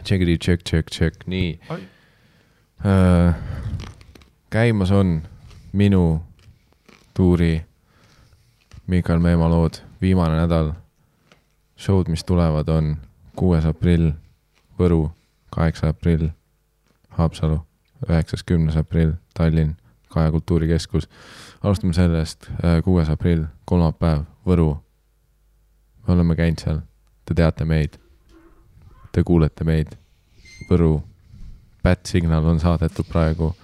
Check. Nii. Käimas on minu tuuri Mikael Meemaa lood. Viimane nädal. Showd, mis tulevad, on 6. aprill Võru, 8. aprill Haapsalu, 9.10. aprill Tallinn, Kaja Kultuurikeskus. Alustame sellest 6. aprill, kolmapäev Võru. Me oleme käinud seal. Te teate meid. Te kuulete meid. Võru. Bad Signal on saadetud praegu.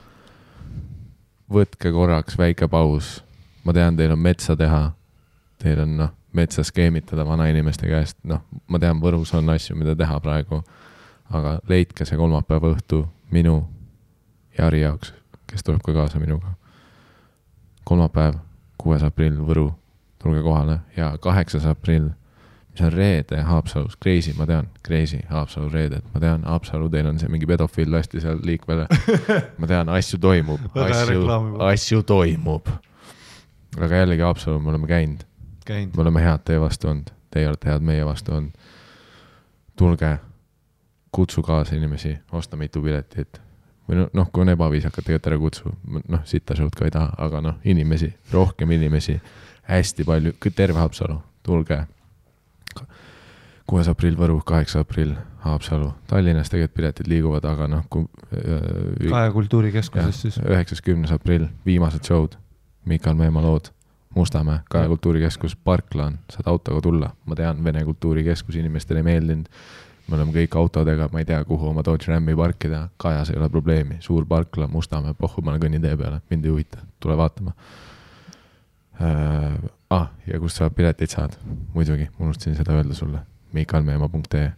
Võtke korraks väike paus. Ma tean, teil on metsa teha. Teil on metsa skeemitada vanainimeste käest. Ma tean, Võrus on asju, mida teha praegu. Aga leidke see kolmapäeva õhtu minu ja Ari jaoks, kes tuleb ka kaasa minuga. Kolmapäev, 6. aprill Võru. Tulge kohale. Ja 8. aprill, mis on reede Haapsalus. Crazy, ma tean. Crazy, Haapsalu reeded. Ma tean, Haapsalu, teil on see mingi pedofiil lasti seal liikvele. Ma tean, asju toimub. Asju toimub. Aga jällegi Haapsalu, me oleme käinud. Me oleme head teie vastu olnud. Teie olete head meie vastu olnud. Tulge, kutsu kaasa inimesi, osta mitu piletit. Või kui on ebaviisakat, tegelikult ära kutsu. Sita show'd ka ei taha, aga inimesi, rohkem inimesi, hästi palju, terve Haapsalu. Tulge. 6. aprill Võru, 8. aprill Haapsalu. Tallinnas tegelikult piletid liiguvad, aga Kaja Kultuurikeskuses siis. 9.10. aprill, viimased show'd. Mikael Meemaa lood. Mustamäe, Kaja Kultuurikeskus, Parklaan, saad autoga tulla. Ma tean, Vene Kultuurikeskus inimestele ei meeldinud. Me oleme kõik autodega, ma ei tea, kuhu oma Dodge Rami parkida. Kajas ei ole probleemi. Suur Parkla, Mustamäe, Pohhumane kõnnitee peale. Mind ei huvita. Tule vaatama. Ja kust sa pileteid saad? Muidugi, unustasin seda öelda sulle. Mikaelmeemaa.ee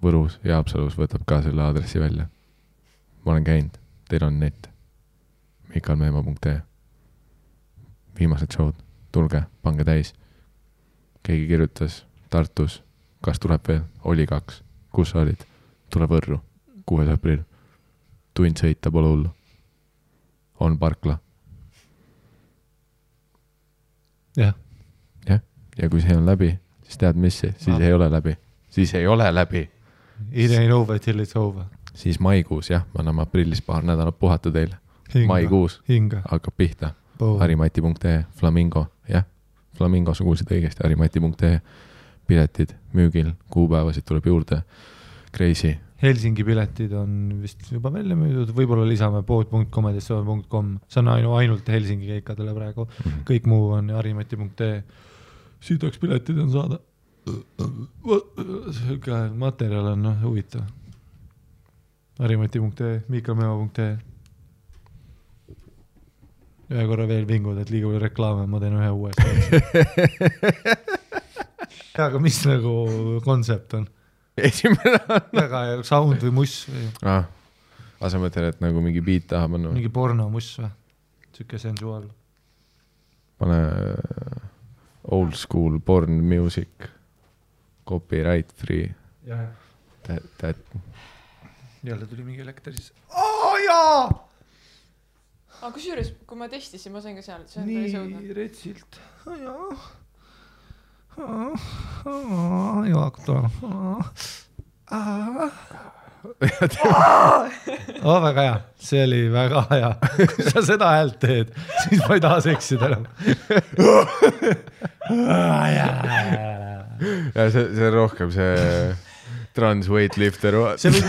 Võrus ja Haapsalus võtab ka selle aadressi välja. Ma olen käinud. Teil on net. Mikaelmeemaa.ee Viimased show'd. Tulge, pange täis. Keegi kirjutas Tartus. Kas tuleb veel? Oli 2. Kus sa olid? Tule Võrru. 6. aprill. Tund sõita pole hullu. On Parkla. Jah. Ja kui see on läbi, siis tead mis? Siis ei ole läbi. Siis ei ole läbi. It ain't over till it's over. Siis maikuus, jah. Ma anname aprillis paar nädalat puhata teile. Maikuus. Hakkab pihta. Harimati.ee Flamingo. Jah. Flamingo, sa kuulsid õigesti. Harimati.ee Piletid müügil, kuupäevasid tuleb juurde. Crazy. Helsingi piletid on vist juba välja müüdud, võib-olla lisame pood.com. See on ainult Helsingi keikadele praegu. Kõik muu on harimati.ee. Siit oleks piletid on saada. Materjal on huvitav. Harimati.ee, Mikaelmeemaa.ee. Ühe korra veel vingud, et liiga palju reklaame, ma teen ühe uuesti. Aga mis kontsept on? Esimene on. Väga sound või muss või? Asa mõtlen, et mingi beat taha panna. Mingi porno muss või? Süke sensuaal. Pane old school porn music. Copyright free. Jälle tuli mingi elekter siis. Jaa! Aga kusjuures, kui ma testisin, ma sain ka seal. Nii retsilt. Hakkab tulema. Väga hea. See oli väga hea. Kui sa seda häält teed, siis ma ei taha seksida enam. Ja see on rohkem see trans weightlifter. See võib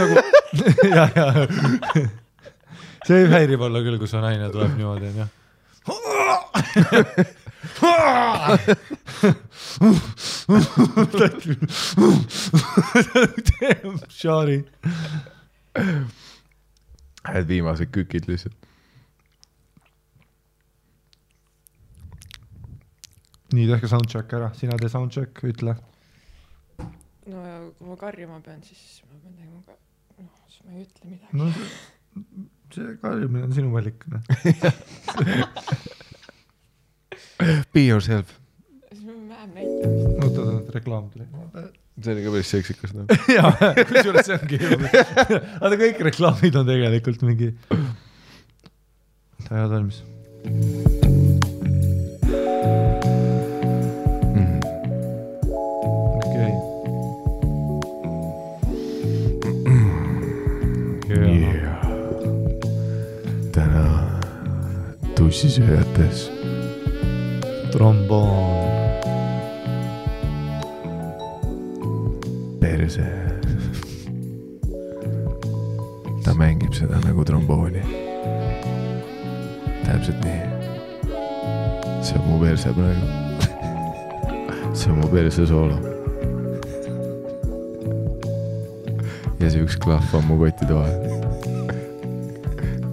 see häirib olla küll, kus on naine tuleb niimoodi, on jah. Shari. Viimased kükid lihtsalt. Nii, tehke soundcheck ära. Sina tee soundcheck, ütle. No ja kui ma karjuma pean, siis ma pean tegema ka. Siis ma ei ütle midagi. No see karjumine on sinu valik. Be yourself. Vähem näitamist. Oota, reklaam tuli. See oli ka päris seksikas. Jaa, kusjuures see ongi. Aga kõik reklaamid on tegelikult mingi. Ta head valmis. tussisööjates. Tromboon. Perse. Ta mängib seda nagu trombooni. Täpselt nii. See on mu perse praegu. See on mu perse soolo. Ja see üks klahv on mu kottide vahel.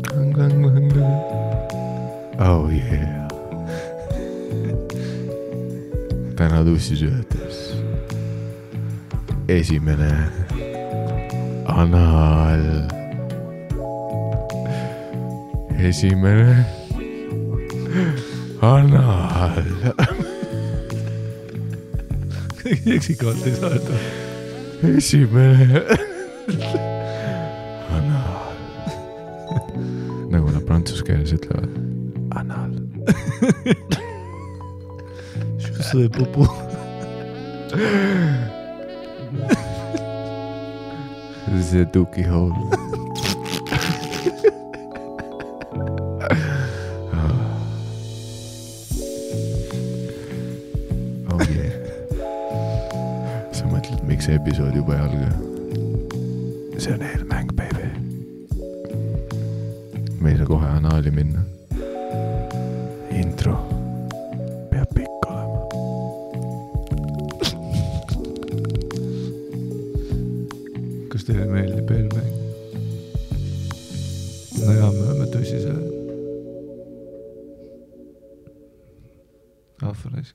Klang, klang, klang, klang. Oh yeah. Täna tussisööjates. Esimene anal. Esimene anal. Eksikavalt ei saa öelda. Esimene anal. Nagu nad prantsuse keeles ütlevad. Anal. See pupu. See tuki hole. Oh yeah. Sa mõtled, miks see episood juba ei alga? See on eelmäng, baby. Me ei saa kohe anaali minna. Intro peab pikk olema. Kas teile meeldib eelmäng? No jaa, me oleme tõsisele. Ahvarais.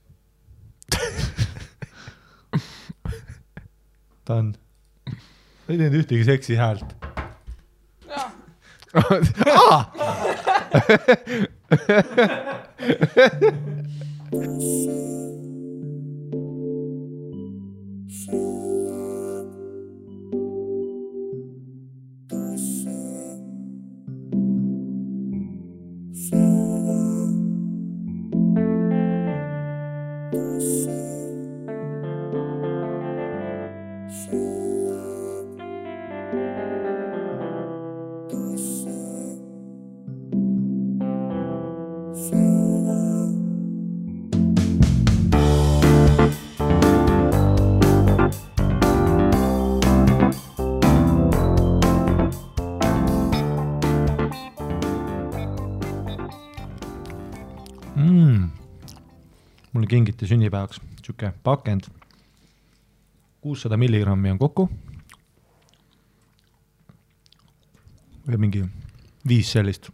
Ta on. Ei teinud ühtegi seksi häält. Mulle kingiti sünnipäevaks siuke pakend. 600 milligrammi on kokku. Ja mingi 5 sellist.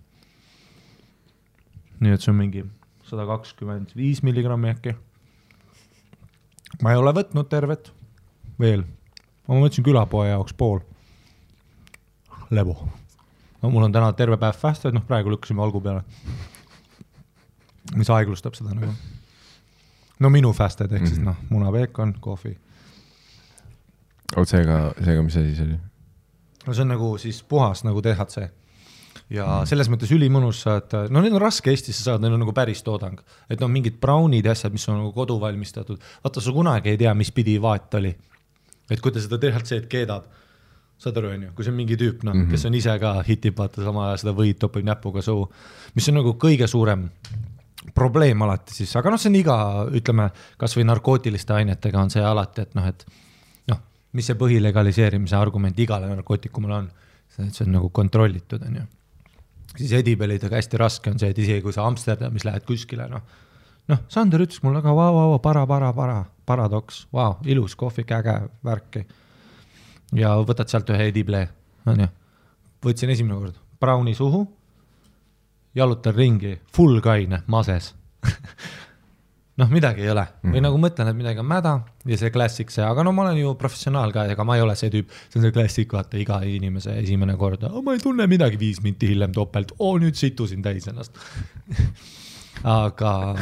Nii et see on mingi 125 milligrammi äkki. Ma ei ole võtnud tervet veel. Ma mõtlesin külapoe jaoks pool. Lebo. No mul on täna terve päev fasted, noh praegu lükkasime algu peale. Mis aeglustab seda nagu. No minu fasted, ehk siis munapeekon, kohvi. Oot seega, mis asi see oli? No see on nagu siis puhas nagu THC. Ja selles mõttes ülimõnus saad, no need on raske Eestisse saada, need on nagu päris toodang. Et no mingid brownid asjad, mis on nagu kodu valmistatud. Vaata, sa kunagi ei tea, mis pidi vaat oli. Et kui ta seda THC-d keedab, saad aru, kui see on mingi tüüp, kes on ise ka hitib, vaata sama seda võid topib näpuga suu, mis on nagu kõige suurem probleem alati siis, aga see on iga, ütleme, kas või narkootiliste ainetega on see alati, et mis see põhilegaliseerimise argument igale narkootikumale on, see on nagu kontrollitud, on ju. Siis edibelidega hästi raske on see, et isegi kui sa Amsterdamis lähed kuskile, Sander ütles mul aga paradoks, ilus kohvik, äge värki. Ja võtad sealt ühe edible, on ju. Võtsin esimene kord browni suhu, jalutan ringi, full kaine, mases. Midagi ei ole. Või nagu mõtlen, et midagi on mäda ja see klassik see, aga ma olen ju professionaal ka, ega ma ei ole see tüüp, see on see klassik, vaata iga inimese esimene kord, ma ei tunne midagi 5 minti hiljem topelt, nüüd situsin täis ennast. Aga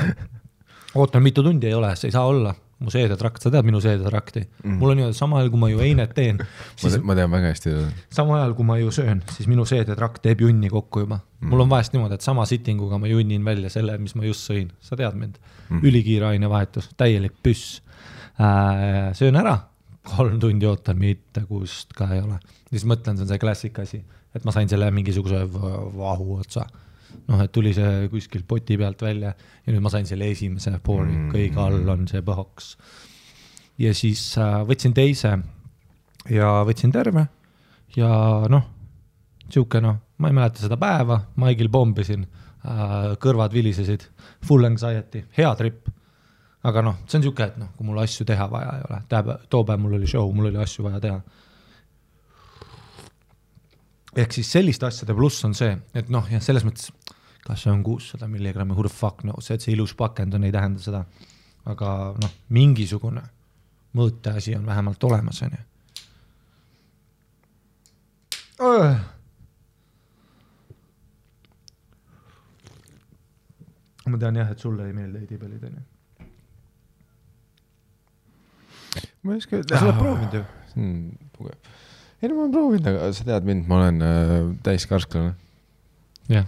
ootan mitu tundi ei ole, see ei saa olla. Mu seedetrakt, sa tead minu seedetrakti. Mul on ju sama ajal, kui ma ju einet teen. Siis, ma tean väga hästi. Sama ajal, kui ma ju söön, siis minu seedetrakt teeb junni kokku juba. Mul on vahest niimoodi, et sama sittinguga ma junnin välja selle, mis ma just sõin. Sa tead mind. Ülikiire ainevahetus, täielik püss. Söön ära, 3 tundi ootan, mitte kust ka ei ole. Siis mõtlen, see on see klassik asi, et ma sain selle mingisuguse vahu otsa. noh, et tuli see kuskil poti pealt välja ja nüüd ma sain selle esimese poori, kõige all on see põhoks. Ja siis võtsin teise ja võtsin terve ja noh, siuke noh, ma ei mäleta seda päeva, Maigil pombisin, kõrvad vilisesid, full anxiety, hea trip. Aga noh, see on siuke, et noh, kui mul asju teha vaja ei ole. Too päev mul oli show, mul oli asju vaja teha. Ehk siis selliste asjade pluss on see, et noh, ja selles mõttes, kas see on 600 milligrammi, who the fuck knows, et see ilus pakend on, ei tähenda seda. Aga noh, mingisugune mõõte asi on vähemalt olemas. On ju. Ma tean jah, et sulle ei meeldi eidipelid, on ju. Ma ei oska... Sa oled proovinud ju? Ei, no ma olen proovinud, aga sa tead mind, ma olen täiskarsklane. Jah.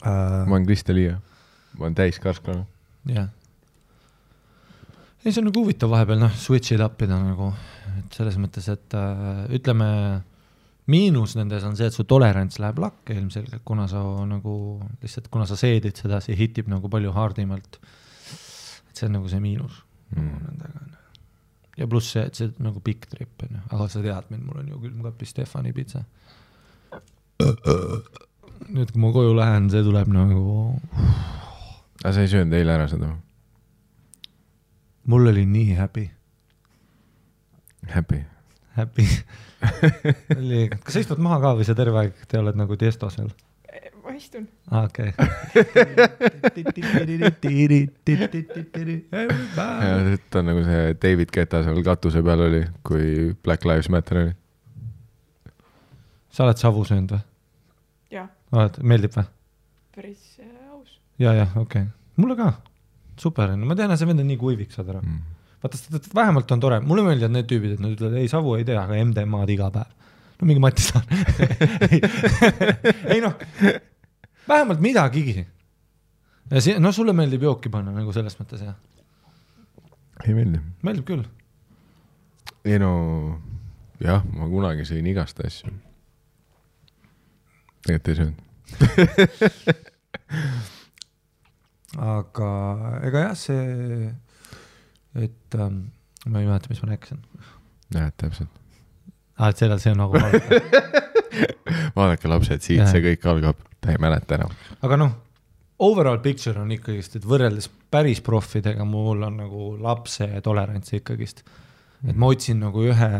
Ma olen Kristelia. Ma olen täiskarsklane. Jah. Ei, see on nagu huvitav vahepeal, noh, switch it up'ida nagu, et selles mõttes, et ütleme, miinus nendes on see, et su tolerants läheb lakke ilmselgelt, kuna sa nagu, lihtsalt kuna sa seedid seda, see hitib nagu palju hardimalt. Et see on nagu see miinus. Ja pluss see, et see nagu pikk trip on, aga sa tead mind, mul on ju külmkapi Stefani pizza. Nüüd, kui ma koju lähen, see tuleb nagu... Aga sa ei söönud eile ära seda? Mul oli nii happy. Happy? Happy. Kas sa istud maha ka või sa terve aeg te oled nagu tiestosel? Ma istun. Okei. Ja see on nagu see David Guetta seal katuse peal oli, kui Black Lives Matter oli. Sa oled savu söönud või? Jah. Meeldib või? Päris aus. Ja, okei. Mulle ka. Super. Ma tean, et see vend on nii kuivik, saad ära. Vaata, vähemalt on tore. Mulle meeldivad need tüübid, et nad ütlevad, ei, savu ei tea, aga MDMA-d iga päev. No mingi Mati saan. Ei noh, vähemalt midagigi. No sulle meeldib jooki panna nagu selles mõttes, jah? Ei meeldi. Meeldib küll. Ei no, jah, ma kunagi sõin igast asju. Tegelikult ei söönud. Aga ega jah, see, et ma ei mäleta, mis ma rääkisin. Jah, täpselt. Et see on nagu Vaadake lapsed, siit see kõik algab, ta ei mäleta enam. Aga noh, overall picture on ikkagist, et võrreldes päris profidega mul on nagu lapse tolerants ikkagist. Et ma otsin nagu ühe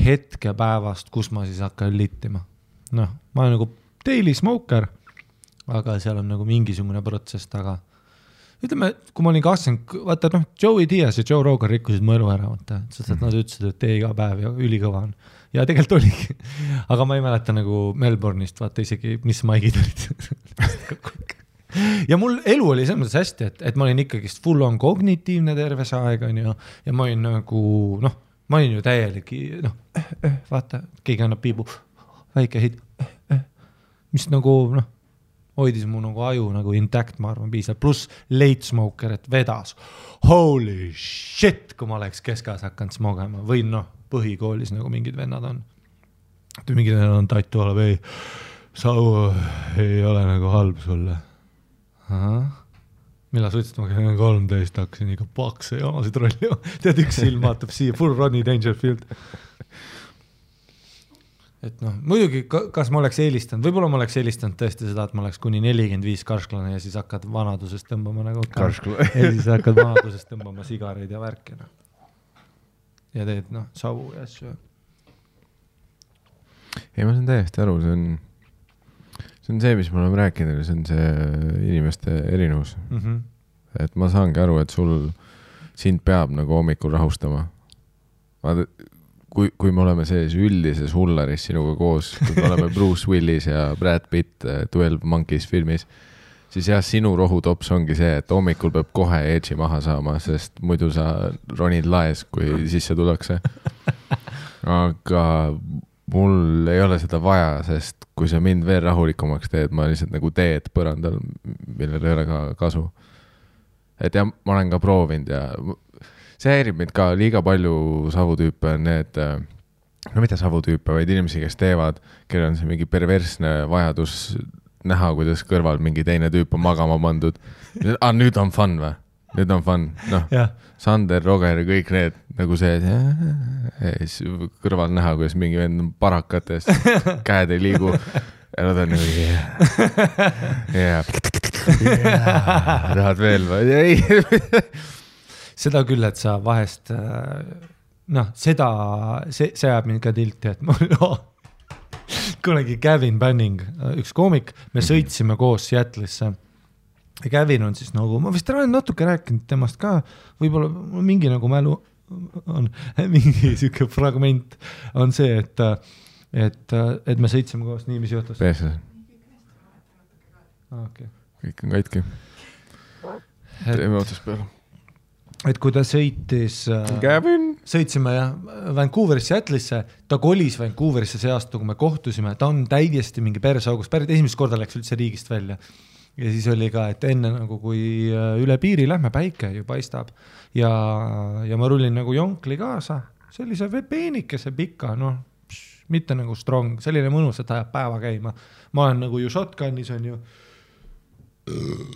hetke päevast, kus ma siis hakkan littima. Noh, ma olen nagu daily smoker, aga seal on nagu mingisugune protsess taga. Ütleme, kui ma olin 20, vaata, noh, Joey Diaz ja Joe Rogan rikkusid mu elu ära, vaata, sest et nad ütlesid, et tee iga päev ja ülikõva on. Ja tegelikult oligi. Aga ma ei mäleta nagu Melbourne'ist, vaata isegi, mis maigid olid. Ja mul elu oli selles mõttes hästi, et ma olin ikkagist full on kognitiivne terve see aeg, ja ma olin nagu, noh, ma olin ju täielik, noh, vaata, keegi annab piibu, väike hit, mis nagu, noh, hoidis mu nagu aju nagu intact, ma arvan, piisab. Plus late smoker, et vedas. Holy shit, kui ma oleks keskas hakanud smogema. Või noh, põhikoolis nagu mingid vennad on. Mingid vennad on tattu oleb, ei, savu ei ole nagu halb sulle. Millal sa ütlesid, ma käin 13, hakkasin ikka pakse jamasid rolli. Tead, üks silm vaatab siia, full Rodney Dangerfield. Et noh, muidugi, kas ma oleks eelistanud, võib-olla ma oleks eelistanud tõesti seda, et ma oleks kuni 45 karsklane ja siis hakkad vanadusest tõmbama nagu karsklane. Ja siis hakkad vanadusest tõmbama sigareid ja värkina. Ja teed, noh, savu ja asju. Ei, ma saan täiesti aru, see on see, mis me oleme rääkinud, see on see inimeste erinevus. Et ma saangi aru, et sind peab nagu hommikul rahustama. Kui me oleme sees üldises hullaris sinuga koos, kui me oleme Bruce Willis ja Brad Pitt 12 Monkeys filmis, siis jah, sinu rohutops ongi see, et hommikul peab kohe edži maha saama, sest muidu sa ronid laes, kui sisse tullakse. Aga mul ei ole seda vaja, sest kui sa mind veel rahulikumaks teed, ma lihtsalt nagu teed põrandal, millel ei ole ka kasu. Et ja ma olen ka proovinud ja... See häirib mind ka liiga palju savutüüpe on need no mitte savutüüpe, vaid inimesi, kes teevad, kellel on see mingi perversne vajadus näha, kuidas kõrval mingi teine tüüp on magama pandud. Nüüd on fun või? Nüüd on fun. Noh, Sander, Roger ja kõik need nagu see, kõrval näha, kuidas mingi vend on parakates, käed ei liigu. Ja nad on nagu, tahad veel või? Ei. Seda küll, et sa vahest, noh, see jääb mind ka tilti, et mul kunagi Gavin Banning, üks koomik, me sõitsime koos Seattle'isse. Ja Gavin on siis nagu, ma vist olen natuke rääkinud temast ka, võib-olla mingi nagu mälu on, mingi siuke fragment on see, et me sõitsime koos, nii mis juhtus. Peeses. Okay. Kõik on kaitki. Teeme otsast peale. Et kui ta sõitis, sõitsime Vancouverisse, Seattle'isse, ta kolis Vancouverisse see aasta, kui me kohtusime, ta on täiesti mingi persaugus, esimest korda läks üldse riigist välja. Ja siis oli ka, et enne nagu kui üle piiri lähme, päike ju paistab ja ma rullin nagu jonkli kaasa, sellise peenikese pika, noh, mitte nagu strong, selline mõnus, et ajab päeva käima. Ma olen nagu ju shotgunis on ju,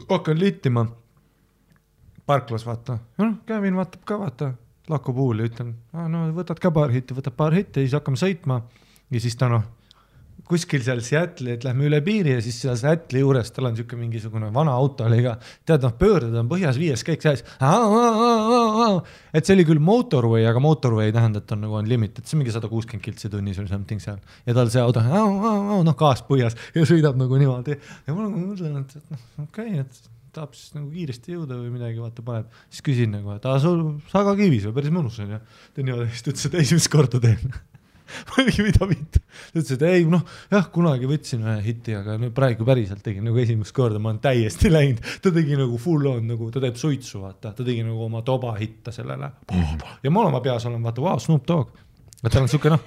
hakkan littima, parklas vaata, Kevin vaatab ka vaata, lakku puuli, ütlen, no võtad ka paar hitti ja siis hakkame sõitma ja siis ta noh, kuskil seal Seattle'i, et lähme üle piiri ja siis seal Seattle'i juures tal on siuke mingisugune vana auto oli ka, tead noh, pöördad on põhjas 5 kõik sees, et see oli küll motorway, aga motorway tähendab, et on nagu on limited, see mingi 160 kiltsi tunnis või something seal ja tal see auto, noh gaas põhjas ja sõidab nagu niimoodi ja ma nagu mõtlen, et okei, et tahab siis nagu kiiresti jõuda või midagi vaata paneb, siis küsin nagu, et sul saga kivis või päris mõnus on ja ta niimoodi, siis ta ütles, et esimest korda teen ma ei mida mitte. Ta ütles, et ei, noh, jah, kunagi võtsin ühe hitti, aga nüüd praegu päriselt tegin nagu esimest korda, ma olen täiesti läinud. Ta tegi nagu full on, nagu ta teeb suitsu, vaata. Ta tegi nagu oma toba hitta sellele. Ja ma oma peas olen, vaata, wow, Snoop Dogg. Et tal on siuke, noh,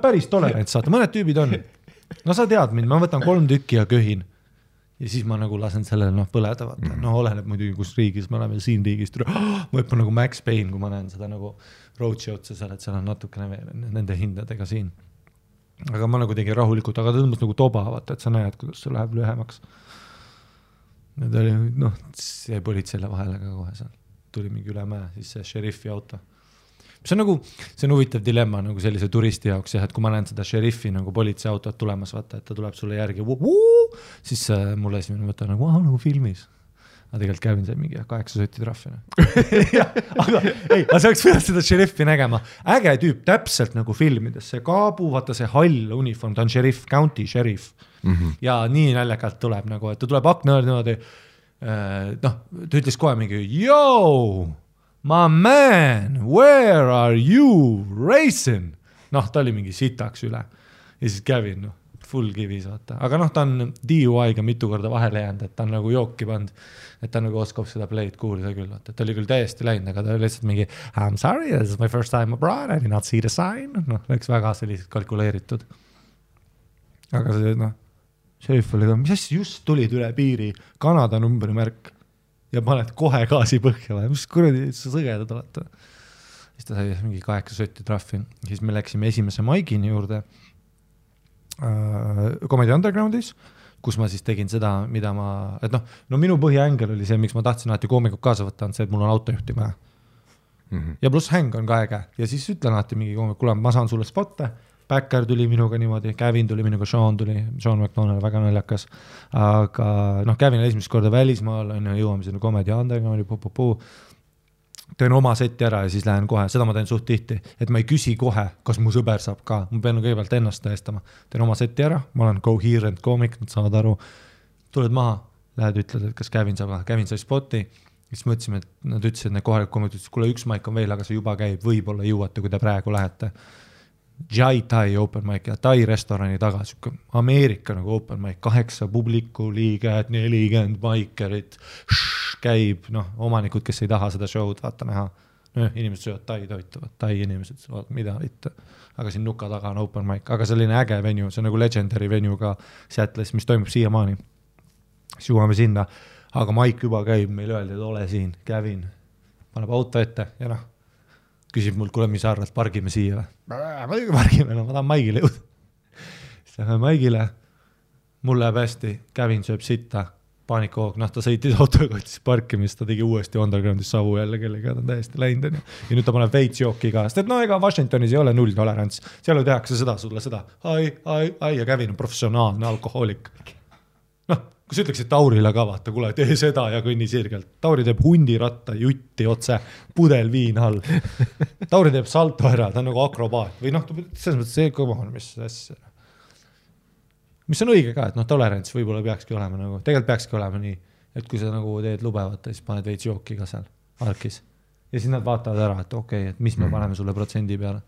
päris tolerants, saata. Mõned tüübid on. No sa tead mind, ma võtan 3 tükki ja köhin. Ja siis ma nagu lasen sellele, noh, põleda, vaata. No oleneb muidugi, kus riigis me oleme siin riigist. Ma õppan nagu Max Payne, kui ma näen seda nagu roadshow'd seal, et seal on natukene veel nende hindadega siin. Aga ma nagu tegin rahulikult, aga ta tõmbas nagu toba, vaata, et sa näed, kuidas see läheb lühemaks. Need oli, noh, see politseile vahele ka kohe seal. Tuli mingi üle mäe, siis see šeriffi auto. See on nagu, see on huvitav dilemma nagu sellise turisti jaoks, jah, et kui ma näen seda šeriffi nagu politseiautot tulemas, vaata, et ta tuleb sulle järgi, siis mulle esimene mõte on nagu filmis. Aga tegelikult Kevin sai mingi 8 sotti trahvina. Aga ei, sa oleks pidanud seda šeriffi nägema. Äge tüüp, täpselt nagu filmides. See kaabu, vaata see hall uniform, ta on šerif, county sheriff. Ja nii naljakalt tuleb nagu, et ta tuleb akna niimoodi, noh, ta ütles kohe mingi, yo, my man, where are you racing? Noh, ta oli mingi sitaks üle. Ja siis Kevin, noh, full kivis, vaata. Aga noh, ta on DUI-ga mitu korda vahele jäänud, et ta on nagu jooki pand, et ta nagu oskab seda play'd kuulida küll, vaata. Ta oli küll täiesti läinud, aga ta oli lihtsalt mingi I'm sorry, this is my first time abroad, I did not see the sign. Noh, läks väga sellised kalkuleeritud. Aga see, noh, šerif oli ka, mis asja just tulid üle piiri, Kanada numbrimärk ja paned kohe gaasi põhja või, mis kuradi sa sõgedad olete. Siis ta sai mingi 8 sotti trahvi. Siis me läksime esimese maigini juurde Comedy Undergroundis, kus ma siis tegin seda, mida ma, et no minu põhiängel oli see, miks ma tahtsin alati koomikut kaasa võtta, on see, et mul on autojuhti vaja. Ja pluss häng on ka äge. Ja siis ütlen alati mingi koomik, kuule, ma saan sulle spotte, Backer tuli minuga niimoodi, Kevin tuli minuga, Sean McDonald, väga naljakas. Aga noh, Kevin esimest korda välismaal, jõuame sinna Comedy Undergroundi, teen oma seti ära ja siis lähen kohe, seda ma teen suht tihti, et ma ei küsi kohe, kas mu sõber saab ka, ma pean kõigepealt ennast tõestama, teen oma seti ära, ma olen coherent koomik, nad saavad aru, tuled maha, lähed ütled, et kas Kevin saab, Kevin sai spoti, siis mõtlesime, et nad ütlesid, et need kohalikud koomikid, kuule, üks maik on veel, aga see juba käib, võib-olla jõuate, kui te praegu lähete. Jai Tai open mic ja Tai restorani taga, siuke Ameerika nagu open mic, 8 publiku liiget, 40 maikerit, käib, noh, omanikud, kes ei taha seda show'd vaata näha. Inimesed söövad Tai toituvad, Tai inimesed söövad, mida mitte. Aga siin nuka taga on open mic, aga selline äge venue, see on nagu legendary venue ka Seattle'is, mis toimub siiamaani. Siis jõuame sinna, aga maik juba käib, meil öeldi, et ole siin, Kevin, paneb auto ette ja noh, küsib mult, kuule, mis sa arvad, pargime siia või? Muidugi pargime, no ma tahan Maigile jõuda. Siis lähme Maigile, mul läheb hästi, Kävin sööb sitta, paanikahoog, noh ta sõitis autoga, võttis parkimist, ta tegi uuesti Undergroundis savu jälle kellega, ta on täiesti läinud. Ja nüüd ta paneb veits jooki ka, sest et no ega Washingtonis ei ole nulltolerants, seal tehakse seda sulle seda, ai, ja Kävin on professionaalne alkohoolik. Noh, kui sa ütleksid Taurile ka vaata, kuule, tee seda ja kõnni sirgelt. Tauri teeb hundiratta, jutti otse, pudel viin all. Tauri teeb salto ära, ta on nagu akrobaat. Või noh, selles mõttes see kõva on, mis on õige ka, et noh, tolerants võib-olla peakski olema nagu, tegelikult peakski olema nii, et kui sa nagu teed lubevata, siis paned veits jooki ka seal alkis. Ja siis nad vaatavad ära, et okei, et mis me paneme sulle protsendi peale.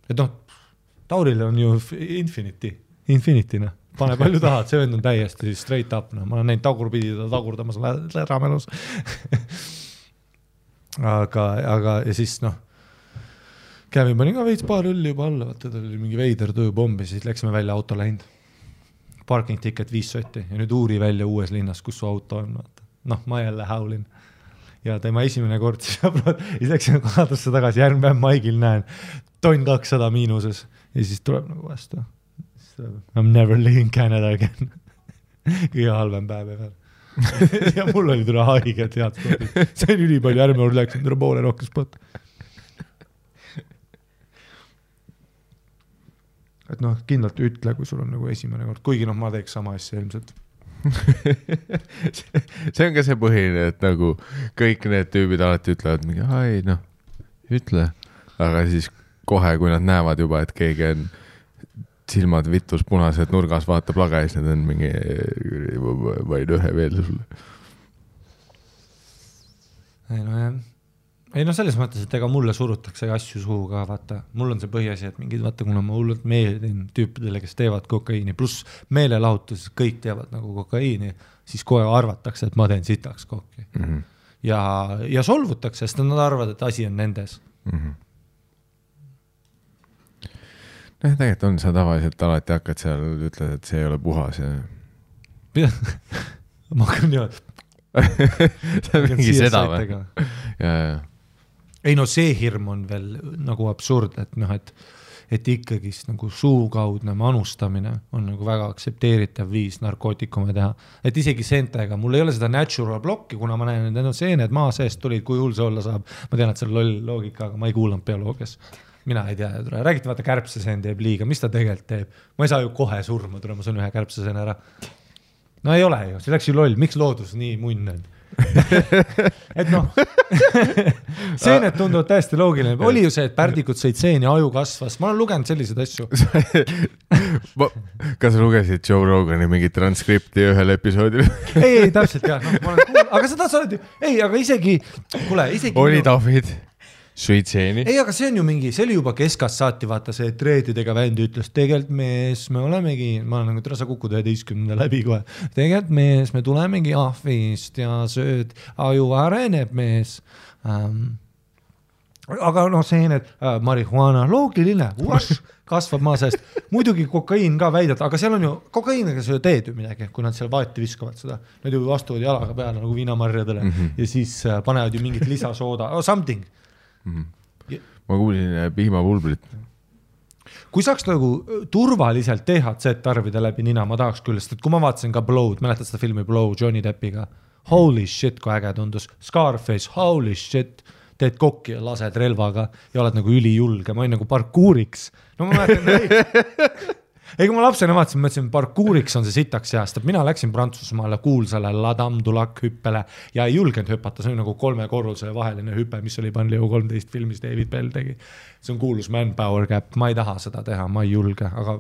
Et noh, Tauril on ju infinity, noh. Pane palju tahad, see vend on täiesti straight up, no. Ma olen näinud tagurpidi ta tagurdamas ramelus. aga ja siis noh, Kävin pani ka veits paar õlli juba alla, vaata, ta oli mingi veider tööpombi, siis läksime välja auto läinud. Parking ticket 5 sotti ja nüüd uuri välja uues linnas, kus su auto on, vaata. Noh, ma jälle haulin. Ja tema esimene kord siis läksime kohadusse tagasi, järgmine päev Maigil näen, tonn 200 miinuses ja siis tuleb nagu vastu. I'm never leaving Canada again. Kõige halvem päev veel. Ja mul oli tule haige, tead. See on üli palju, järgmine kord läksin tule poole rohkem spot. Et noh, kindlalt ütle, kui sul on nagu esimene kord. Kuigi noh, ma teeks sama asja ilmselt. See on ka see põhiline, et nagu kõik need tüübid alati ütlevad mingi, ai noh, ütle. Aga siis kohe, kui nad näevad juba, et keegi on silmad vitus punased nurgas vaatab laga ja siis need on mingi vaid ühe veel sulle. Ei no selles mõttes, et ega mulle surutakse asju suhu ka, vaata. Mul on see põhiasi, et mingid, vaata, kuna ma hullult meeldin tüüpidele, kes teevad kokaiini, pluss meelelahutus, kõik teevad nagu kokaiini, siis kohe arvatakse, et ma teen sitaks kokki. Mm-hmm. Ja solvutakse, sest nad arvavad, et asi on nendes. Mm-hmm. No tegelikult on sa tavaliselt alati hakkad seal, ütled, et see ei ole puhas ja... Ma hakkan niimoodi. See on mingi seda või? Ja. Ei no see hirm on veel nagu absurd, et noh, et ikkagist nagu suukaudne manustamine on nagu väga aksepteeritav viis narkootikume teha. Et isegi seentega, mul ei ole seda natural blocki, kuna ma näen, et need on seened maa seest tulid, kui hull see olla saab. Ma tean, et see on loll loogika, aga ma ei kuulanud bioloogias. Mina ei tea, räägite vaata kärbseseen teeb liiga, mis ta tegelikult teeb? Ma ei saa ju kohe surma, ma saan ühe kärbseseen ära. No ei ole ju, see läks ju loll, miks loodus nii munn on? Et noh, seened tunduvad täiesti loogiline. Oli ju see, et pärdikud sõid seeni, aju kasvas. Ma olen lugenud selliseid asju. Kas sa lugesid Joe Rogani mingi transkripti ühel episoodil? Ei, täpselt jah. No, aga seda sa oled ju... Ei, aga isegi... Kuule, isegi... Oli David... Suitseeni. Ei, aga see on ju mingi, see oli juba keskast saati, vaata see treedidega vändi ütles, tegelikult mees, me olemegi, ma olen nagu tõra, sa kukud 11 läbi kohe, tegelikult mees, me tulemegi ahvist ja sööd, aju areneb mees. Aga noh, seened, marihuana, loogiline, kasvab maa seest. Muidugi kokaiin ka väidad, aga seal on ju, kokaiiniga sa ju teed ju midagi, kui nad seal vaati viskavad seda. Nad ju vastuvad jalaga peale nagu viinamarjadele ja siis panevad ju mingit lisasooda, something. Ma kuulsin piimapulbrit. Kui saaks nagu turvaliselt THC tarvida läbi nina, ma tahaks küll, sest et kui ma vaatasin ka Blow'd, mäletad seda filmi Blow Johnny Deppiga, holy shit, kui äge tundus, Scarface, holy shit, teed kokki ja lased relvaga ja oled nagu ülijulge, ma olin nagu parkuuriks. No ma mäletan, ei kui ma lapsena vaatasin, mõtlesin, parkuuriks on see sitaks heast, et mina läksin Prantsusmaale kuulsale La Dame du Lac hüppele ja ei julgenud hüpata, see on nagu 3 korrusele vaheline hüpe, mis oli Panleo 13 filmis David Bell tegi. See on kuulus manpower gap, ma ei taha seda teha, ma ei julge, aga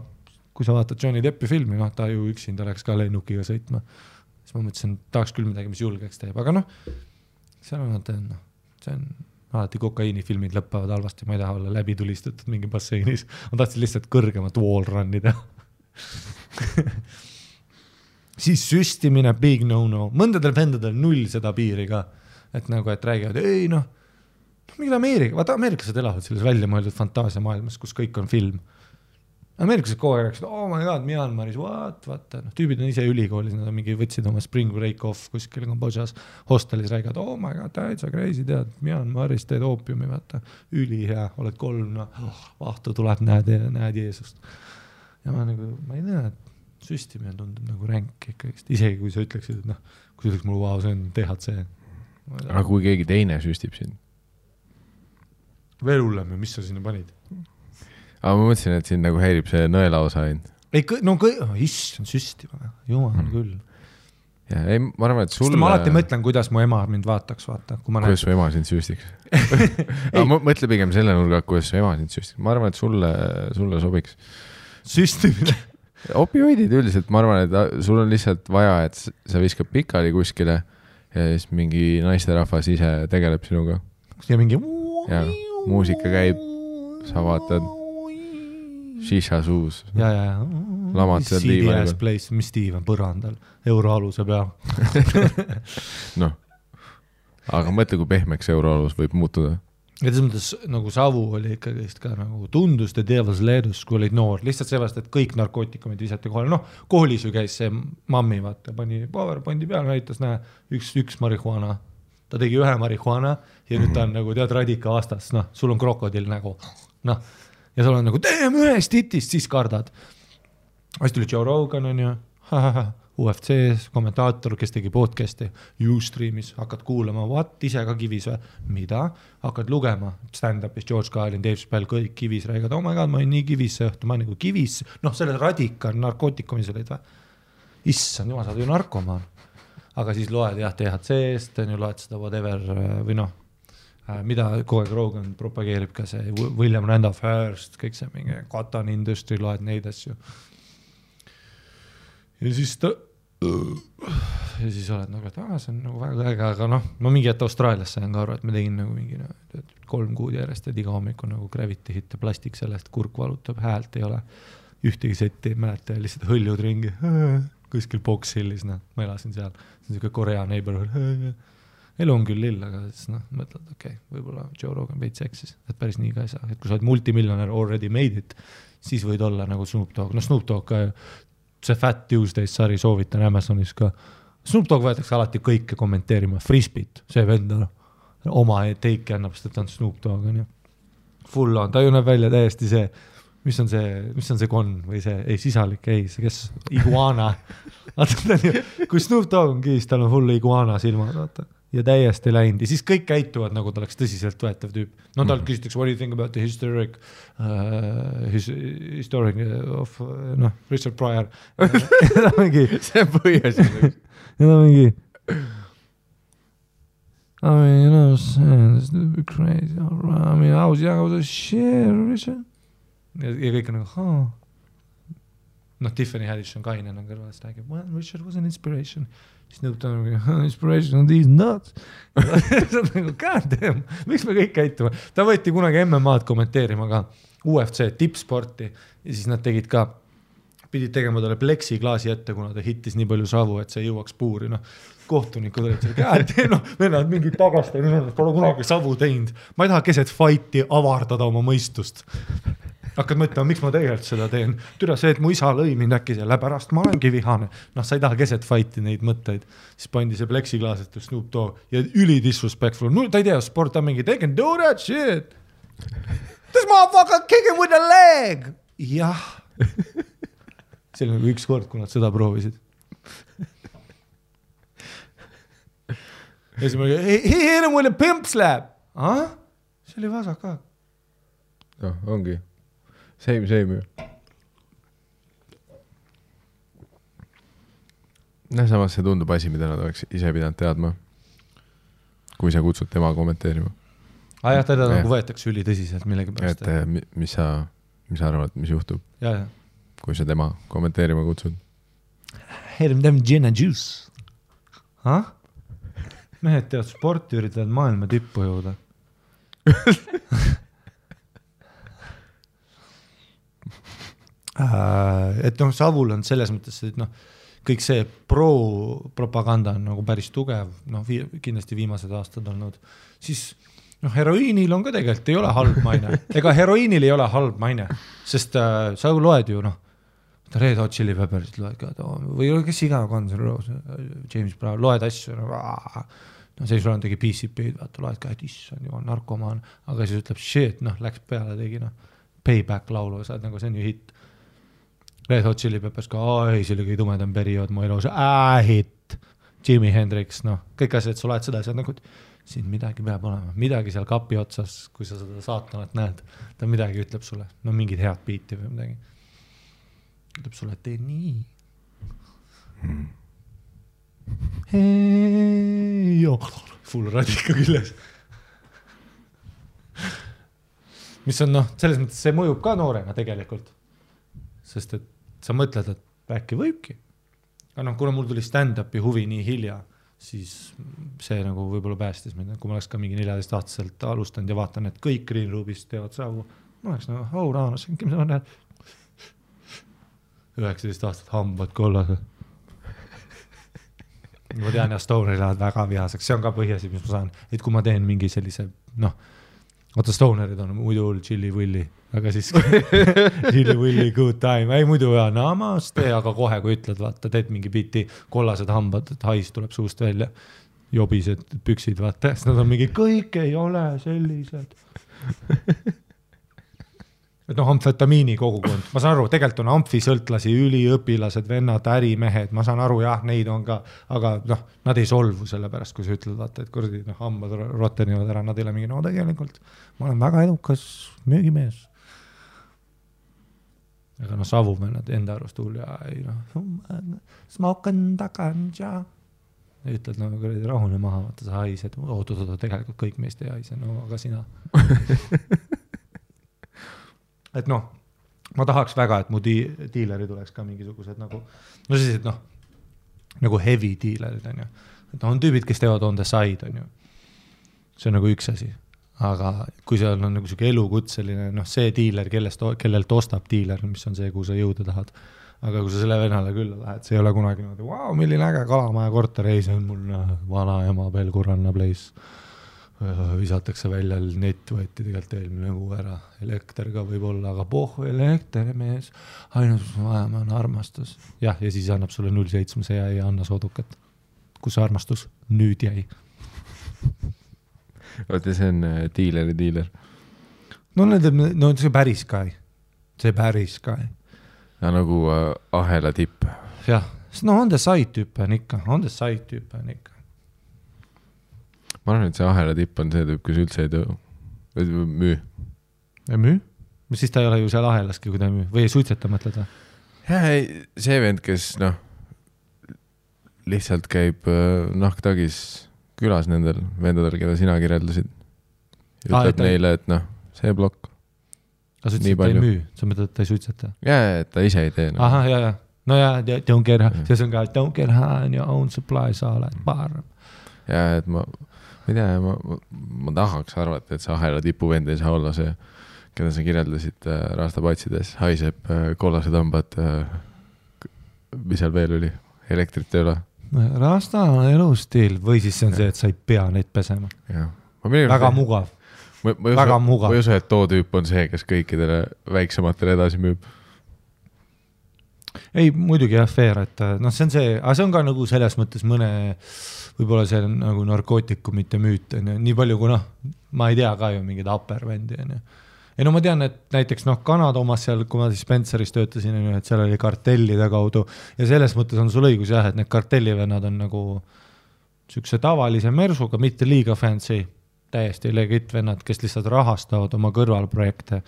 kui sa vaatad Johnny Deppi filmi, no ta ju üksinda läks ka lennukiga sõitma, siis ma mõtlesin, tahaks küll midagi, mis julgeks teeb, aga noh, seal on, see on alati kokaiinifilmid lõppavad halvasti, ma ei taha olla läbi tulistatud mingi basseinis. Ma tahtsin lihtsalt kõrgemat wall runnida. Siis süstimine, big no-no. Mõndadel vendadel 0 seda piiri ka. Et nagu, et räägivad, ei noh, mingid Ameerikased elavad selles välja mõeldud fantaasia maailmas, kus kõik on film. Ameeriklased kogu aeg rääkisid, oh my god, Myanmaris, vaata, noh, tüübid on ise ülikoolis, nad on mingi võtsid oma spring break off kuskil Kambodžas hostelis räägid, oh my god, täitsa crazy, tead, Myanmaris teed oopiumi, vaata, ülihea, oled 3, noh, vahtu tuleb, näed Jeesust. Ja ma ei tea, et süstimine tundub nagu ränk ikkagi, isegi kui sa ütleksid, et noh, kui sa ütleks mulle, wow, see on THC. Aga kui keegi teine süstib sind? Veel hullem, mis sa sinna panid? Aga ma mõtlesin, et sind nagu häirib see nõela osa ainult. Ei, issand, süstima, jumal küll. Ja, ei, ma arvan, et sulle... Ma alati mõtlen, kuidas mu ema mind vaataks, vaata. Kuidas su ema sind süstiks? Mõtle pigem selle nurga, kuidas su ema sind süstiks. Ma arvan, et sulle sobiks. Süstimine? Opioidid üldiselt, ma arvan, et sul on lihtsalt vaja, et sa viskab pikali kuskile ja siis mingi naisterahvas ise tegeleb sinuga. Ja mingi... Ja, muusika käib, sa vaatad... Shisha suus. Ja. Lamad seal CDS place, mis tiiv on põrandal, euroaluse peal. Noh, aga mõtle, kui pehmeks euroalus võib muutuda. Ja selles mõttes nagu savu oli ikkagi ka nagu tundus te Devil's Leedus, kui olid noor. Lihtsalt sellest, et kõik narkootikumid visati kohale. Noh, koolis ju käis see mammi, vaata, pani PowerPointi peal, näitas, näe, üks marihuana. Ta tegi 1 marihuana ja nüüd ta on nagu tead radika vastas. Noh, sul on krokodill nagu. Noh, ja sul on nagu, teeme ühest hitist, siis kardad. Siis tuli Joe Rogan on ju, UFC kommentaator, kes tegi podcasti, Ustreamis, hakkad kuulama, ise ka kivis või? Mida? Hakkad lugema, stand-upis, George Carlin, Dave Chappelle, kõik kivis räägid, oh my god, ma olin nii kivis see õhtu, ma olin nagu kivis, noh, selle radika narkootikumis olid või? Issand, jumal, sa oled ju narkomaan. Aga siis loed jah THC-st, loed seda whatever või noh, mida kogu aeg Rogan propageerib ka see William Randolph Hearst, kõik see mingi Cotton Industry, loed neid asju. Ja siis oled nagu, et see on nagu väga äge, aga noh, ma mingi ette Austraalias sain ka aru, et me tegin nagu mingi 3 kuud järjest, et iga hommiku nagu gravity hit ja plastik sellest, kurk valutab, häält ei ole, ühtegi setti ei mäleta ja lihtsalt hõljud ringi, kuskil Box Hillis, noh, ma elasin seal, see on siuke Korea neighborhood, elu on küll lill, aga siis noh, mõtled, okei, võib-olla Joe Rogan veits eksis, et päris nii ka ei saa, et kui sa oled multimiljonär already made it, siis võid olla nagu Snoop Dogg, no Snoop Dogg ka, see Fat Tuesdays sari soovitan Amazonis ka, Snoop Dogg võetakse alati kõike kommenteerima, Frisbeet, see vend on oma teiki annab, sest et ta on Snoop Dogg, on ju, full on, ta ju näeb välja täiesti see, mis on see konn või see, ei sisalik, ei, see kes, iguana, kui Snoop Dogg on kiis, tal on full iguana silmad, vaata. Ja täiesti läinud. Ja siis kõik käituvad, nagu ta oleks tõsiselt võetav tüüp. No tal küsitakse, what do you think about the historic of Richard Pryor? See on põhjas. Ja ta mingi I mean, you know, it's a bit crazy. I mean, I was young, I was a shit, Richard. Ja kõik on nagu, noh, Tiffany Haddish on kaine on kõrvast räägib, well, Richard was an inspiration. Siis nõutab inspiration on these nuts. God damn, miks me kõik käituma? Ta võeti kunagi MMA-d kommenteerima ka, UFC tippsporti ja siis nad tegid ka, pidid tegema talle pleksiklaasi ette, kuna ta hittis nii palju savu, et see jõuaks puuri. No, kohtunikud olid seal, God damn, no, vennad mingid tagasta, pole kunagi savu teinud. Ma ei taha keset fighti avardada oma mõistust. Hakkad mõtlema, miks ma tegelikult seda teen. Türa see, et mu isa lõi mind äkki selle pärast, ma olengi vihane. Noh, sa ei taha keset fighti neid mõtteid. Siis pandi see pleksiklaas, et Snoop Dogg ja üli disrespectful. No, ta ei tea, sport on mingi, they can do that shit. This motherfucker kick him with a leg. Jah. See oli nagu üks kord, kui nad seda proovisid. Ja siis ma he hit him with a pimp slap. See oli vasak ka. No, ongi. Same ju. Samas see tundub asi, mida nad oleks ise pidanud teadma, kui sa kutsud tema kommenteerima. Jah, teda nagu võetakse üli tõsiselt millegi pärast. Et mis sa arvad, mis juhtub, ja. Kui sa tema kommenteerima kutsud? Hit him them gin and juice. Mehed teavad sporti, üritavad maailma tippu jõuda. Et noh, Savul on selles mõttes, et noh, kõik see pro-propaganda on nagu päris tugev, noh, kindlasti viimased aastad olnud. Siis noh, heroiinil on ka tegelikult ei ole halb maine. Ega heroiinil ei ole halb maine, sest sa loed ju, noh, Red Hot Chili Peppersit loed ka, või kes iga Guns N' Roses, James Brown, loed asju, no see sul on tegi PCP-d, vaata, loed ka, et issand, jumal, narkomaan, aga siis ütleb, shit, noh, läks peale, tegi, noh, Payback laulu, saad nagu, see on ju hitt. Red Hot Chili Peppers ka, ei, see oli kõige tumedam periood mu elus, hitt, Jimi Hendrix, noh, kõik asjad, sa loed seda, sa nagu, siin midagi peab olema, midagi seal kapi otsas, kui sa seda saatanat näed, ta midagi ütleb sulle, no mingid head biiti või midagi. Ütleb sulle, et tee nii. Hei, full radika külles. Mis on, noh, selles mõttes see mõjub ka noorena tegelikult. Sest et sa mõtled, et äkki võibki. Aga noh, kuna mul tuli stand-upi huvi nii hilja, siis see nagu võib-olla päästis mind. Kui ma oleks ka mingi 14-aastaselt alustanud ja vaatan, et kõik Green Roomist teevad savu, ma oleks nagu, raanas, mis ma näed? 19 aastat hambad kollas. Ma tean, ja Stonerid lähevad väga vihaseks. See on ka põhjasi, mis ma saan. Et kui ma teen mingi sellise, noh, oota, Stonerid on muidu chili-willi, aga siis chili-willi good time. Ei muidu ja namaste, aga kohe, kui ütled, vaata, teed mingi biti kollased hambad, et hais tuleb suust välja. Jobised püksid, vaata. Nad on mingi, kõik ei ole sellised. Et noh, amfetamiini kogukond. Ma saan aru, tegelikult on amfisõltlasi, üliõpilased, vennad, ärimehed, ma saan aru, jah, neid on ka, aga noh, nad ei solvu selle pärast, kui sa ütled, vaata, et kurdi, noh, hambad rottenivad ära, nad ei ole mingi, no tegelikult, ma olen väga edukas müügimees. Aga noh, savuvennad enda arust hull ja ei noh, smoken takanja. Ja ütled, no kurdi, rahune maha, vaata, sa haised, tegelikult kõik meist ei haise, no aga sina. Et noh, ma tahaks väga, et mu diileri tuleks ka mingisugused nagu, no sellised noh, nagu heavy diilerid on ju. Et on tüübid, kes teevad on the side on ju. See on nagu üks asi. Aga kui seal on nagu selline elukutseline, noh see diiler, kellelt ostab diiler, mis on see, kuhu sa jõuda tahad. Aga kui sa selle vennale külla lähed, see ei ole kunagi niimoodi, wow, milline äge Kalamaja korter, ei, see on mul vana ema Pelguranna place. Visatakse välja, net võeti tegelikult eelmine kuu ära, elekter ka võib olla, aga elekter mees, ainult mis ma vajame on armastus. Jah, ja siis annab sulle 0,7 ja ei anna soodukat. Kus armastus nüüd jäi? Oota, see on diiler. No see päris ka ei. See päris ka ei. Ja nagu ahela tipp. Jah, no on the side tüüp on ikka. Ma arvan, et see ahela tipp on see tüüp, kus üldse ei müü. Ei müü? Siis ta ei ole ju seal ahelaski, kui ta ei müü. Või ei suitseta mõtleda? Ja, see vend, kes lihtsalt käib nahktagis külas nendel vendadel, keda sina kirjeldasid. Ütleb neile, et see blokk. Aga sa ütlesid, et ta ei müü? Sa mõtled, et ta ei suitseta? Ja, et ta ise ei tee. Aha, ja. No ja, don't get high. See on ka, don't get high on your own supply, sa oled parem. Ja, et ma ma tahaks arvata, et see ahela tipuvend ei saa olla see, keda sa kirjeldasid rastapatsides, haiseb kollased hambad, mis seal veel oli, elektrit ei ole. Rasta on elustiil või siis see on see, et sa ei pea neid pesema. Väga mugav. Väga mugav. Ma ei usu, et too tüüp on see, kes kõikidele väiksematele edasi müüb. Ei, muidugi jah, fair, et see on see, aga see on ka nagu selles mõttes mõne võib-olla see on nagu narkootikumite müüt, nii palju kui ma ei tea ka ju mingid uppervendi. Ja no ma tean, et näiteks Kanada omas seal, kui ma siis Spenceris töötasin, et seal oli kartellide kaudu ja selles mõttes on sul õigus jah, et need kartellivennad on nagu sükse tavalise mersuga, mitte liiga fancy, täiesti legit vennad, kes lihtsalt rahastavad oma kõrvalprojekte.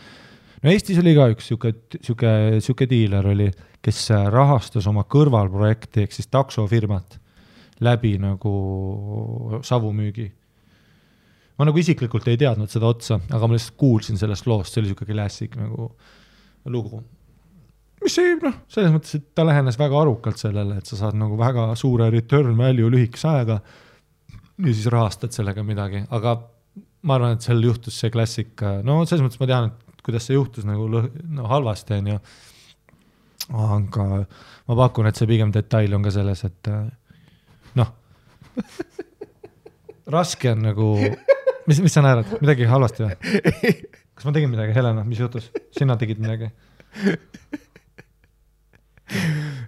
No Eestis oli ka üks süke diiler oli, kes rahastas oma kõrvalprojekti, ehk siis taksofirmat läbi nagu savumüügi. Ma nagu isiklikult ei teadnud seda otsa, aga ma lihtsalt kuulsin sellest loost, see oli siuke klassik nagu lugu. Mis ei, selles mõttes, et ta lähenes väga arukalt sellele, et sa saad nagu väga suure return value lühikese aega ja siis rahastad sellega midagi, aga ma arvan, et seal juhtus see klassik, selles mõttes ma tean, et kuidas see juhtus nagu halvasti on ju, aga ma pakun, et see pigem detail on ka selles, et raske on nagu mis sa naerad? Midagi halvasti või? Kas ma tegin midagi, Helena? Mis juhtus? Sina tegid midagi?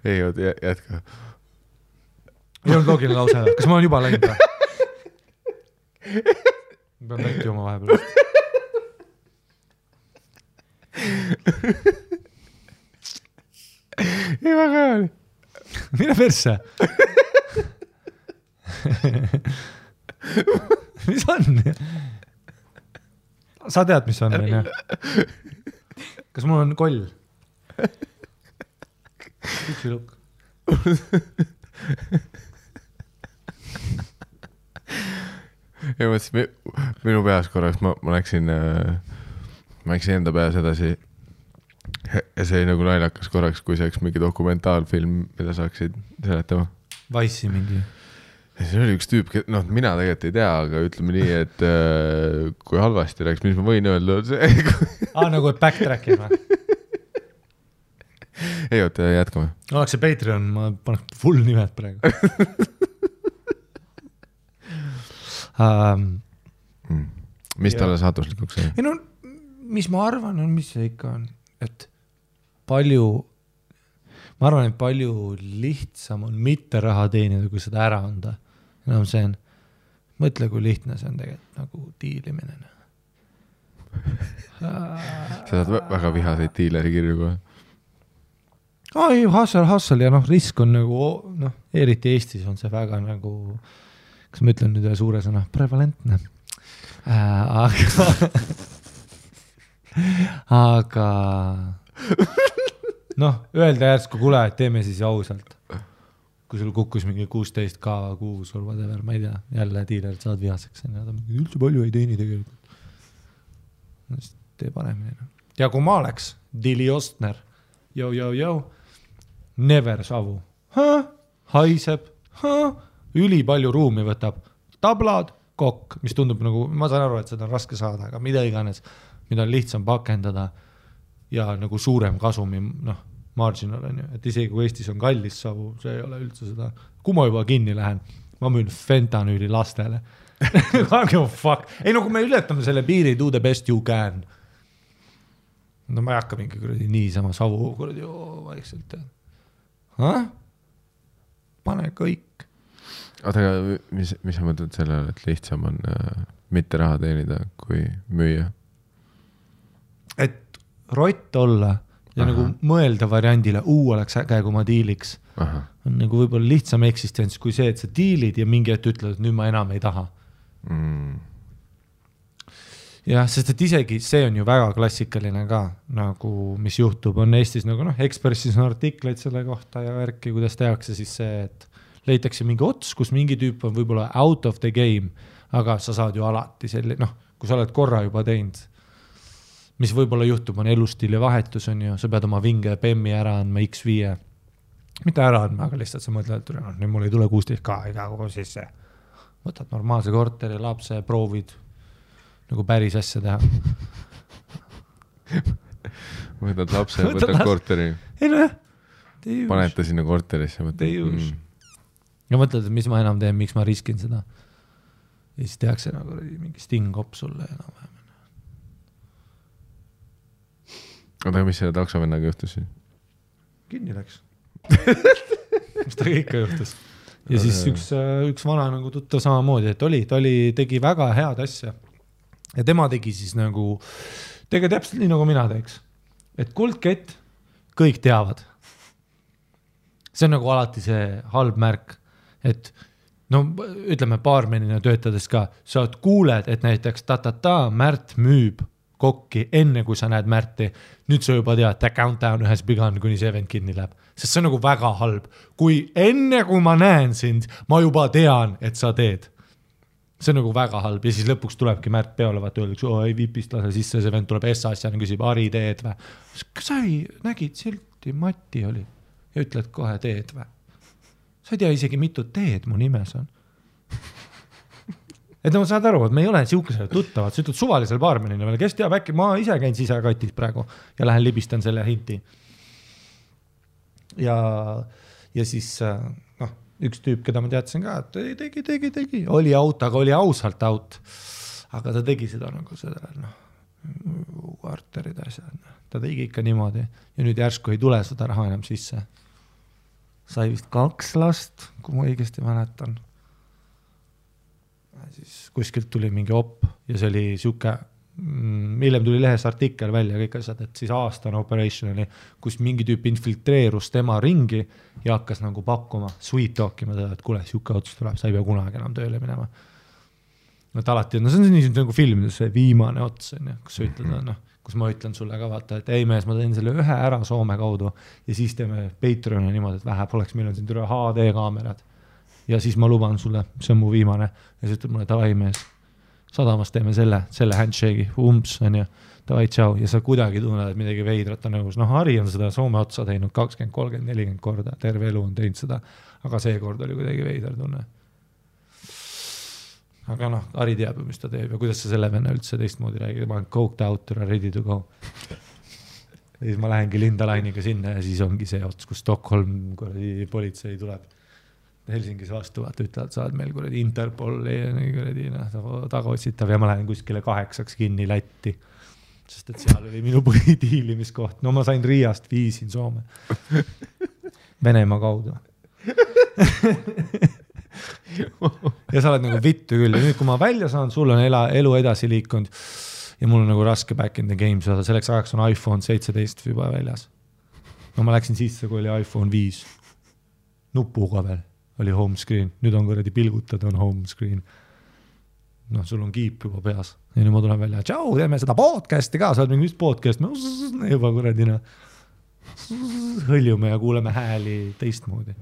Ei, jätka. Ei olnud loogiline lause. Kas ma olen juba läinud või? Ma pean väikti oma vahepeal. Ei, väga hea oli. Mine persse. Mis on? Sa tead, mis on? Kas mul on koll? Püksilukk. Ja mõtlesin, minu peas korraks ma läksin enda peas edasi ja see oli nagu naljakas korraks, kui see oleks mingi dokumentaalfilm, mida saaksid seletama. Vice'i mingi. Ja see oli üks tüüp, mina tegelikult ei tea, aga ütleme nii, et kui halvasti läks, mis ma võin öelda, on see. Nagu backtrack'ima. Ei, oota, jätkame. Oleks see Patreon, ma paneks full nimed praegu. Mis talle saatuslikuks sai? Ei no, mis ma arvan, on mis see ikka on, et ma arvan, et palju lihtsam on mitte raha teenida, kui seda ära anda. See on, mõtle, kui lihtne see on tegelikult nagu diilimine. Sa saad väga vihaseid diileri kirju kohe. Ai, hassel ja risk on nagu, eriti Eestis on see väga nagu, kas ma ütlen nüüd ühe suure sõna, prevalentne. Aga öelda järsku kule, et teeme siis ausalt. Kui sul kukkus mingi 16K kuus or whatever, ma ei tea, jälle diilerid saad vihaseks. Üldse palju ei teeni tegelikult. Tee paremini. Ja kui ma oleks Dili Ostner, never savu. Haiseb, üli palju ruumi võtab. Tablad, kokk, mis tundub nagu, ma saan aru, et seda on raske saada, aga mida iganes, mida on lihtsam pakendada ja nagu suurem kasumi, marginal on ju, et isegi kui Eestis on kallis savu, see ei ole üldse seda. Kui ma juba kinni lähen, ma müün fentanüüli lastele. Fuck. Ei, kui me ületame selle piiri, do the best you can. Ma ei hakka mingi kuradi niisama savu kuradi vaikselt tead. Pane kõik. Oota, aga mis sa mõtled sellele, et lihtsam on mitte raha teenida kui müüa? Et rott olla ja nagu mõelda variandile, oleks äge, kui ma diiliks. On nagu võib-olla lihtsam eksistents kui see, et sa diilid ja mingi hetk ütled, et nüüd ma enam ei taha. Jah, sest et isegi see on ju väga klassikaline ka, nagu mis juhtub, on Eestis nagu Ekspressis on artikleid selle kohta ja värki, kuidas tehakse siis see, et leitakse mingi ots, kus mingi tüüp on võib-olla out of the game, aga sa saad ju alati selline, kui sa oled korra juba teinud, mis võib-olla juhtub, on elustiili vahetus on ju, sa pead oma vinge PEM-i ära andma X5, mitte ära andma, aga lihtsalt sa mõtled, et nüüd mul ei tule 16K iga kogu sisse, võtad normaalse korteri, lapse, proovid nagu päris asja teha. Võtad lapse, võtad korteri. Ei no jah. Paneta sinna korterisse. Ja mõtled, et mis ma enam teen, miks ma riskin seda. Ja siis tehakse nagu mingi sting-op sulle enam vähem. Aga mis selle taksovennaga juhtus siis? Kinni läks. Mis ta ikka juhtus. Ja siis üks vana nagu tuttav samamoodi, et tegi väga head asja. Ja tema tegi siis nagu, täpselt nii nagu mina teeks. Et kuldkett, kõik teavad. See on nagu alati see halb märk, et ütleme baarmenina töötades ka, sa kuuled, et näiteks Märt müüb kokki enne, kui sa näed Märti. Nüüd sa juba tead, countdown ühes begun, kuni see event kinni läheb. Sest see on nagu väga halb. Kui enne, kui ma näen sind, ma juba tean, et sa teed. See on nagu väga halb ja siis lõpuks tulebki Märt peole, vaata öeldakse, ei vipist lase sisse, see vend tuleb S-asjana, küsib Ari teed või. Kas sa nägid silti, Mati oli ja ütled kohe teed või? Sa ei tea isegi mitu teed mu nimes on. Et ma saad aru, et me ei ole siukesele tuttavad, sa ütled suvalisel baarmenina veel, kes teab äkki, ma ise käin sisekatis praegu ja lähen libistan selle hinti. Ja siis üks tüüp, keda ma teadsin ka, et tegi, oli out, aga oli ausalt out. aga ta tegi seda nagu seda, kvarterid asjad, ta tegi ikka niimoodi ja nüüd järsku ei tule seda raha enam sisse. Sai vist 2 last, kui ma õigesti mäletan. Siis kuskilt tuli mingi op ja see oli siuke, hiljem tuli lehes artikkel välja kõik asjad, et siis aastane operation oli, kus mingi tüüp infiltreerus tema ringi ja hakkas nagu pakkuma, sweet talkima seda, et kuule, siuke otsus tuleb, sa ei pea kunagi enam tööle minema. No alati, no see on nii nagu filmides see viimane ots, kus sa ütled, kus ma ütlen sulle ka vaata, et ei mees, ma teen selle ühe ära Soome kaudu ja siis teeme Patreoni niimoodi, et vähe poleks, meil on siin üle HD kaamerad ja siis ma luban sulle, see on mu viimane ja siis ütleb mulle, davai mees, sadamas teeme selle handshake'i, on ju, davai, tšau ja sa kuidagi tunned, et midagi veidrat on nõus, Harri on seda Soome otsa teinud 20, 30, 40 korda, terve elu on teinud seda, aga see kord oli kuidagi veidar tunne. Aga Harri teab ju, mis ta teeb ja kuidas sa selle venna üldse teistmoodi räägid, ma olen coked out or ready to go. Ja siis ma lähengi Linda Lainiga sinna ja siis ongi see ots, kus Stockholm politsei tuleb Helsingis vastu, vaata ütlevad, sa oled meil kuradi Interpoli ja tagaotsitav ja ma lähen kuskile 8 kinni Lätti, sest et seal oli minu põhidiilimiskoht. No ma sain Riiast viisin Soome. Venemaa kaudu. Ja sa oled nagu vittu küll ja nüüd kui ma välja saan, sul on elu edasi liikunud ja mul on nagu raske back in the game, selleks ajaks on iPhone 17 juba väljas. No ma läksin sisse, kui oli iPhone 5 nupuga veel, oli home screen, nüüd on kuradi pilgutad, on home screen. Sul on kiip juba peas ja nüüd ma tulen välja, tšau, teeme seda podcasti ka, sa oled mingi podcast, juba kuradina hõljume ja kuuleme hääli teistmoodi.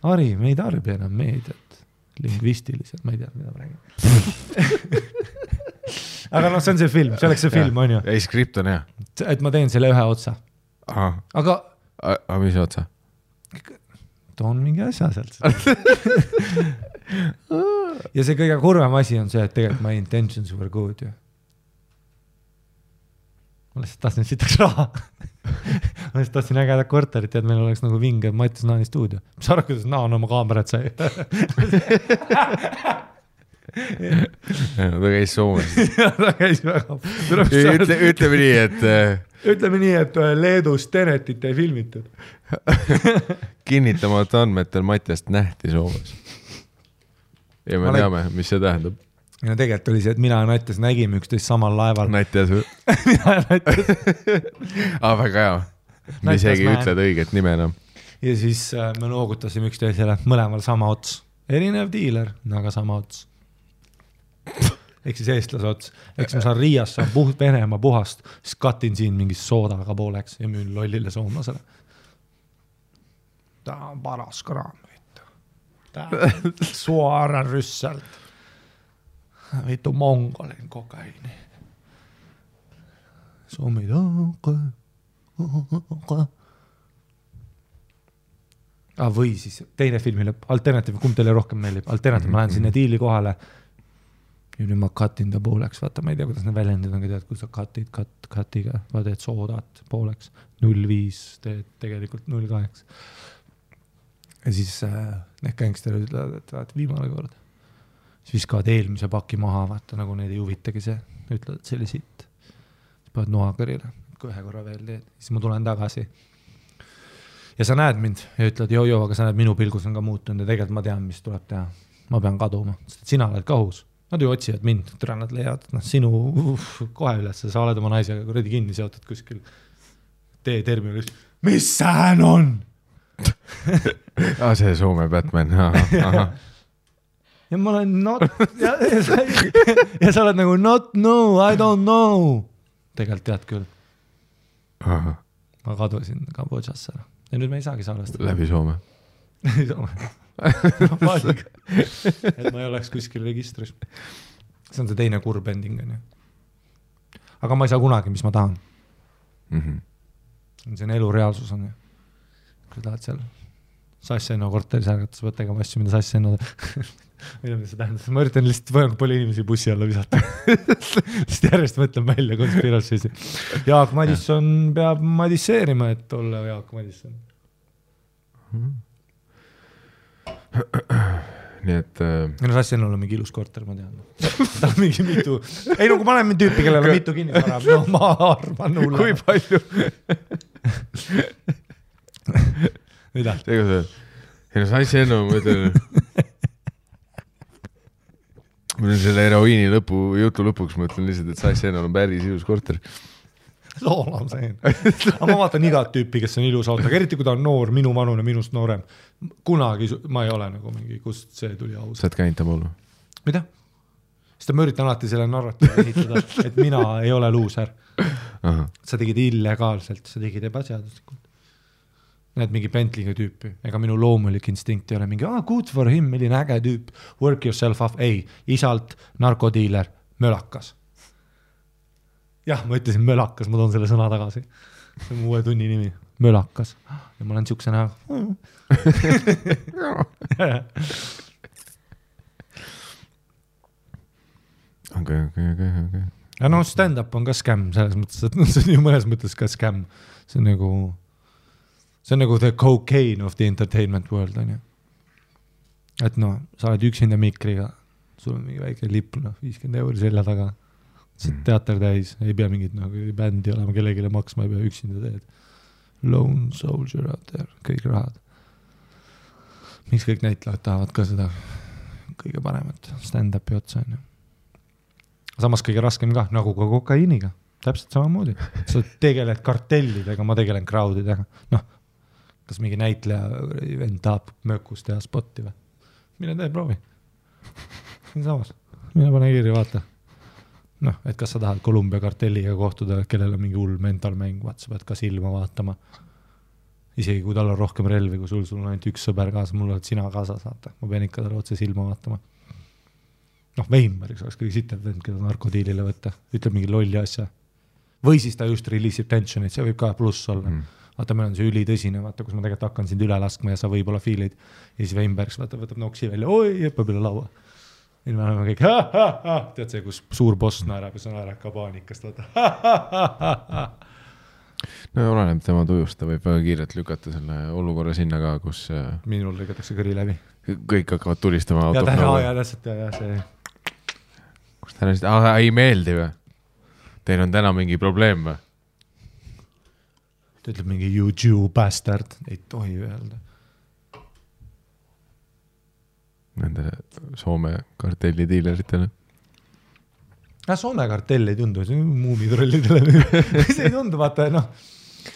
Harri, me ei tarbi enam meediat lingvistiliselt, ma ei tea, mida ma räägin. Aga see on see film, see oleks see film, on ju. Ei, skript on hea. Et ma teen selle ühe otsa. Aga mis otsa? Toon mingi asja sealt. Ja see kõige kurvem asi on see, et tegelikult my intentions were good ju. Ma lihtsalt tahtsin sitaks raha. Ma lihtsalt tahtsin ägedat korterit, et meil oleks nagu vinge Mattis Naani stuudio. Mis arvad, kuidas Naan oma kaamerat sai? Ta käis Soomes. Ta käis väga. Ütleme nii, et Leedus Tenetit ei filmitud. Kinnitamata andmetel Mattiast nähti Soomes. Ja me teame, mis see tähendab. Ja tegelikult oli see, et mina ja Natjas nägime üksteist samal laeval. Natjas või? Mina ja Natjas. Väga hea. Me isegi ütled õiget nime enam. Ja siis me noogutasime üksteisele mõlemal sama ots. Erinev diiler, aga sama ots. Ehk siis eestlase ots. Ehk siis ma saan Riias, saan Venemaa puhast, siis katin siin mingis soodaga pooleks ja müün lollile soomlasele. Ta on paras kraam. Ta on suoaran rüssalt. Vittu mongolin kokaini. Suomi või siis teine filmi lõpp, alternatiiv, kumb teile rohkem meeldib? Alternatiiv, ma lähen sinna diili kohale ja nüüd ma katin ta pooleks, vaata, ma ei tea, kuidas need väljendid on, tead, kui sa katiga, vaata, et soodat pooleks 0,5, teed tegelikult 0,8 ja siis need gängsterid ütlevad, et vaata, viimane kord siis viskavad eelmise paki maha, vaata, nagu neid ei huvitagi see, ütlevad, et see oli sitt siis paned noakõrile, kui ühe korra veel teed siis ma tulen tagasi ja sa näed mind ja ütled, joo, aga sa näed, minu pilgus on ka muutunud ja tegelikult ma tean, mis tuleb teha ma pean kaduma, sest sina oled kahus nad ju otsivad mind, türa nad leiavad sinu kohe üles, sa oled oma naisega kuradi kinni seotud kuskil terminalis, mis sään on? See Soome Batman, aha ja ma olen ja sa oled nagu not know, I don't know tegelikult tead küll ma kadusin Kambodžasse ja nüüd me ei saagi salvestada läbi Soome et ma ei oleks kuskil registris see on see teine kurb ending aga ma ei saa kunagi, mis ma tahan see on elu reaalsus on kui tahad seal Sassenno korteris ärgatas võtta tegema asju, mida Sassenno mida see tähendab, ma üritan lihtsalt palju inimesi bussi alla visata sest järjest mõtlen välja konspiraatsisi Jaak Madisson peab madisseerima, et olla Jaak Madisson nii et no Sassienul on mingi ilus korter, ma tean. Ta on mingi mitu, ei no kui ma olen tüüpi, kellel on mitu kinnisvara, no ma arvan hulle. kui palju? Mida? ei no Sassienu, ma ütlen selle heroiini jutu lõpuks, ma ütlen lihtsalt, et Sassienul on päris ilus korter. Loolam see. Aga ma vaatan igat tüüpi, kes on ilus autoga, eriti kui ta on noor, minu vanune, minust noorem. Kunagi ma ei ole nagu mingi, kust see tuli aus. Sa oled käinud ta mullu? Mida? Sest ma üritan alati selle narratiivi ehitada, et mina ei ole luuser. Sa tegid illegaalselt, sa tegid ebaseaduslikult. Näed mingi Bentley'ga tüüpi, ega minu loomulik instinkt ei ole mingi, good for him, milline äge tüüp, work yourself off, ei, isalt narkodiiler, mölakas. Jah, ma ütlesin mölakas, ma toon selle sõna tagasi. See on uue tunni nimi, mölakas. Ja ma olen siukse näha. Okay. Ja no stand-up on ka scam, selles mõttes, et see on ju mõnes mõttes ka scam. See on nagu the cocaine of the entertainment world, on ju. Et no, sa oled üksinda mikriga, sul on mingi väike lipp, 50 € selja taga. See teater täis, ei pea mingit bändi olema, kellegile maksma ei pea, üksinda teed. Lone soldier out there, kõik rahad. Miks kõik näitlejad tahavad ka seda kõige paremat stand-upi otsa, on ju. Samas kõige raskem ka, nagu ka kokaiiniga, täpselt samamoodi. Sa tegeled kartellidega, ma tegelen crowdidega. Noh, kas mingi näitleja vend tahab mökus teha spotti või? Mine tee, proovi. Samas, mine pane kirja, vaata. Noh, et kas sa tahad Kolumbia kartelliga kohtuda, kellel on mingi hull mentalmäng, sa pead ka silma vaatama. Isegi kui tal on rohkem relvi, kui sul on ainult üks sõber kaasa, mul oled sina kaasa saata. Ma pean ikka talle otse silma vaatama. Noh, Veimariks oleks kõige sitem vend, keda narkodiilile võtta. Ütleb mingi lolli asja. Või siis ta just release'ib tensionit, see võib ka pluss olla. Vaata, meil on see ülitõsine, vaata, kus ma tegelikult hakkan sind üle laskma ja sa võib-olla fiilid. Ja siis Veimbergs võtab noksi välja, oi, jõppab üle laua. Ja me oleme kõik, tead see, kus suur boss naerab ja sa naerab ka paanikast, vaata. No oleneb tema tujust, ta võib väga kiirelt lükata selle olukorra sinna ka, kus minul lõigatakse kõri läbi. Kõik hakkavad tulistama ja täpselt, ja see. Kus ta näist, ei meeldi või? Teil on täna mingi probleem või? Ta ütleb mingi you Jew bastard, ei tohi öelda. Nende Soome kartelli diileritele. Soome kartell ei tundu, see on muumitrollidele. See ei tundu, vaata, noh.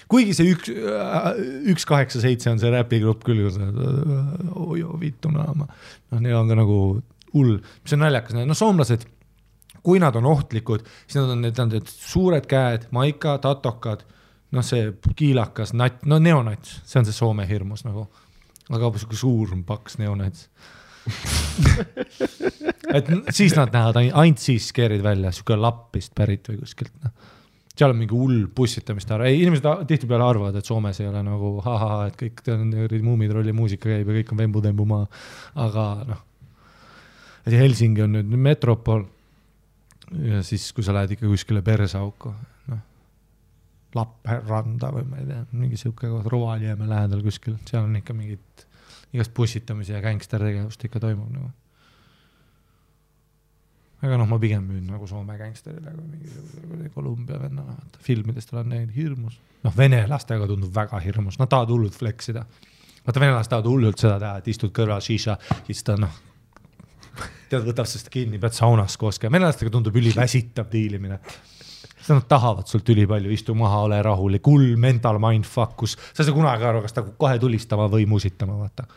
Kuigi see 187 on see räpigrupp küll, vittu naama. No, neil on ka nagu hull, mis on naljakas. No soomlased, kui nad on ohtlikud, siis nad on suured käed, maika, tatokad, no see kiilakas, nat, no neonats, see on see Soome hirmus nagu. Aga suur paks neonats. Et siis nad näevad ainult siis skeerid välja, siuke lappist pärit või kuskilt. Seal on mingi hull bussitamist ära. Ei, inimesed tihtipeale arvavad, et Soomes ei ole nagu et kõik muumitrolli muusika käib ja kõik on vembu-tembu maa. Aga noh, Helsingi on nüüd metropol ja siis kui sa lähed ikka kuskile Persauko, noh, Lappeenranda või ma ei tea, mingi siuke Rovaniemi lähedal kuskil, seal on ikka mingid igast bussitamise ja gangster tegevust ikka toimub nagu. Aga noh, ma pigem müün nagu Soome gangsterile kui mingi Kolumbia vennana. Filmidest olen näinud hirmus. Noh, venelastega tundub väga hirmus. Nad tahavad hullult fleksida. Vaata, venelast tahavad hullult seda teha, et istud kõrval šiša, siis ta noh, tead, võtab sest kinni, pead saunas kooske. Venelastega tundub üliväsitav diilimine. Siis nad tahavad sult ülipalju, istu maha, ole rahulik, hull mental mindfuck, kus sa ei saa kunagi aru, kas ta kohe tulistama või musitama, vaata.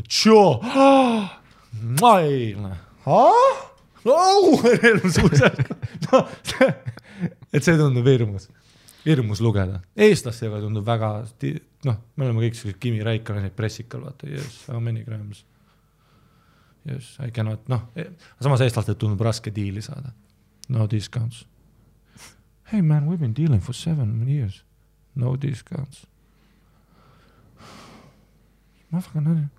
Tšoo! Mail! Et see tundub hirmus lugeda. Eestlastega tundub väga, noh, me oleme kõik sellised Kimi Räikkönen pressikal, vaata, yes, how many grams? Yes, I cannot, noh, samas eestlastel tundub raske diili saada. No discounts. Hey man, we've been dealing for 7 years. No discounts. Motherfucker,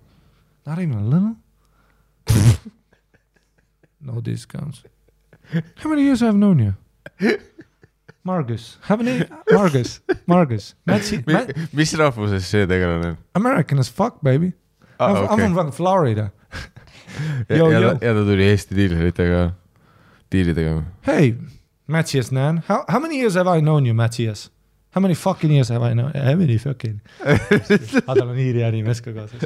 not even a little? No discounts. How many years I've known you? Margus. How many? Margus. Mis rahvuses see tegelane on? American as fuck, baby. I'm from Florida. ja ta tuli Eesti diilidega. Hey, Matthias Nan, how many years have I known you, Matthias? How many fucking years have I known? How many fucking? Tal on hiiri ärimees ka kaasas.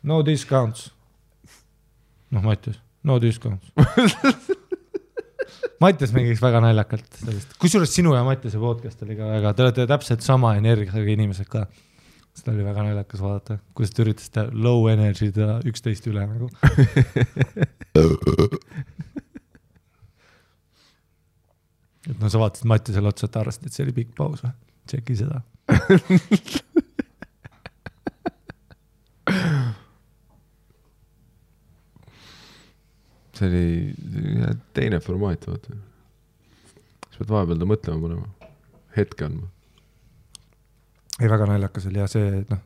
No discounts. Noh, Mattias, no discounts. Mattias mängiks väga naljakalt sellist. Kusjuures sinu ja Mattiase podcast oli ka väga, te olete täpselt sama energiaga inimesed ka. Seda oli väga naljakas vaadata, kuidas te üritasite low energy 11 üle nagu. Et no sa vaatasid Mattiasele otsa, et arvasid, et see oli pikk paus või? Tšeki seda. See oli teine formaat, vaata. Sa pead vahepeal ta mõtlema panema. Hetke andma. Ei, väga naljakas oli ja see, et noh,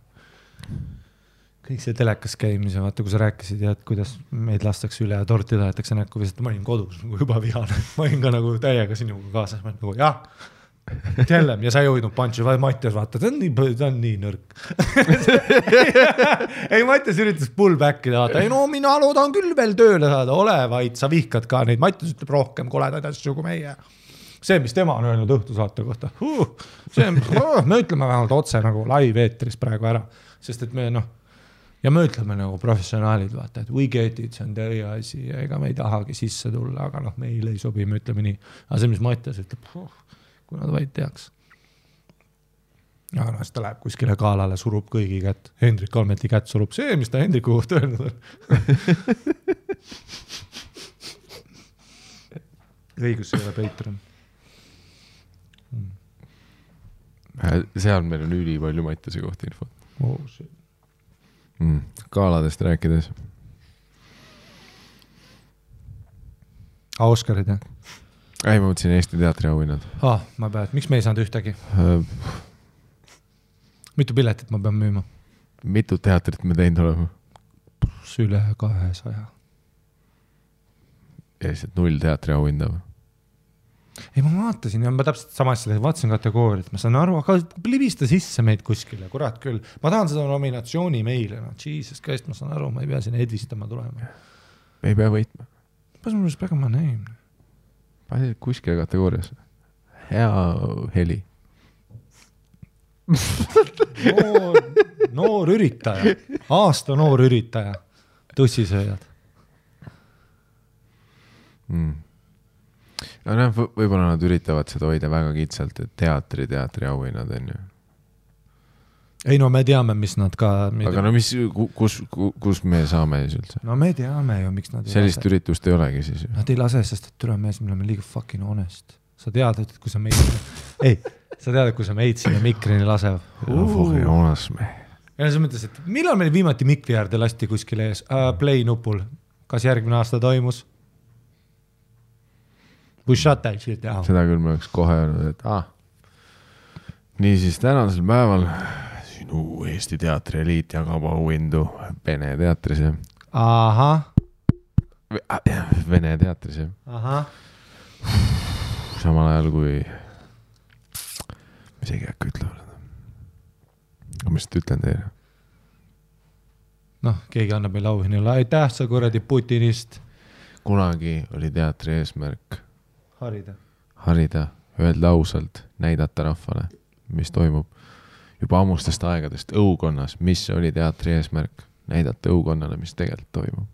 kõik see telekas käimise, vaata, kui sa rääkisid ja et kuidas meid lastakse üle ja torti tahetakse näkku, vist ma olin kodus nagu juba vihane. Ma olin ka nagu täiega sinuga kaasas, ma olin nagu jah, tellem ja sa ei hoidnud punchi, Mattias vaata, ta on nii nõrk. Ei, Mattias üritas pullbackida, vaata, ei no mina loodan küll veel tööle saada, ole vaid, sa vihkad ka neid, Mattias ütleb rohkem koledaid asju kui meie. See, mis tema on öelnud õhtusaate kohta, me ütleme vähemalt otse nagu live eetris praegu ära, sest et me noh, ja me ütleme nagu professionaalid, vaata, et we get it, see on teie asi ja ega me ei tahagi sisse tulla, aga noh, meile ei sobi, me ütleme nii. Aga see, mis Mattias ütleb, kui nad vaid teaks. Ja noh, siis ta läheb kuskile kaalale, surub kõigi kätt. Hendrik Almeti kätt surub see, mis ta Hendriku kohta öelnud on. Õigus ei ole Patreon. Seal meil on üli palju Mattiase kohta infot. Oh, shit. Kaaladest rääkides. Oscarid, jah? Ei, ma mõtlesin Eesti teatri auhinnad. Ma pean, miks me ei saanud ühtegi? Mitu piletit ma pean müüma? Mitu teatrit me teinud olema? Üle 200. Ja lihtsalt 0 teatri auhinda või? Ei, ma vaatasin ja ma täpselt sama asja vaatasin kategooriat, ma saan aru, aga libista sisse meid kuskile, kurat küll. Ma tahan seda nominatsiooni meile, no Jesus Christ, ma saan aru, ma ei pea siin edvistama tulema. Me ei pea võitma. Pas mul peaks ma näim. Pani kuskile kategoorias. Hea heli. Noor üritaja. Aasta noor üritaja. Tussisööjad. No, võib-olla nad üritavad seda hoida väga kitsalt, et teatri auhinnad on ju. Ei no me teame, mis nad ka... Aga no mis, kus me saame siis üldse? No me teame ju, miks nad sellist üritust ei olegi siis ju. Nad ei lase, sest et türa mees, me oleme liiga fucking honest. Sa tead, et kui sa meid... sa tead, et kui sa meid sinna mikrini lasev. Fucking honest me. Ja sa mõtles, et millal meil viimati mikri äärde lasti kuskile ees? Play nupul. Kas järgmine aasta toimus? Seda küll me oleks kohe öelnud, et nii siis tänasel päeval sinu Eesti teatri eliit jagab auhindu Vene teatris. Ahah. Vene teatris. Ahah. Samal ajal kui mis ei käkku ütlevad. Aga mis te ütlen teile? Noh, keegi annab meil auhinnale. Aitäh sa kuradi Putinist. Kunagi oli teatri eesmärk harida, öelda ausalt, näidata rahvale, mis toimub juba ammustest aegadest õukonnas, mis oli teatri eesmärk, näidata õukonnale, mis tegelikult toimub.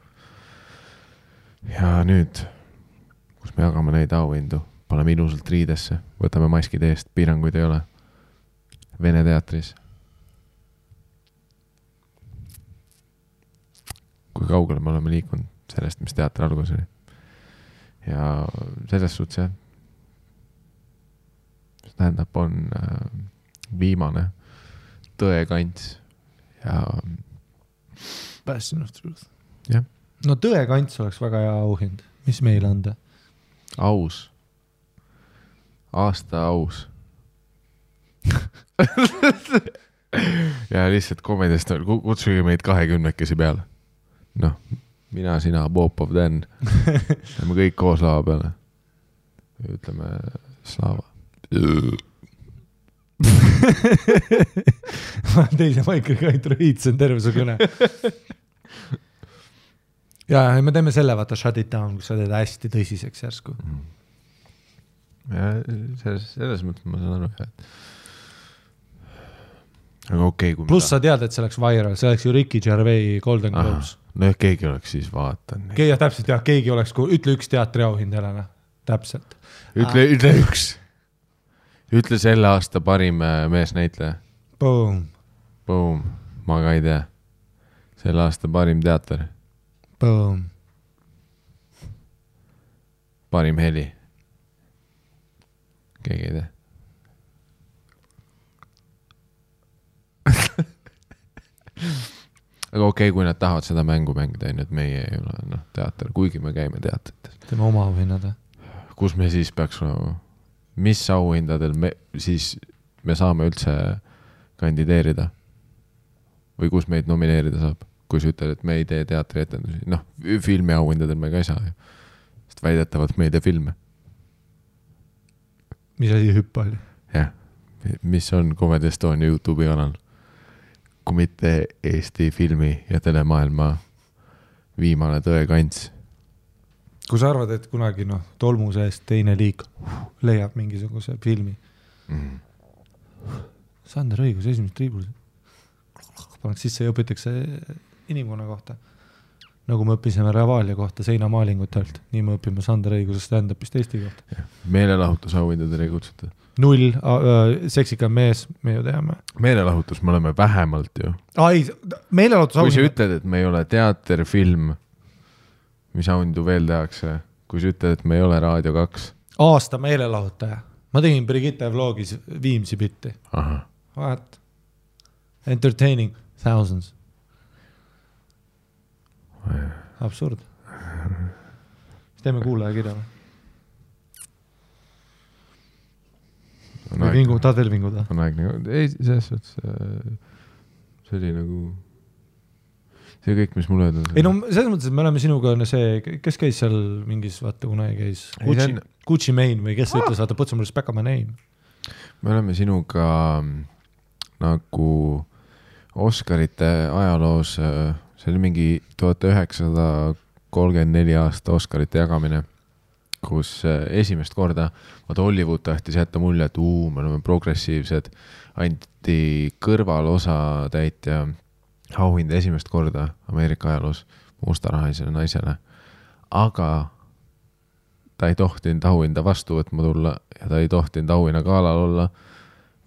Ja nüüd, kus me jagame neid auhindu, paneme ilusalt riidesse, võtame maskid eest, piiranguid ei ole. Vene teatris. Kui kaugele me oleme liikunud sellest, mis teatri algus oli. Ja selles suhtes jah, see tähendab, on viimane tõekants ja Passion of Truth. Jah. No tõekants oleks väga hea auhind. Mis meil anda? Aus. Aasta aus. Ja lihtsalt komedist kutsuge meid 20-kesi peale. Noh, mina, sina, Popov, Dan. Me kõik koos lava peale. Ütleme Slava. Ma teise maikriga ei truhiitsen terve su kõne. ja me teeme selle, vaata Shut It Down, kus sa teed hästi tõsiseks järsku. Ja selles mõttes ma saan aru, et aga okei, kui pluss sa tead, et see oleks viral, see oleks ju Ricky Gervais Golden Globes. No keegi oleks siis vaatanud. Täpselt jah, keegi oleks, ütle üks teatriauhind jälle, täpselt. Ütle üks. Ütle selle aasta parim meesnäitleja. Boom. Boom. Ma ka ei tea. Selle aasta parim teater. Boom. Parim heli. Keegi ei tea. Aga okei, kui nad tahavad seda mängu mängida, et meie ei ole teater, kuigi me käime teatrites. Teeme oma auhinnad. Kus me siis peaks mis auhindadel me saame üldse kandideerida? Või kus meid nomineerida saab? Kui sa ütled, et me ei tee teatrietendusi. Filmi auhindadel me ka ei saa ju. Sest väidetavalt me ei tee filme. Mis asi hüppa oli? Jah. Mis on Comedy Estonia YouTube'i kanal? Kui mitte Eesti filmi ja telemaailma viimane tõekants. Kui sa arvad, et kunagi tolmu seest teine liik leiab mingisuguse filmi. Sander õigus, esimest triibul. Paneks sisse ja õpitakse inimkonna kohta. Nagu me õppisime Ravalia kohta seinamaalingutelt. Nii me õpime Sander õiguse stand-upist Eesti kohta. Meelelahutusauhindadele ei kutsuta. 0, seksikam mees, me ju teame. Meelelahutus, me oleme vähemalt ju. Meelelahutus kui sa ütled, et me ei ole teater, film, mis auhindu veel tehakse, kui sa ütled, et me ei ole Raadio 2. Aasta meelelahutaja. Ma tegin Brigitte vlogis Viimsi bitti. What? Entertaining thousands. Absurd. Teeme kuulaja kirja või? Tahad veel vinguda? On aeg nagu, ei, selles suhtes see oli nagu see kõik, mis mulle öelda. Ei selles mõttes, et me oleme sinuga see, kes käis seal mingis, vaata kunagi käis Gucci Mane või kes ütles, vaata, put some respect on my name. Me oleme sinuga nagu Oscarite ajaloos, see oli mingi 1934 aasta Oscarite jagamine, kus esimest korda Hollywood tahtis jätta mulje, et me oleme progressiivsed, anti kõrvalosa täitja auhind esimest korda Ameerika ajaloos mustarahalisele naisele, aga ta ei tohtinud auhinda vastu võtma tulla ja ta ei tohtinud auhinna galal olla,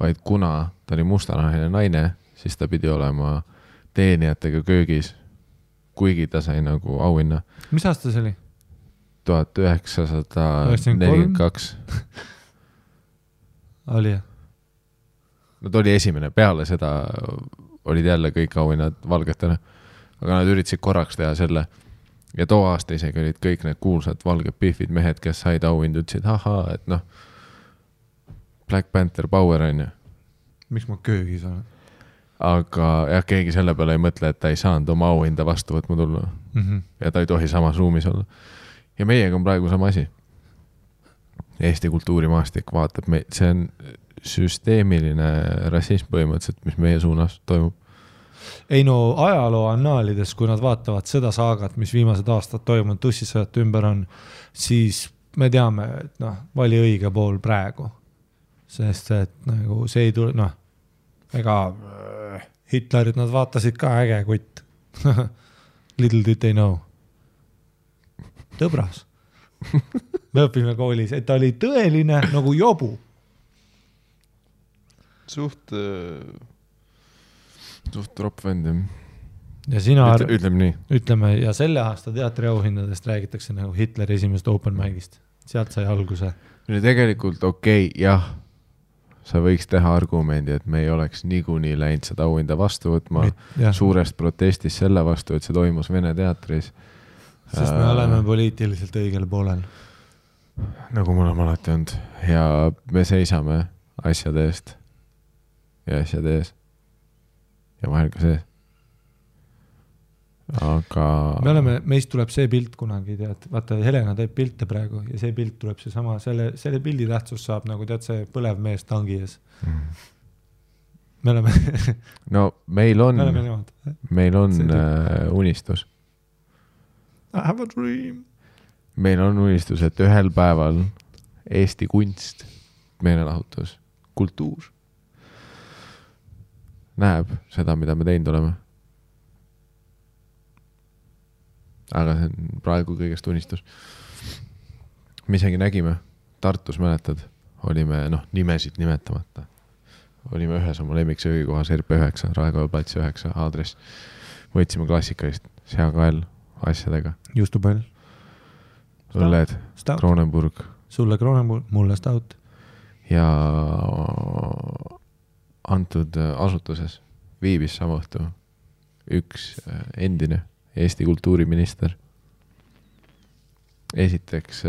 vaid kuna ta oli mustarahaline naine, siis ta pidi olema teenijatega köögis, kuigi ta sai nagu auhinna. Mis aasta see oli? 1942. Oli jah? No ta oli esimene, peale seda olid jälle kõik auhinnad valgetele, aga nad üritasid korraks teha selle ja too aasta isegi olid kõik need kuulsad valged pihvid mehed, kes said auhindu, ütlesid, et Black Panther Power on ju. Miks ma köögis olen? Aga jah, keegi selle peale ei mõtle, et ta ei saanud oma auhinda vastu võtma tulla ja ta ei tohi samas ruumis olla. Ja meiega on praegu sama asi. Eesti kultuurimaastik vaatab, see on süsteemiline rassism põhimõtteliselt, mis meie suunas toimub. Ei ajaloo annaalides, kui nad vaatavad seda saagat, mis viimased aastad toimunud tussisõjate ümber on, siis me teame, et vali õige pool praegu. Sest et nagu see ei tule, ega Hitlerit nad vaatasid ka äge kutt. Little did they know. Tõbras. Me õpime koolis, et ta oli tõeline nagu jobu. Suht tropp vendem. Ja sina ütleme nii. Ütleme, ja selle aasta teatriauhindadest räägitakse nagu Hitleri esimest open mic'ist. Sealt sai alguse. Tegelikult okei, jah. Sa võiks teha argumendi, et me ei oleks niikuinii läinud seda auhinda vastu võtma suurest protestist selle vastu, et see toimus Vene teatris. Sest me oleme poliitiliselt õigel poolel. Nagu mul on alati olnud. Ja me seisame asjade eest. Ja asjade ees. Ja vahel ka see. Aga meist tuleb see pilt kunagi, tead, vaata Helena teeb pilte praegu ja see pilt tuleb see sama, selle pildi tähtsus saab nagu tead see põlev mees tangi ees. Me oleme no meil on unistus. I have a dream. meil on unistus, et ühel päeval Eesti kunst, meelelahutus, kultuur näeb seda, mida me teinud oleme. Aga see on praegu kõigest unistus. Me isegi nägime, Tartus mäletad, olime, nimesid nimetamata. Olime ühes oma lemmiksöögikohas RP9, Raekoja plats 9 aadress. Võtsime klassikalist seakael asjadega. Justupall. Õlled, Kronenburg. Sulle Kronenburg, mulle Stout. Ja antud asutuses viibis sama õhtu üks endine Eesti kultuuriminister. Esiteks,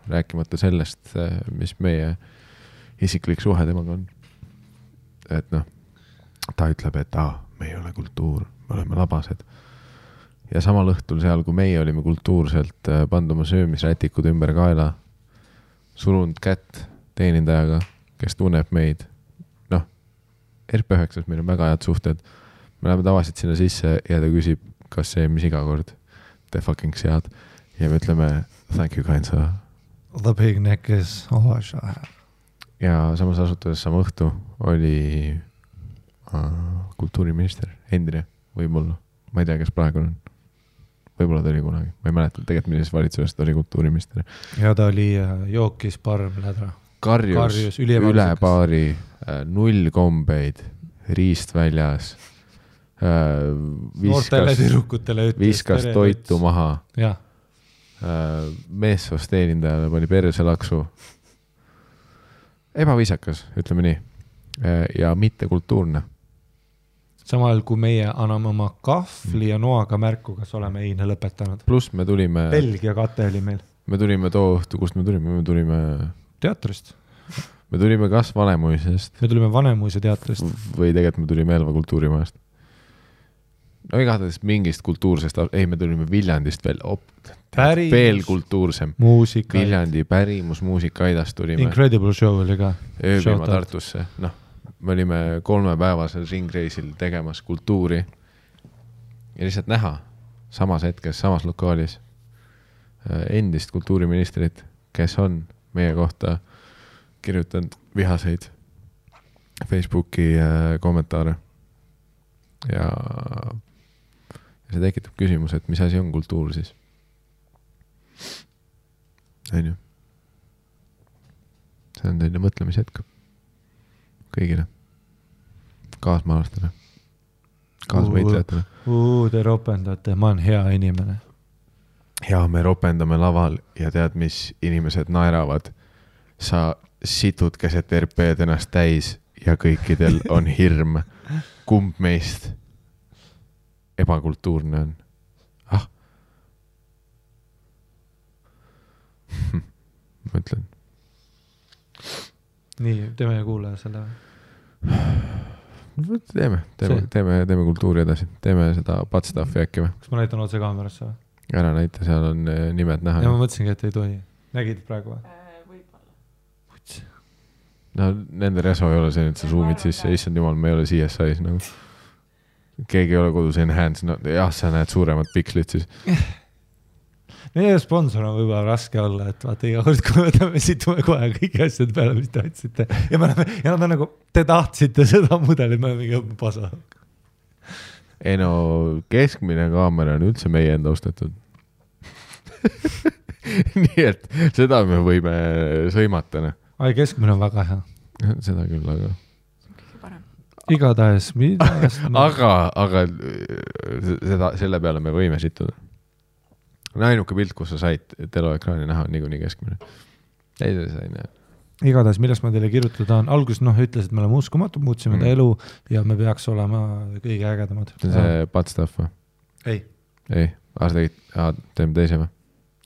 rääkimata sellest, mis meie isiklik suhe temaga on. Et ta ütleb, et me ei ole kultuur, me oleme labased. Ja samal õhtul seal, kui meie olime kultuurselt pannud oma söömisrätikud ümber kaela, surunud kätt teenindajaga, kes tunneb meid. RP9-s meil on väga head suhted. Me läheme tavaliselt sinna sisse ja ta küsib, kas see, mis iga kord te fucking sead. Ja me ütleme, thank you, kind sir. The big neck is always I have. Ja samas asutuses sama õhtu oli kultuuriminister, endine, võib-olla. Ma ei tea, kes praegu on. Võib-olla ta oli kunagi. Ma ei mäleta, tegelikult millises valitsusest ta oli kultuuriminister. Ja ta oli jookis parm lädra. Karjus üle baari, 0 kombeid, riist väljas, viskas toitu maha, meessoost teenindajale pani perse laksu. Ebaviisakas, ütleme nii, ja mitte kultuurne. Samal kui meie anname oma kahvli ja noaga märku, kas oleme eine lõpetanud. Plus me tulime... Belgia kate oli meil. Me tulime too õhtu, kust me tulime... Teatrist. Me tulime kas Vanemuisest. Me tulime Vanemuise teatrist. Või tegelikult me tulime Elva kultuurimajast. Igatahes mingist kultuursest... Ei, me tulime Viljandist veel kultuursem. Muusika. Viljandi pärimus, muusikaidast tulime. Incredible show oli ka. Ööbima Tartusse. Me olime 3-päevasel ringreisil tegemas kultuuri. Ja lihtsalt näha samas hetkes, samas lokaalis endist kultuuriministrit, kes on meie kohta kirjutanud vihaseid Facebooki kommentaare. Ja see tekitab küsimus, et mis asi on kultuur siis? On ju? See on teine mõtlemishetk kõigile. Kaasmaalastele. Kaasvõitlejatele. Te ropendate, ma olen hea inimene. Ja me ropendame laval ja tead, mis inimesed naeravad. Sa situd keset RP-d ennast täis ja kõikidel on hirm. Kumb meist ebakultuurne on? Mõtlen. Nii, teeme kuulaja selle. Teeme kultuuri edasi. Teeme seda patstaffi äkki või? Kas ma näitan otse kaamerasse või? Ära näita, seal on nimed näha. Ja ma mõtlesingi, et ei tohi. Nägid praegu või? Võib-olla. No, nende reso ei ole see, et sa zoomid sisse. Issand jumal, me ei ole CSI-s nagu. Keegi ei ole kodus enhance. Jah, sa näed suuremad pikslit siis. Meie sponsor on võib-olla raske olla, et vaata iga kord, kui me situme kohe kõiki asjad peale, mis te otsite. Ja nad on nagu, te tahtsite seda mudelit, me oleme mingi pasa. Ei no, keskmine kaamera on üldse meie enda ostetud. Nii et seda me võime sõimata. Ai, keskmine on väga hea. Seda küll, aga... Igatahes, aga selle peale me võime situda. Ainuke pilt, kus sa said teloekraani näha, on niikuinii keskmine. Ei, see sai näha. Igatahes, millest ma teile kirjutada on, alguses ütles, et me oleme uskumatud, muutsime ta elu ja me peaks olema kõige ägedamad. See on see patstaff või? Ei. Teeme teise või?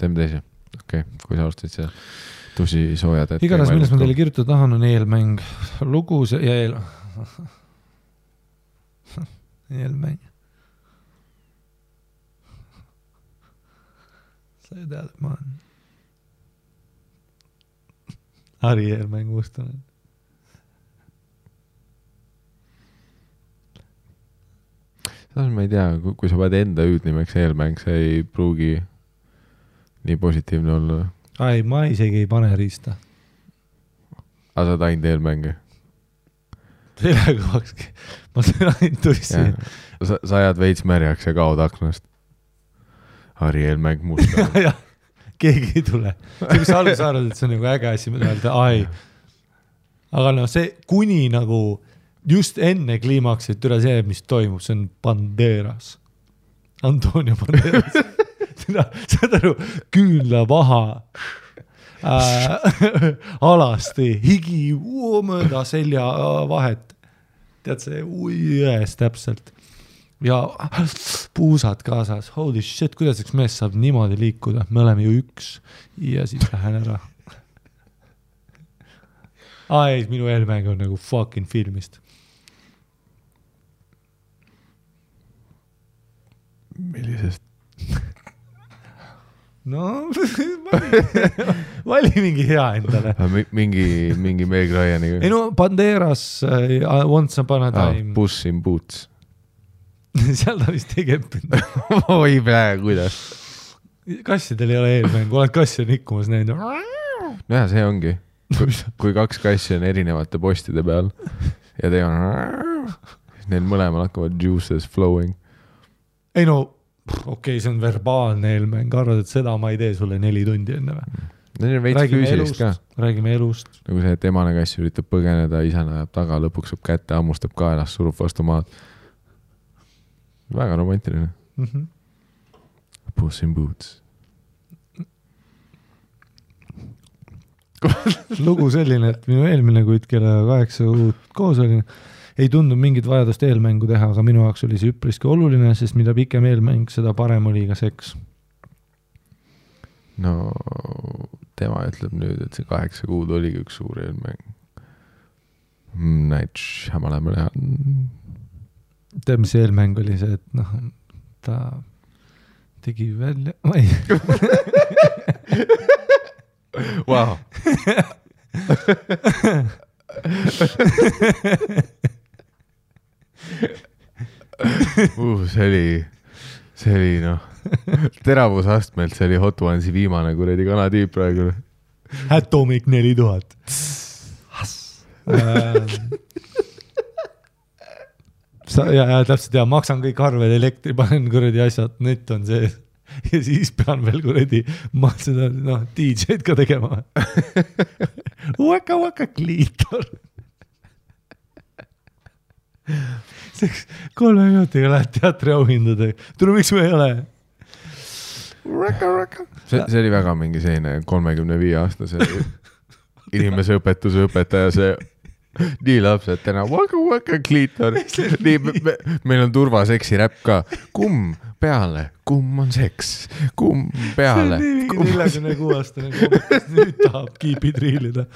Teeme teise. Okei, kui sa alustasid see tusi soojad. Igatahes, millest ma teile kirjutada tahan, on eelmäng. Lugu ja eelmäng. Sa ei tead, et ma olen Harri eelmäng mustanen. Ma ei tea, kui sa pead enda hüüdnimeks eelmäng, see ei pruugi nii positiivne olla. Ai, ma isegi ei pane riista. Aga sa oled ainult eelmänge? Kõvakski. Ma olen ainult tuissi. Sa ajad veits märjaks ja kaod aknast. Harri eelmäng musta. Jah, keegi ei tule. See, kus algus arvad, et see on nagu äge asi, mida öelda, ai. Aga no see kuni nagu just enne kliimaksit üle see, mis toimub, see on Banderas. Antonio Banderas. Saad aru, küünla vaha, alasti, higi mööda selja vahet. Tead see jões täpselt. Ja puusad kaasas. Holy shit, kuidas üks mees saab niimoodi liikuda? Me oleme ju üks. Ja siis lähen ära. Ai, minu eelmäng on nagu fucking filmist. Millisest? No, vali mingi hea endale. Mingi Meg Ryaniga. Ei no, Banderas Once Upon a Time. Puss in Boots. Seal ta vist ei keppinud. Oi pää, kuidas? Kassidel ei ole eelmäng, oled kassi on ikkumas näinud. Näha, see ongi. Kui kaks kassi on erinevate postide peal ja te on... Neil mõlemal hakkavad juices flowing. Ei no, okei, see on verbaalne eelmäng, arvad, et seda ma ei tee sulle 4 tundi enne või? Neil on veits füüsilist ka. Räägime elust. Nagu see, et emane kass üritab põgeneda, isana ajab taga, lõpuks saab kätte, ammustab kaelas, surub vastu maad. Väga romantiline. Puss in Boots. Lugu selline, et minu eelmine kuid kella 8 uut koos oli, ei tundu mingit vajadust eelmängu teha, aga minu jaoks oli see üpriski oluline, sest mida pikem eelmäng, seda parem oli ka seks. No, tema ütleb nüüd, et see 8 kuud oligi üks suur eelmäng. Näid Shyamalan mõle. Tead, mis eelmäng oli see, et noh, ta tegi välja... Ma ei... Wow. See oli noh, teravusastmelt, see oli Hot Onesi viimane kuredi kanatüüp praegu. Atomic 4000. Ja täpselt, ja maksan kõik arved, elektri, panen kuredi asjad, net on see. Ja siis pean veel kuredi seda DJ-d ka tegema. Waka kliitor. Seks 3 minutiga lähed teatri auhindade. Tule, miks me ei ole? See oli väga mingi selline 35-aastase inimese õpetuse õpetaja, see nii lapsed täna waka kliitor. Meil on turvaseksi räpp ka. Kumm peale, kumm on seks, kumm peale. See on nii 46-aastane komikas, nüüd tahab kiipid riilida.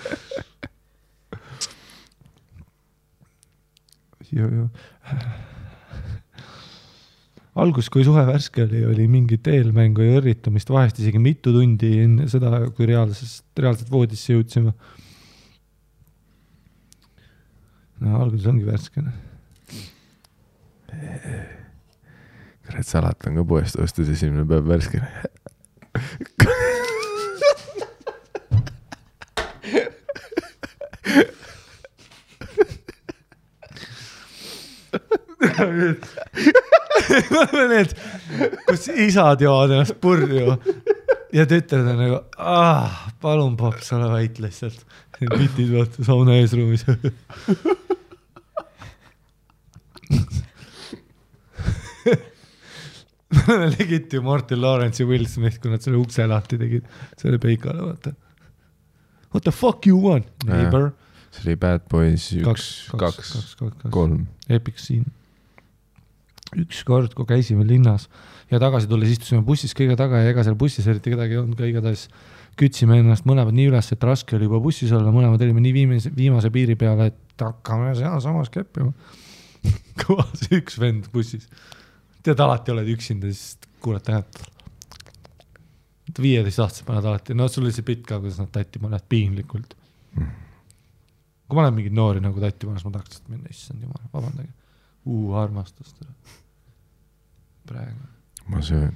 Algus, kui suhe värske oli mingit eelmängu ja õrritamist, vahest isegi mitu tundi enne seda, kui reaalselt voodisse jõudsime. No, alguses ongi värskene. Kurat, salat on ka poest ostus, esimene päev värskene. Need, kus isad joovad ennast purju ja tütred on nagu, palun paps, ole vait lihtsalt. Pitid vaata sauna eesruumis. Legid ju Martin Lawrence ja Will Smith, kui nad selle ukse lahti tegid. See oli peikale, vaata. What the fuck you want, neighbor? See oli Bad Boys 1, 2, 3. Epic scene. Üks kord, kui käisime linnas ja tagasi tulles istusime bussis kõige taga ja ega seal bussis eriti kedagi ei olnud, ka igatahes kütsime ennast mõlemad nii üles, et raske oli juba bussis olla, mõlemad olime nii viimase piiri peale, et hakkame seal samas keppima. Kõvas üks vend bussis. Tead, alati oled üksinda, siis kuuled tähe. 15-aastased paned alati. No sul oli see pitt ka, kuidas nad tatti paned piinlikult. Kui ma olen mingid noori nagu tatti panes, ma tahaks, et minna, issand jumal, vabandage. Armastust. Praegu. Ma söön.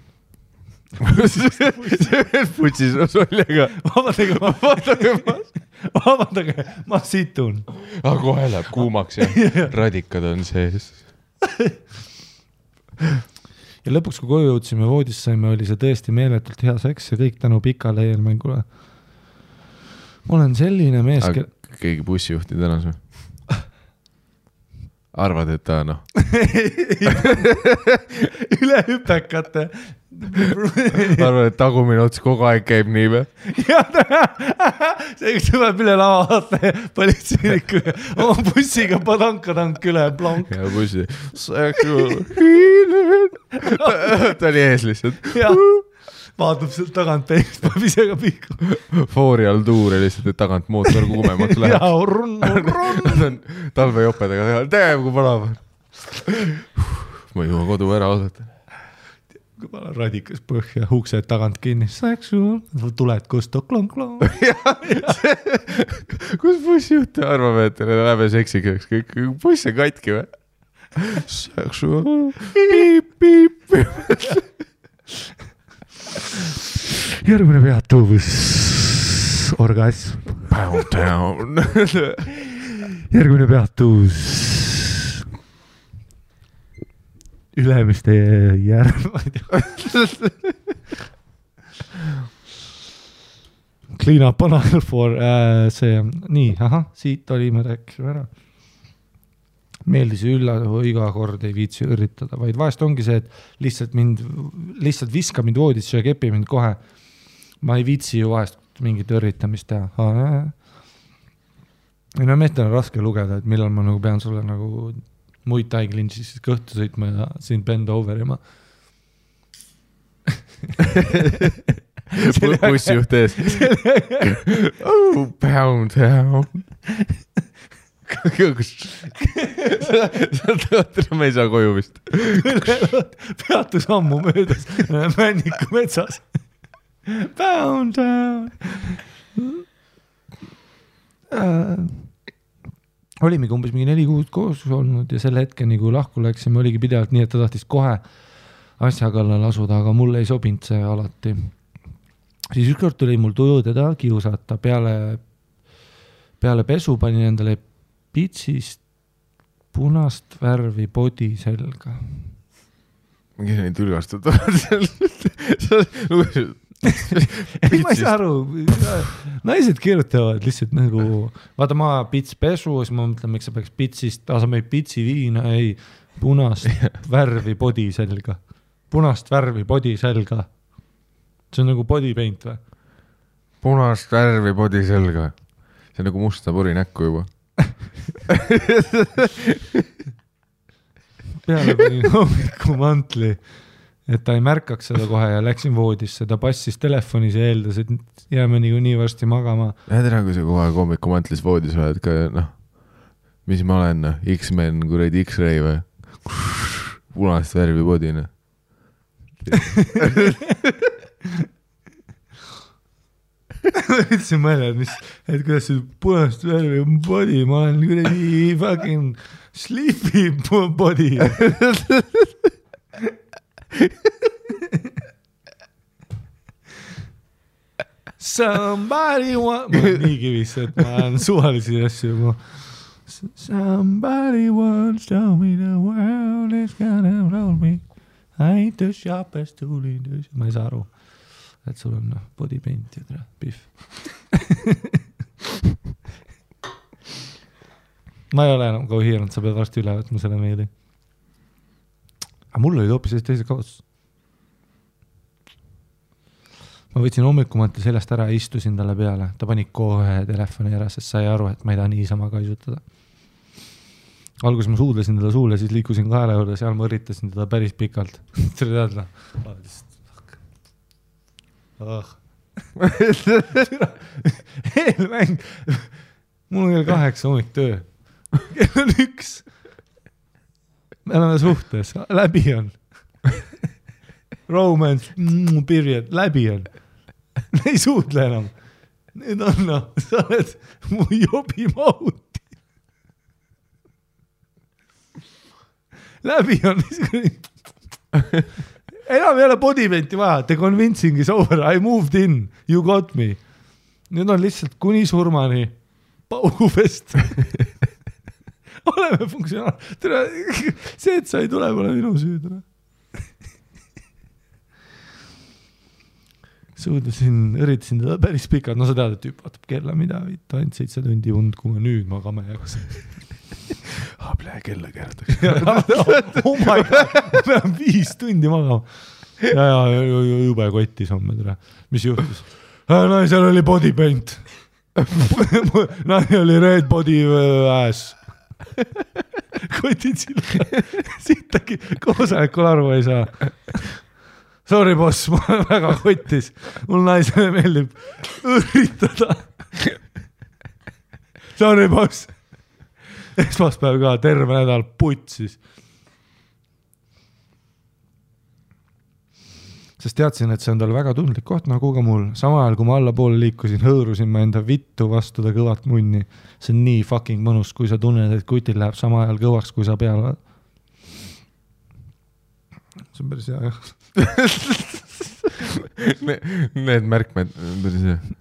putsis soljaga. Vabandage, ma situn. Kohe läheb kuumaks ja radikad on sees. Ja lõpuks, kui koju jõudsime voodisse saime, oli see tõesti meeletult hea seks ja kõik tänu pikale eelmängule. Ma olen selline mees... Keegi bussijuhti tänas või? Arvad, et ta üle hüpekate. Arvad, et tagumine ots kogu aeg käib nii või? See üks tuleb üle lava vaata politseinikku oma bussiga padankatank üle plonk. Ja bussi. Ta oli ees lihtsalt. Vaatab sealt tagant peegist, paneb ise ka pihku. Foori all tuure lihtsalt, et tagant mootor kuumemaks läheb. Talvejopedega teeb, kui palav. Ma ei juha kodu ära oodata. Kui pala radikas põhja, uksed tagant kinni. Tuled kustu, klong-klong. Kus bussijuht arvab, et läheb seksikaks? Buss on katki või? Piip. Järgmine peatuvus. Orgasm. Järgmine peatuvus. Ülemiste järg. Clean up on all for see. Nii, siit olime rääkisime ära. Meeldis iga kord ei viitsi üritada, vaid vahest ongi see, et lihtsalt viska mind voodisse ja kepi mind kohe. Ma ei viitsi ju vahest mingit üritamist teha. Ja meestel on raske lugeda, et millal ma nagu pean sulle nagu muid taiglinsi siis kõhtu sõitma ja siin bend over ja ma bussijuht ees. Pound. Me ei saa koju vist. Peatus ammu möödas Männiku metsas. Pound down. Olimegi umbes mingi 4 kuud koos olnud ja selle hetkeni, kui lahku läksime, oligi pidevalt nii, et ta tahtis kohe asja kallal asuda, aga mulle ei sobinud see alati. Siis ükskord tuli mul tuju teda kiusata. Peale pesu panin endale pitsist punast värvi body selga. Mingi neid ülgastutavad seal. Ma ei saa aru, naised kirjutavad lihtsalt nagu, vaata ma pits pesu, siis ma mõtlen, miks sa peaks pitsist, sa meid pitsi viina, ei, punast värvi body selga. Punast värvi body selga. See on nagu body paint või? Punast värvi body selga. See on nagu musta puri näkku juba. Peale panin hommiku mantli, et ta ei märkaks seda kohe ja läksin voodisse. Ta passis telefonis ja eeldas, et jääme nii varsti magama. Tere, kui sa kogu aeg hommiku mantlis voodis oled ka, mis ma olen, X-Men, kuradi X-Ray või? Punast värvi bodina. Ütlesin mõelda, et kuidas see punast värvi body, ma olen kuradi fucking sleepy body. Somebody want... Ma olen nii kivis, et ma olen suvalisi asju. Somebody once told me the world is gonna roll me. I ain't the sharpest tool in the... Ma ei saa aru, et sul on body paint ja tere, pihv. Ma ei ole enam kauhiiranud, sa pead varsti üle võtma selle meeli. Aga mul olid hoopis teised kaotus. Ma võtsin hommikumante sellest ära ja istusin talle peale. Ta pani kohe telefoni ära, sest sai aru, et ma ei taha niisama kaisutada. Alguses ma suudlesin teda suule, siis liikusin kaela juurde, seal ma üritasin teda päris pikalt. See oli teadla. Eelmäng. Mul on kell 8 hommik töö. Kell on 1. Me oleme suhtes. Läbi on. Romance, period. Läbi on. Ei suudle enam. Nüüd on, sa oled mu jobi mahuti. Läbi on. enam ei ole body paint'i vaja, the convincing is over, I moved in, you got me. Nüüd on lihtsalt kuni surmani paugufest. Oleme funktsionaal. See, et sa ei tule, pole minu süüd. Üritasin teda päris pikalt, no sa tead, et tüüp vaatab kella, mida vitt, ainult 7 tundi und, kui ma nüüd magama jääks. Plee kella keeratakse. Oh my god, ma pean 5 tundi magama. Ja jube kotis homme tere. Mis juhtus? Naisel oli body paint. Naine oli red body ass. Kotid sille. Sittagi koosolekul aru ei saa. Sorry boss, ma olen väga kotis. Mul naisele meeldib üritada. Sorry boss. Esmaspäev ka, terve nädal putsis. Sest teadsin, et see on tal väga tundlik koht nagu ka mul. Sama ajal, kui ma alla poole liikusin, hõõrusin ma enda vittu vastu ta kõvat munni. See on nii fucking mõnus, kui sa tunned, et kutil läheb sama ajal kõvaks, kui sa peale. See on päris hea, jah. Need märkmed.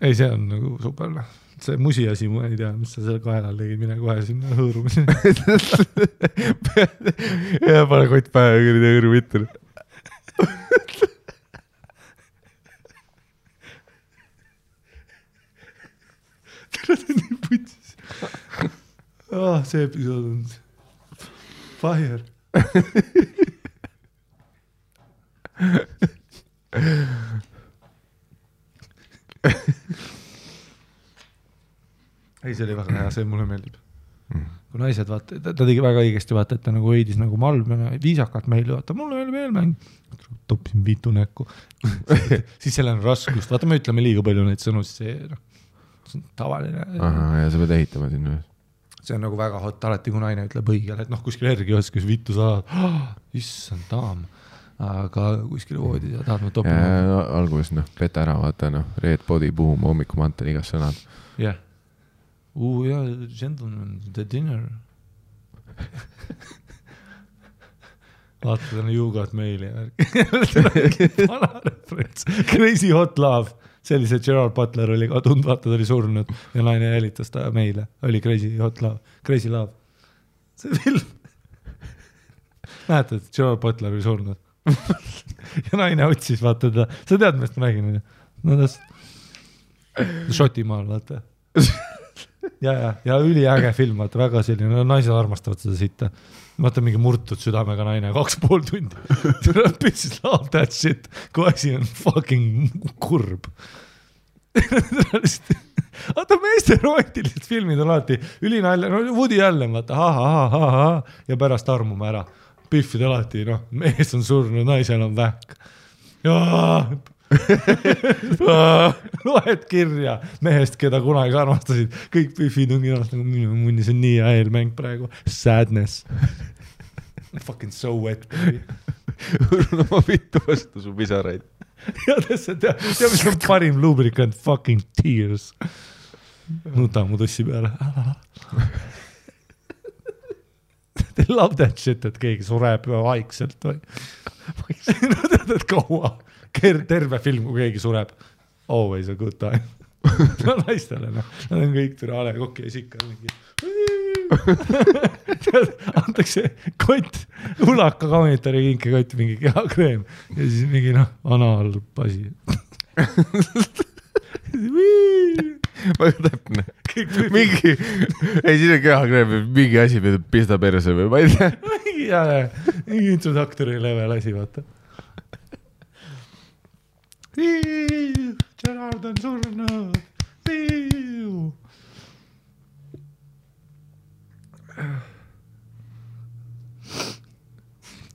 Ei, see on nagu super. See musi asi, ma ei tea, mis sa selle kaelal tegid, mine kohe sinna hõõrumise. Ja pane kott pähe ja kõrdi hõõru vittu. Tere, see on nii putsis. See episood on fire. Ei, see oli väga hea, see mulle meeldib. Kui naised vaata, ta tegi väga õigesti vaata, et ta nagu hoidis nagu malm ja viisakalt meile vaata, mulle meeldib eelmäng. Topsin viitu näkku. Siis seal on raskust. Vaata, me ütleme liiga palju neid sõnu, siis see on tavaline. Aha, ja sa pead ehitama sinna. See on nagu väga hot, alati kui naine ütleb õigel, et kuskil järgi oskas vittu saad. Issand daam. Aga kuskil voodid ja tahad ma topima. Ja alguses peta ära, vaata, red body, boom, hommikumantel, igas sõnad. Jah. Yeah, gentlemen, the dinner. Vaata, you got meili. Vana referents. Crazy Hot Love. Sellise Gerard Butler oli ka tund, vaata, ta oli surnud ja naine jälitas ta meile. Oli Crazy Hot Love. Crazy Love. See film. Näete, et Gerard Butler oli surnud. Ja naine otsis, vaata ta. Sa tead, millest ma räägin? No tas Šotimaal, vaata. Ja üliäge film, vaata, väga selline, naised armastavad seda sitta. Vaata mingi murtud südamega naine, 2,5 tundi. Bitches love that shit, kui asi on fucking kurb. Vaata, meeste romantilised filmid on alati ülinalja, Woody Allen, vaata, ha, ja pärast armume ära. Piffid alati, mees on surnud, naisel on vähk. Loed kirja mehest, keda kunagi armastasid. Kõik Biffid on kirjast nagu minu munnis on nii hea eelmäng praegu. Sadness. Fucking so wet. Hõrun oma vittu vastu su pisaraid. Ja tea, mis on parim lubricant? Fucking tears. Nuta mu tussi peale. They love that shit, et keegi sureb vaikselt või. No tead, et kaua. Terve film, kui keegi sureb. Always a good time. No naistele, Nad on kõik türale kokki ja sikka. Antakse kott, ulaka kaunitari kinke kott, mingi kehakreem ja siis mingi analpasi. Väga täpne. Mingi, ei siin on kehakreem, mingi asi pista perse või ma ei tea. Mingi introduktori level asi, vaata. Gerard on surnud.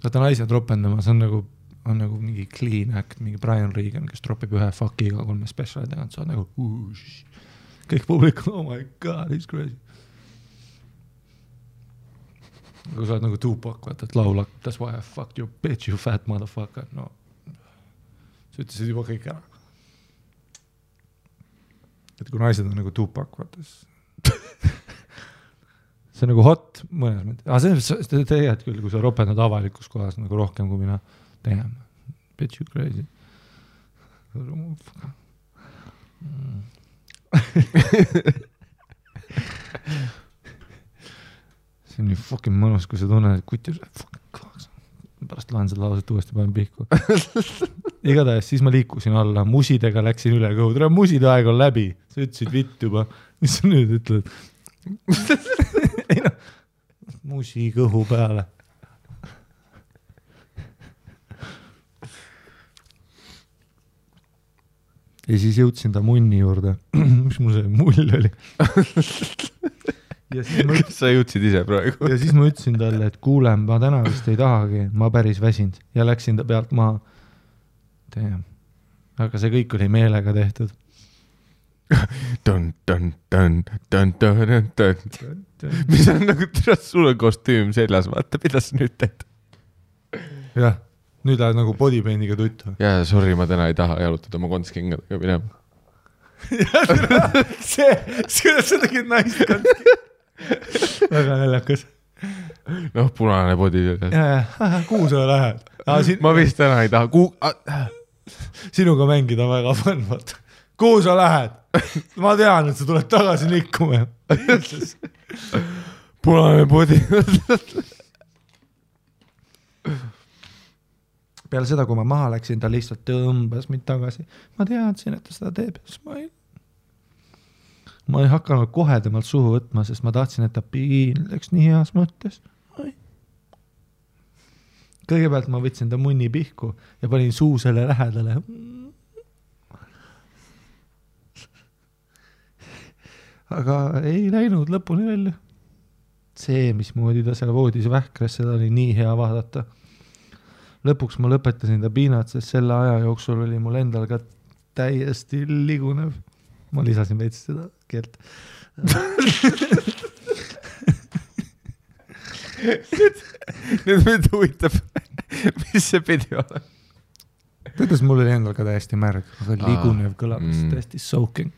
Vaata naised ropendama, see on nagu mingi clean act, mingi Brian Regan, kes tropib ühe fuckiga 3 speciali teganud, sa on nagu kõik publik, oh my god, he's crazy. Kui sa oled nagu Tupac, vaata, et laulak, that's why I fucked your bitch, you fat motherfucker, no. Sa ütlesid juba kõik ära. Et kui naised on nagu Tupac, vaata, see on nagu hot mõnes mõttes. See teed küll, kui sa ropendad avalikus kohas nagu rohkem kui mina teeme. Bet you crazy. See on nii fucking mõnus, kui sa tunned, et kuti pärast loen seda lauset uuesti, panen pihku. Igatahes siis ma liikusin alla, musidega läksin üle kõhu. Tere, muside aeg on läbi. Sa ütlesid vitt juba. Mis sa nüüd ütled? Ei no, musi kõhu peale. Ja siis jõudsin ta munni juurde. Mis mul see mull oli? Kas sa jõudsid ise praegu? Ja siis ma ütlesin talle, et kuule, ma täna vist ei tahagi, ma päris väsind. Ja läksin ta pealt maha. Aga see kõik oli meelega tehtud. Mis on nagu sul on kostüüm seljas, vaata, mida sa nüüd teed? Jah, nüüd lähed nagu bodypaintiga tuttu. Jaa, sorry, ma täna ei taha jalutada oma kontskingadega minema. See, kuidas sa tegid naist konski? Väga näljakas. Noh, punane body. Kuhu sa lähed? Ma vist täna ei taha. Sinuga mängida väga fun, vaata. Kuhu sa lähed? Ma tean, et sa tuled tagasi likkuma. Punane body. Peale seda, kui ma maha läksin, ta lihtsalt tõmbas mind tagasi. Ma teadsin, et ta seda teeb. Ma ei hakanud kohe temalt suhu võtma, sest ma tahtsin, et ta piinleks nii heas mõttes. Kõigepealt ma võtsin ta munni pihku ja panin suu selle lähedale. Aga ei läinud lõpuni välja. See, mismoodi ta seal voodis vähkres, seda oli nii hea vaadata. Lõpuks ma lõpetasin ta piinat, sest selle aja jooksul oli mul endal ka täiesti ligunev. Ma lisasin veits seda keelt. Nüüd mind huvitab, mis see pidi ole. Kuidas mul oli endal ka täiesti märg, aga ligunev kõlab, täiesti soaking.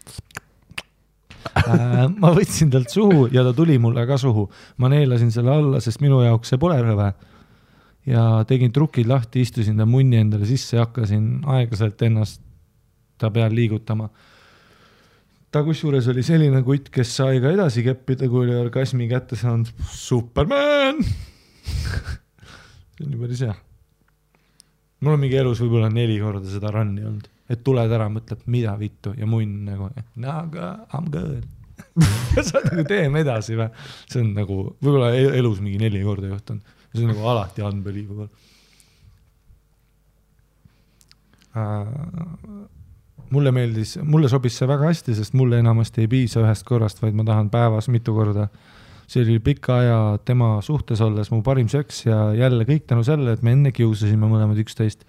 Ma võtsin talt suhu ja ta tuli mulle ka suhu. Ma neelasin selle alla, sest minu jaoks see pole rõve. Ja tegin trukid lahti, istusin ta munni endale sisse ja hakkasin aeglaselt ennast ta peal liigutama. Ta kusjuures oli selline kutt, kes sai ka edasi keppida, kui oli orgasmi kätte saanud. Superman! See on ju päris hea. Mul on mingi elus võib-olla 4 korda seda runni olnud. Et tuled ära, mõtleb, mida vittu ja munn nagu, no aga I'm good. Sa nagu teeme edasi või? See on nagu, võib-olla elus mingi 4 korda juhtunud. See on nagu alati unbelievable. Mulle sobis see väga hästi, sest mulle enamasti ei piisa ühest korrast, vaid ma tahan päevas mitu korda. See oli pikka aja tema suhtes olles mu parim seks ja jälle kõik tänu selle, et me enne kiusasime mõlemad 11.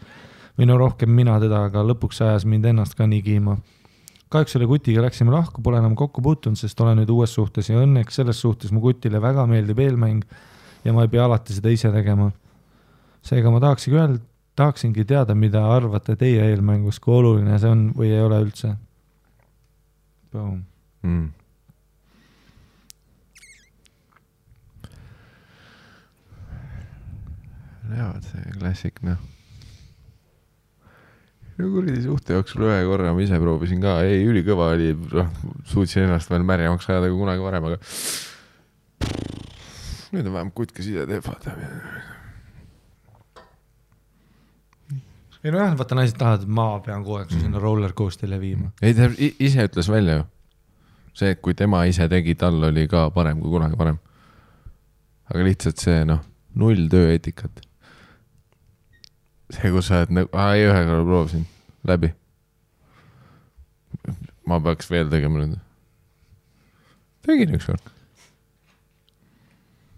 Või no rohkem mina teda, aga lõpuks ajas mind ennast ka nii kiima. Kahjuks selle kutiga läksime lahku, pole enam kokku puutunud, sest olen nüüd uues suhtes ja õnneks selles suhtes mu kutile väga meeldib eelmäng ja ma ei pea alati seda ise tegema. Seega ma tahaksingi teada, mida arvate teie eelmängus, kui oluline see on või ei ole üldse. Boom. Näevad see klassik, noh. Kuridi suhte jooksul ühe korra ma ise proovisin ka. Ei, ülikõva oli, suutsin ennast veel märjamaks ajada kui kunagi varem, aga nüüd on vähem kutt, kes ise teeb, vaata. Ei no jah, vaata naised tahavad, et ma pean kogu aeg sinna rollercoastile viima. Ei, ta ise ütles välja ju. See, et kui tema ise tegi, tal oli ka parem kui kunagi parem. Aga lihtsalt see, null tööetikat. See, kus sa oled nagu, ei ühe korra proovisin läbi. Ma peaks veel tegema nüüd. Tegin üks kord.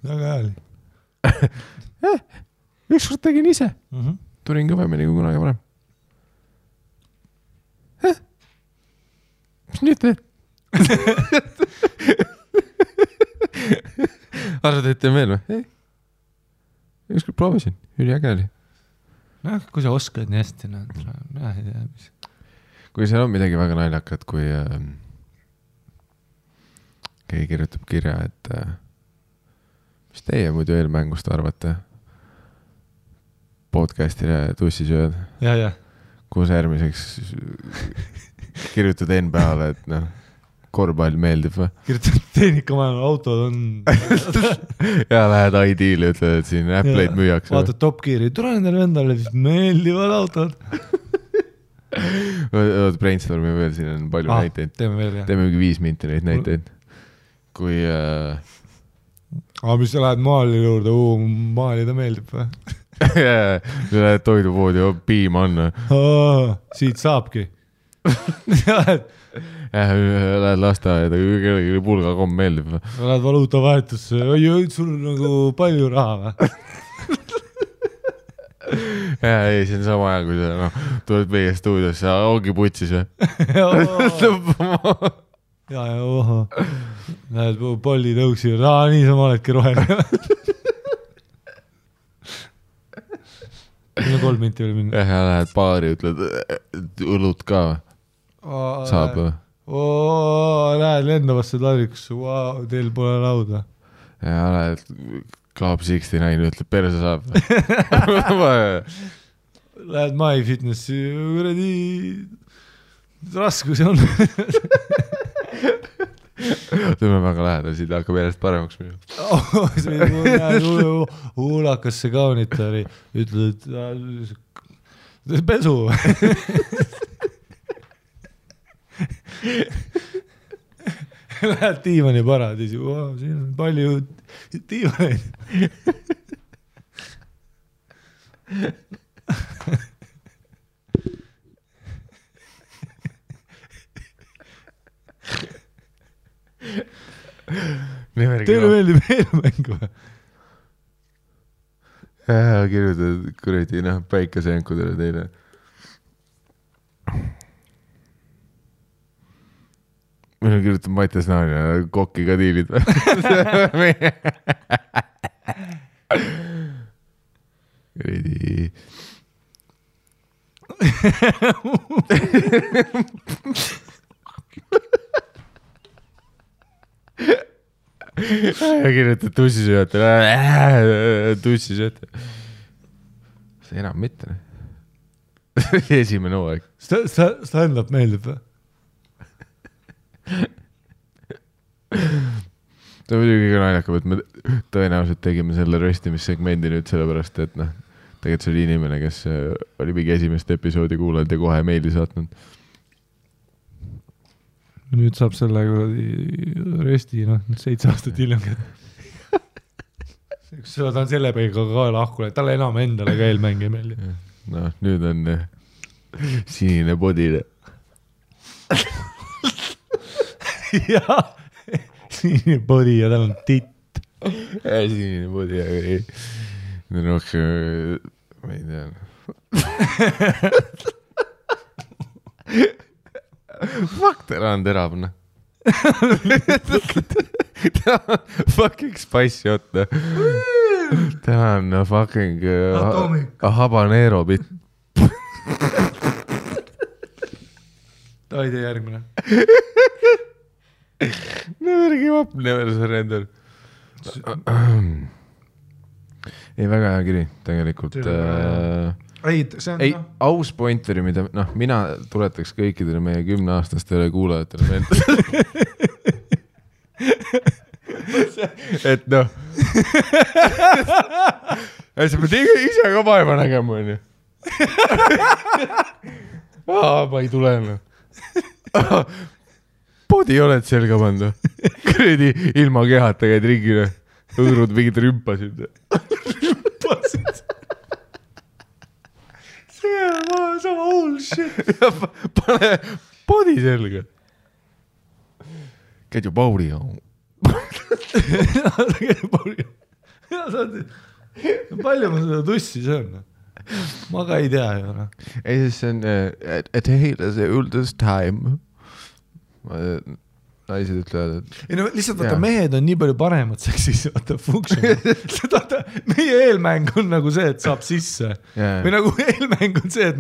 Väga hääli. Üks kord tegin ise. Tulin kõvemini kui kunagi varem. Mis nüüd teed? Arvad, et teen veel või? Ei. Ükskord proovisin. Üliäge oli. No, kui sa oskad nii hästi, kui seal on midagi väga naljakat, kui keegi kirjutab kirja, et mis teie muidu eelmängust arvate? podcastile tussisööd, ja. kus järgmiseks kirjutad NBA-le, et noh, korvpall meeldib või? Kirjutad tehnikamajal, autod on... ja lähed ID-le, ütled, et siin Apple'id müüakse. Vaatad Top Gear'i, tule nendele endale, meeldivad autod. Brainstormi veel, siin on palju näiteid. Teeme veel, jah. Teeme 5 minti neid näiteid. Kui... mis sa lähed maali juurde, maali ta meeldib või? Lähed toidupoodi, piim on. Siit saabki. Lähed lasteaeda, kellegi pulgakomm meeldib. Lähed valuutavahetusse, sul on nagu palju raha või? Ei, see on sama aja, kui sa tuled meie stuudiosse, ongi putsis või? ja, oho. Näed, polli tõuksi, niisama oledki roheline. Meil on 3 minti veel minna. Ja lähed baari, ütled, õlut ka või? Saab või? Lähed lendavasse taldrikusse, teil pole lauda. Ja lähed Club 69, ütleb, perse saab või? Lähed MyFitnessi, kuradi raskusi on. Tuleme väga lähedal, siit hakkab järjest paremaks minu. Huulakasse kaunitari, ütled, et pesu. Lähed diivani paradiisi, siin on palju diivaneid. Teile meeldib eelmängu või? Kirjutad kuradi, päikeseenkudele teile. Meil on kirjutanud Mattias Naani ja kokki ka diilid või? Kuradi... ja kirjutad tussisööjatele. Tussisööjatele. See enam mitte. Esimene hooaeg. Stand-up meeldib või? Ta muidugi kõige naljakam, et me tõenäoliselt tegime selle röstimissegmendi nüüd sellepärast, et tegelikult see oli inimene, kes oli mingi esimest episoodi kuulanud ja kohe meili saatnud. Nüüd saab selle rösti 7 aastat hiljem. Ta on selle peiga ka lahkule, talle enam endale ka eelmäng ei meeldi. Nüüd on sinine bodile. Jaa, sinine body ja tal on titt. Sinine body, aga ei. Nüüd rohkem, ma ei tea. Fuck, ta on teravne. Ta on fucking spicy hot. Ta on fucking habanero bit. Ta ei tee järgmine. Never give up, never surrender. Ei, väga hea kiri, tegelikult. Ei, aus pointeri, mida mina tuletaks kõikidele meie 10-aastastele kuulajatele meelde. Et sa pead ise ka vaeva nägema, on ju. Ma ei tule. Podi oled selga pannud. Kuradi ilma kehata käid ringile. Õõrud mingid rümpasid. Rümpasid? See on sama hull shit. Pane podi selga. Käid ju Pauliga. Käid ju Pauliga. Palju ma seda tussi söön? Ma ka ei tea ju. Ei, siis see on et heile see üldest time. Naised ütlevad, et... Ei, lihtsalt vaata, mehed on nii palju paremad seksis, vaata, funktsioon. Meie eelmäng on nagu see, et saab sisse. Või nagu eelmäng on see, et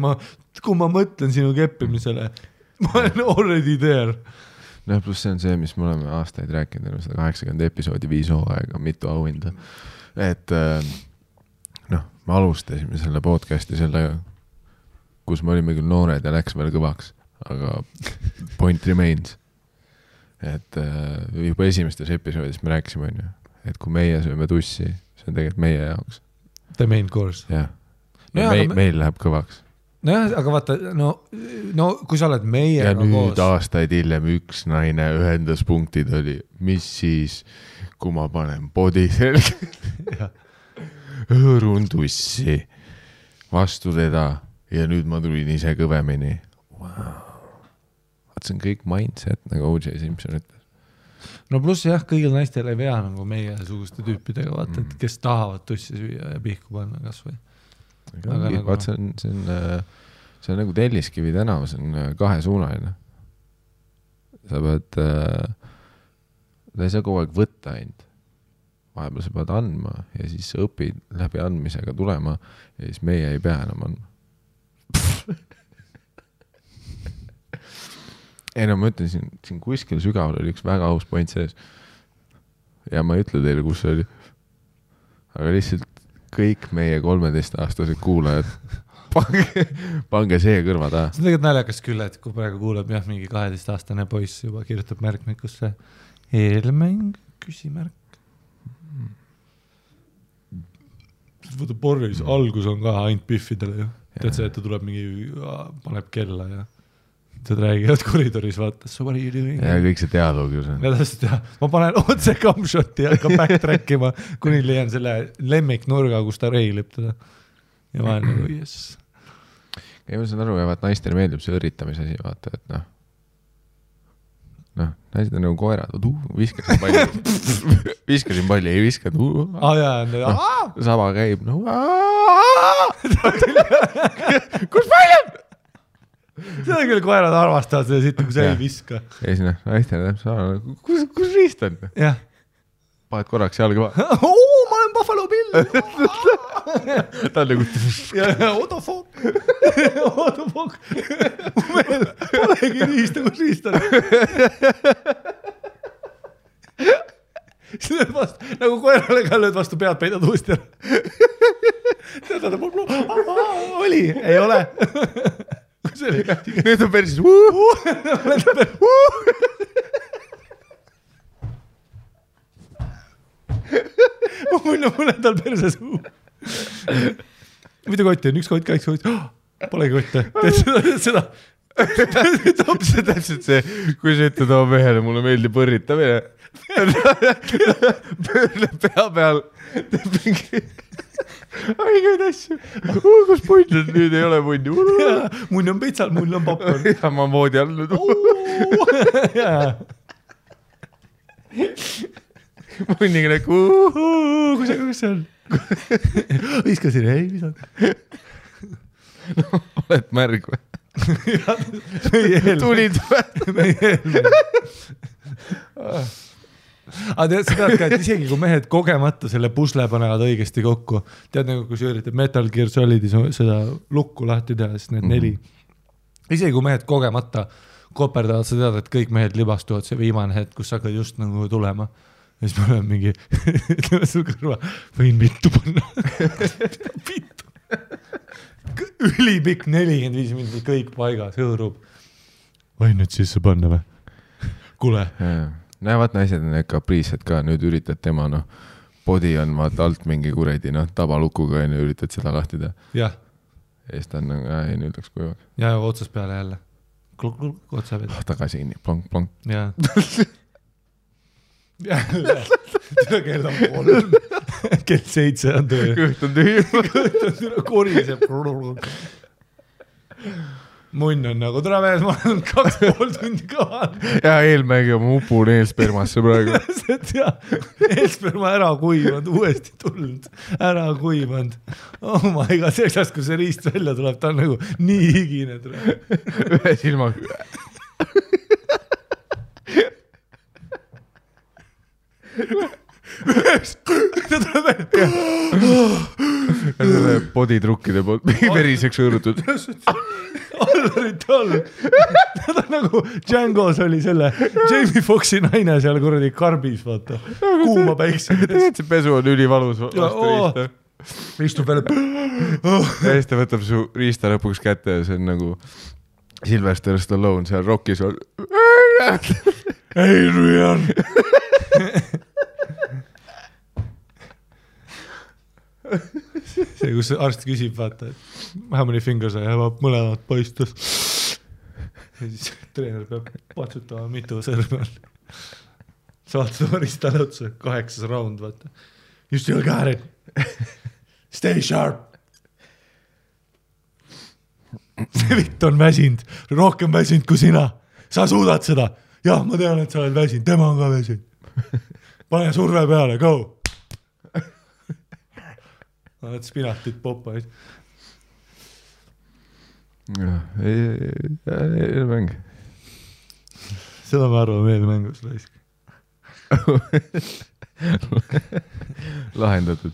kui ma mõtlen sinu keppimisele, ma olen already there. Pluss see on see, mis me oleme aastaid rääkinud, 180 episoodi 5 hooaega, mitu auhinda. Et ma me alustasime selle podcasti kus me olime küll noored ja läks veel kõvaks, aga point remains. Et juba esimestes episoodis me rääkisime, et kui meie sööme tussi, see on tegelikult meie jaoks. The main course. Jah. Ja meil läheb kõvaks. Nojah, aga vaata, no kui sa oled meiega ja nüüd koos... aastaid hiljem üks naine ühenduspunktid oli, mis siis, kui ma panen body selge, hõõrun tussi vastu teda ja nüüd ma tulin ise kõvemini. Wow. See on kõik mindset, nagu O.J. Simpson ütles. No pluss jah, kõigil naistel ei vea nagu meie suguste tüüpidega, vaata, et kes tahavad tussi süüa ja pihku panna kas või. Vaat see on nagu Telliskivi tänav, see on kahesuunaline. Sa pead, ta ei saa kogu aeg võtta ainult. Vahepeal sa pead andma ja siis sa õpid läbi andmisega tulema ja siis meie ei pea enam andma. Ei no ma ütlen, siin kuskil sügaval oli üks väga aus point sees. Ja ma ei ütle teile, kus see oli. Aga lihtsalt kõik meie 13-aastased kuulajad, pange see kõrva taha. See on tegelikult naljakas küll, et kui praegu kuuleb mingi 12-aastane poiss juba kirjutab märkmikusse eelmäng, küsimärk. Võta Boris, algus on ka ainult piffidele ju. Tead see, et ta tuleb mingi, paneb kella ja tead räägivad koridoris, vaata, so what are you doing? Ja kõik see dialoog ju see. Ja täpselt, ma panen otse camshoti ja hakkan backtrackima, kuni leian selle lemmiknurga, kus ta reilib teda. Ja ma olen nagu, yes. Ja ma saan aru, et naistele meeldib see õritamise asi, vaata, et naised on nagu koerad, viskasin palli, ei viskad, sama käib, kus pall on? Seda küll koerad arvastavad seda siit, kui sa ei viska. Ja siis naistele kus riist on? Jah. Paned korraks jalga ma olen Buffalo Bill. Ta on nagu... Otofok. Meil polegi riista, kus riist on. Siis lööd vastu, nagu koerale ka lööd vastu pead, peidad uuesti ära. Oli, ei ole. Nüüd on persis. Mulle tal perses. Mida kotti on? Üks kott, kaks kotti. Polegi kotte. Teed seda. Täpselt see, kui sa ütled oma mehele, mulle meeldib võrritamine. Pöörle pea peal. Teeb mingi... Aigeid asju. Kus punn on? Nüüd ei ole punni. Munn on pitsal, munn on popcorn. Ja ma moodi all nüüd. Munniga näku. Kus see on? Viskasin, ei visad. Oled märg või? Tulid või? Meie eelme. Aga tead seda, et isegi kui mehed kogemata selle pusle panevad õigesti kokku, tead nagu kui sa üritad Metal Gear Solidis seda lukku lahti teha, siis need 4. Isegi kui mehed kogemata koperdavad, sa tead, et kõik mehed libastuvad see viimane hetk, kus hakkad just nagu tulema. Ja siis ma olen mingi, ütleme su kõrva, võin vittu panna. Vittu. Ülipikk 45 minutit, kõik paigas, hõõrub. Võin nüüd sisse panna või? Kule. Näevad naised on kapriised ka, nüüd üritad tema, body on vaata alt mingi kuredi, tabalukuga ja üritad seda lahti teha. Jah. Ja siis ta on, ei, nüüd läks kujuvaks. Ja otsas peale jälle. Kluk, otsa peale. Tagasi inni, plonk. Jah. Jälle. Kell on 3. Kell 7 on töö. Kõht on tühi. Kõht on tühi, koriseb. Munn on nagu, tere mees, ma olen 2,5 tundi kaval. Ja eelmägi on upun eelspermasse praegu. Eelsperma ära kuivanud, uuesti tulnud, ära kuivanud. Oh my god, selleks, kui see riist välja tuleb, ta on nagu nii higine. Ühe silmaga. Ta tuleb välja. Boditrukkide poolt veriseks õõrutud. Allarit all. Ta on nagu Django's oli selle Jamie Foxi naine seal kuradi karbis, vaata. Kuuma päikse. Tegelikult see pesu on ülivalus. istub veel ja siis ta võtab su riista lõpuks kätte ja see on nagu Sylvester Stallone seal Rockis on Adrian see, kus arst küsib, vaata, et how many fingers I have up, mõlemad paistus ja siis treener peab patsutama, mitu sõrme on. Saad seda ristale otsa, 8. round, vaata. You still got it. Stay sharp. See vitt on väsinud, rohkem väsinud kui sina. Sa suudad seda. Jah, ma tean, et sa oled väsinud, tema on ka väsinud. Pane surve peale, go. Oled spinatit poppaid. Eelmäng. Seda me arvame eelmängus laisk. Lahendatud.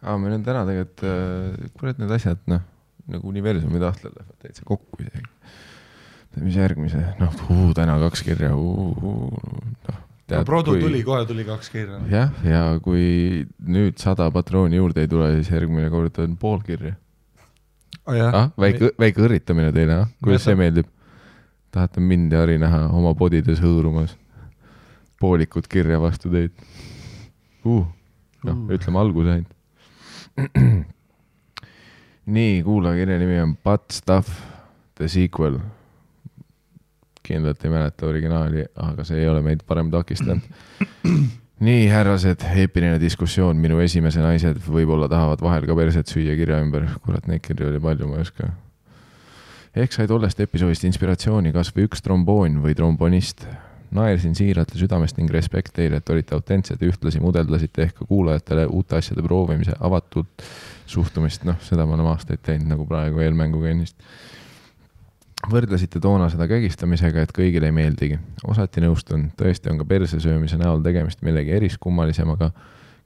Meil on täna tegelikult kurat need asjad, nagu universumi tahtel lähevad täitsa kokku isegi. Mis järgmise? Täna 2 kirja. Produ tuli, kohe tuli 2 kirja. Jah, ja kui nüüd 100 patrooni juurde ei tule, siis järgmine kord on pool kirja. Väike õrritamine teile, kuidas see meeldib? Tahate mind ja Ari näha oma podides hõõrumas poolikud kirja vastu teid. Ütleme alguse ainult. Nii, kuula, kirja nimi on Butt Stuff, The Sequel. Kindlalt ei mäleta originaali, aga see ei ole meid parem takistanud. Nii, härrased, eepiline diskussioon. Minu esimese naised võib-olla tahavad vahel ka perset süüa kirja ümber. Kurat, neid kirja oli palju, ma ei oska. Ehk sai tollest episoodist inspiratsiooni kas või üks tromboon või trombonist. Naersin siiralt ja südamest ning respekt teile, et olite autentsed ja ühtlasi mudeldasite ehk kuulajatele uute asjade proovimise avatult suhtumist. Seda ma olen aastaid teinud nagu praegu eelmänguga ennist. Võrdlesite toona seda kägistamisega, et kõigile ei meeldigi. Osati nõustun, tõesti on ka persesöömise näol tegemist millegi eriskummalisemaga,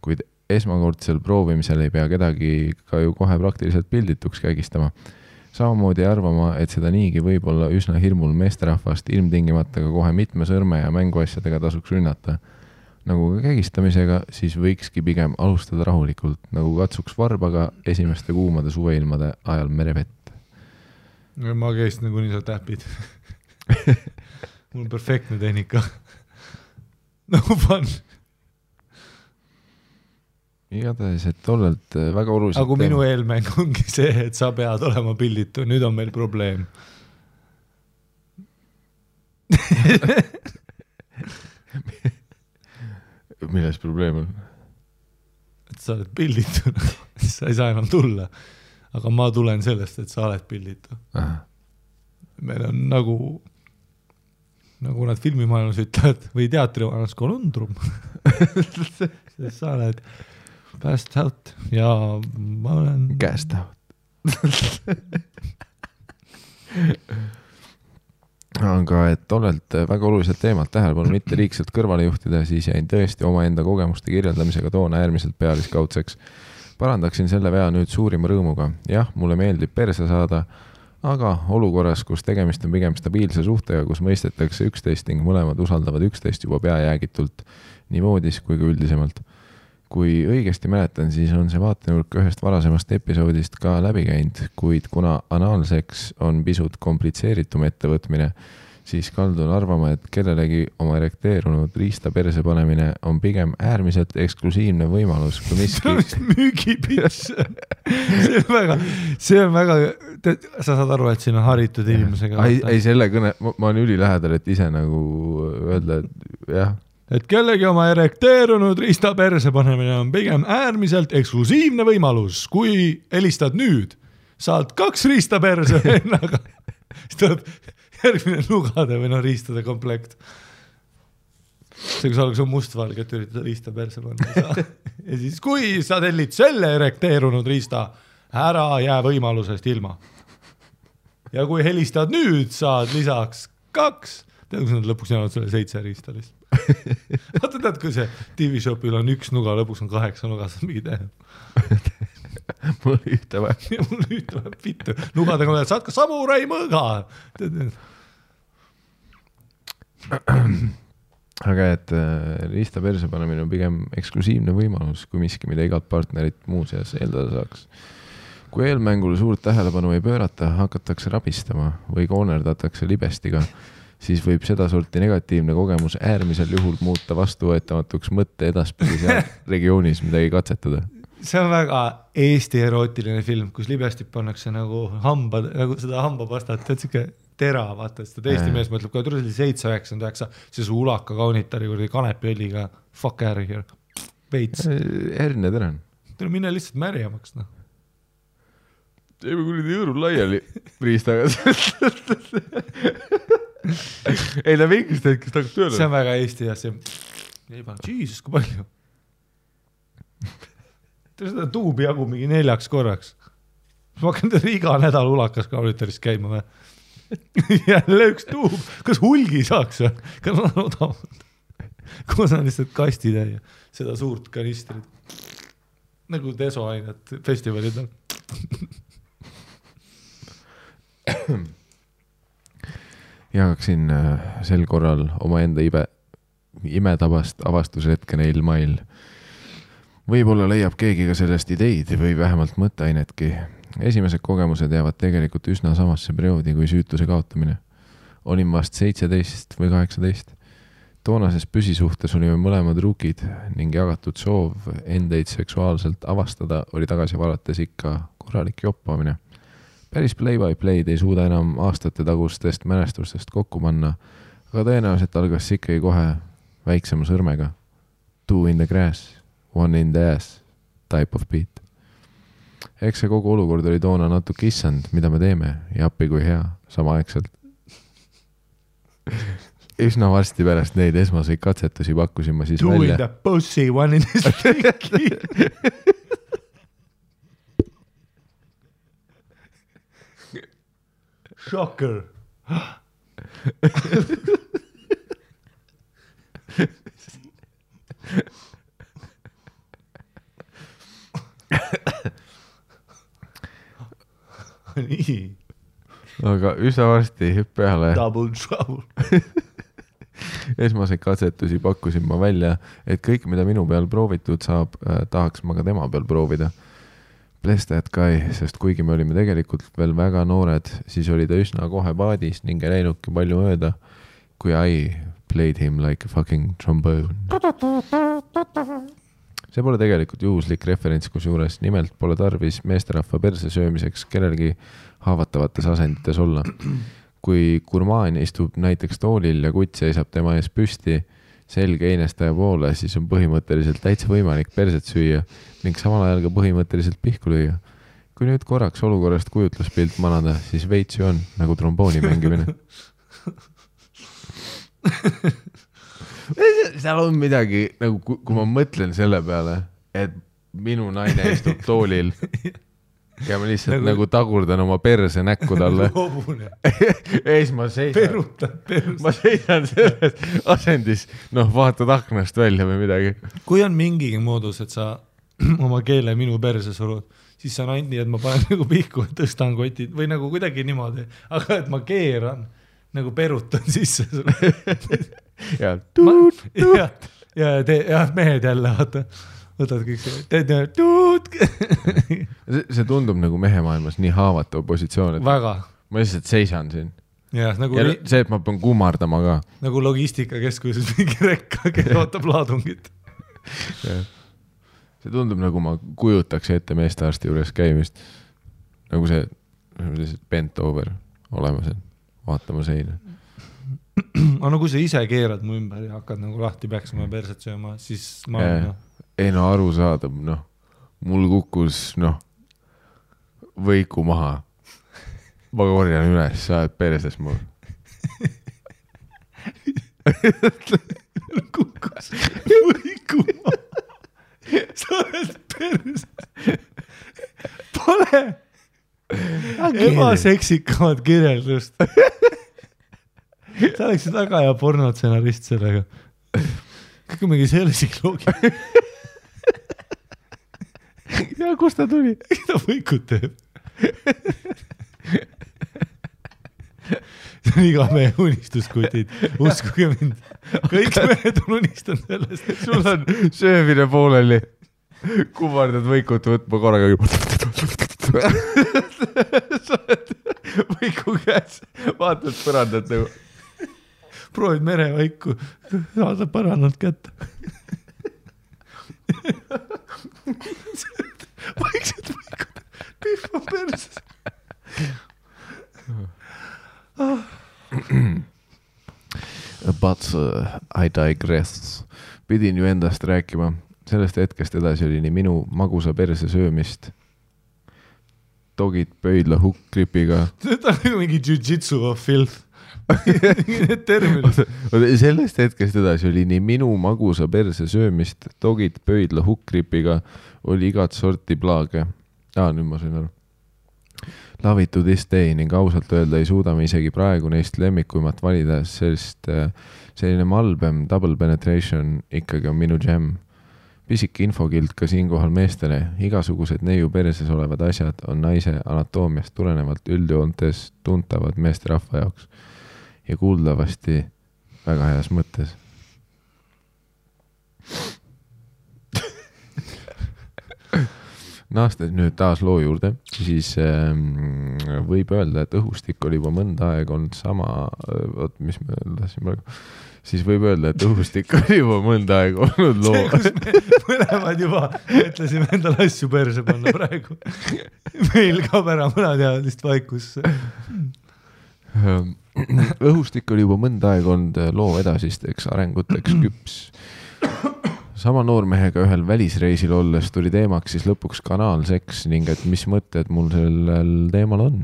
kuid esmakordsel proovimisel ei pea kedagi ka ju kohe praktiliselt pildituks kägistama. Samamoodi arvama, et seda niigi võib olla üsna hirmul meesterahvast ilmtingimata ka kohe mitme sõrme ja mänguasjadega tasuks rünnata. Nagu ka kägistamisega, siis võikski pigem alustada rahulikult, nagu katsuks varbaga esimeste kuumade suveilmade ajal merevett. Ma käist nagu nii sa täpid. Mul on perfektne tehnika. No fun. Igatahes, et tollelt väga oluliselt... Aga minu eelmäng ongi see, et sa pead olema pilditu. Nüüd on meil probleem. Milles probleem on? Et sa oled pilditu. Sa ei saa enam tulla. Aga ma tulen sellest, et sa oled pilditu. Meil on nagu nad filmimaailmas ütlevad või teatrimaailmas konundrum. Sest sa oled passed out ja ma olen... Cast out. Aga et tollelt väga oluliselt teemalt tähelepanu mitte liigselt kõrvale juhtida, siis jäin tõesti omaenda kogemuste kirjeldamisega toona äärmiselt pealiskaudseks. Parandaksin selle vea nüüd suurima rõõmuga. Jah, mulle meeldib perse saada, aga olukorras, kus tegemist on pigem stabiilse suhtega, kus mõistetakse üksteist ning mõlemad usaldavad üksteist juba peajäägitult nii voodis kui ka üldisemalt. Kui õigesti mäletan, siis on see vaatenurk ühest varasemast episoodist ka läbi käinud, kuid kuna anaalseks on pisut komplitseeritum ettevõtmine, siis kaldun arvama, et kellelegi oma erekteerunud riista perse panemine on pigem äärmiselt eksklusiivne võimalus, kui miski... Müügipits. See on väga... Sa saad aru, et siin on haritud inimesega. Ei, selle kõne... Ma olen ülilähedal, et ise nagu öelda, et jah... Et kellegi oma erekteerunud riista perse panemine on pigem äärmiselt eksklusiivne võimalus. Kui helistad nüüd, saad 2 riista perse vennaga. Siis tuleb järgmine nugade või riistade komplekt. See, kui sa oleks mustvalge, et üritada riista perse panna. Ja siis, kui sa tellid selle erekteerunud riista, ära jää võimalusest ilma. Ja kui helistad nüüd, saad lisaks 2. Tead, kus nad lõpuks jäävad selle 7 riista lihtsalt. Vaata tead, kui see TV-shopil on 1 nuga, lõpuks on 8 nuga, saad mingi teha. Mul ühte vähem. Ja mul ühte vähem pittu. Nugadega oled, saad ka samurai mõõga. aga et riista perse panemine on pigem eksklusiivne võimalus, kui miski, mida igalt partnerit muuseas eeldada saaks. Kui eelmängule suurt tähelepanu ei pöörata, hakatakse rabistama või koonerdatakse libestiga, siis võib seda sorti negatiivne kogemus äärmisel juhul muuta vastuvõetamatuks mõtte edaspidi seal regioonis midagi katsetada. See on väga Eesti erootiline film, kus libestik pannakse nagu seda hambapastat, et siuke tera, vaata, seda Eesti mees mõtleb, kui tuli 7-9, see su ulaka kaunitari kurdi kanepiõliga, fuck out of here, veits. Erne teren. Tule minna lihtsalt märjamaks, noh. Teeme kurdi jõõrul laiali riistaga. Ei, ta mingist hetkest hakkab tööle. See on väga Eesti ja see ei pannud, Jesus, kui palju. Seda tuubi jagu mingi 4 korraks. Ma hakkan teile iga nädal ulakas kaunitarist käima või? Jälle üks tuub. Kas hulgi saaks või? Kas on odavalt? Kus on lihtsalt kastitäie seda suurt kanistrit? Nagu desoainet festivalid on. Jagaksin sel korral oma enda imetabast avastusretke neil mail. Võib-olla leiab keegi ka sellest ideid või vähemalt mõtteainetki. Esimesed kogemused jäävad tegelikult üsna samasse perioodi kui süütuse kaotamine. Olin vast 17 või 18. Toonases püsisuhtes olime mõlemad rukid ning jagatud soov endeid seksuaalselt avastada oli tagasi valates ikka korralik joppamine. Päris play-by-play'd ei suuda enam aastate tagustest mälestustest kokku panna, aga tõenäoliselt algas ikkagi kohe väiksema sõrmega. 2 in the grass. 1 in the ass type of beat. Eks see kogu olukord oli toona natuke issand, mida me teeme ja appi kui hea, samaaegselt. Üsna varsti pärast neid esmaseid katsetusi pakkusin ma siis 2 välja. 2 in the pussy, 1 in the sticky. Shocker. Nii. Aga üsna varsti peale Double trouble. esmaseid katsetusi pakkusin ma välja, et kõik, mida minu peal proovitud saab, tahaks ma ka tema peal proovida. Bless that guy, sest kuigi me olime tegelikult veel väga noored, siis oli ta üsna kohe paadis ning ei läinudki palju mööda, kui I played him like a fucking trombone. See pole tegelikult juhuslik referents, kus juures nimelt pole tarvis meesterahva perse söömiseks kellelgi haavatavates asendites olla. Kui gurmaan istub näiteks toolil ja kutt seisab tema ees püsti selge einestaja poole, siis on põhimõtteliselt täitsa võimalik perset süüa ning samal ajal ka põhimõtteliselt pihku lüüa. Kui nüüd korraks olukorrast kujutluspilt manada, siis veits ju on nagu trombooni mängimine. Seal on midagi, nagu kui ma mõtlen selle peale, et minu naine istub toolil ja ma lihtsalt nagu tagurdan oma perse näkku talle. Ees ma seisan. Ma seisan selles asendis, vaatad aknast välja või midagi. Kui on mingigi moodus, et sa oma keele minu perse surud, siis see on ainult nii, et ma panen nagu pihku, tõstan kotid või nagu kuidagi niimoodi, aga et ma keeran nagu perutan sisse ja mehed jälle võtad kõik see tundub nagu mehemaailmas nii haavatava positsioon, et väga. Ma lihtsalt seisan siin nagu ja see, et ma pean kummardama ka nagu logistikakeskuses mingi rekka, kes ootab laadungit. See tundub nagu ma kujutaks ette meestearsti juures käimist nagu see bent over olemas, vaatama seina. Aga no kui sa ise keerad mu ümber ja hakkad nagu lahti peaksima perset sööma, siis ma ei aru saada, mul kukkus võiku maha. Ma korjan üles, sa oled perses mul. Kukkus võiku maha. Sa oled perses. Pole ebaseksikamad kirjeldust. Sa oleksid väga hea pornotsenarist sellega. Kõik on mingi sellisik loogi. Ja kus ta tuli? Ta võikut teeb. see on iga mehe unistuskutid, uskuge mind. Kõik mehed on unistanud sellest. Sul on söömine pooleli. Kummardad võikut võtma korraga. Sa oled võiku käes, vaatad põrandat nagu. Proovid merevaiku, saada põrannalt kätte. Vaiksed võikud, pihva perses. But I digress. Pidin ju endast rääkima. Sellest hetkest edasi oli nii minu magusa perse söömist. Dogid pöidla hukkripiga. See on nagu mingi jiu-jitsu of filth. Need terminid. Sellest hetkest edasi oli nii minu magusa perse söömist. Dogid pöidla hukkripiga oli igat sorti plaage. Nüüd ma sain aru. Love it to this day ning ausalt öelda ei suuda me isegi praegu neist lemmikuimat valida, sest selline malbem double penetration ikkagi on minu jam. Pisik infokild ka siinkohal meestele. Igasugused neiu perses olevad asjad on naise anatoomiast tulenevalt üldjoontes tuntavad meeste rahva jaoks ja kuuldavasti väga heas mõttes. Naastes nüüd taas loo juurde, siis võib öelda, et õhustik oli juba mõnda aega olnud sama, mis me tahtsime praegu, siis võib öelda, et õhustik oli juba mõnda aega olnud loo. See, kus me mõlemad juba mõtlesime endale asju perse panna praegu. Meil kaob ära mõnateadlist vaikusse. Õhustik oli juba mõnda aega olnud loo edasisteks arenguteks küps. Sama noormehega ühel välisreisil olles tuli teemaks siis lõpuks kanaalseks ning et mis mõtted mul sellel teemal on.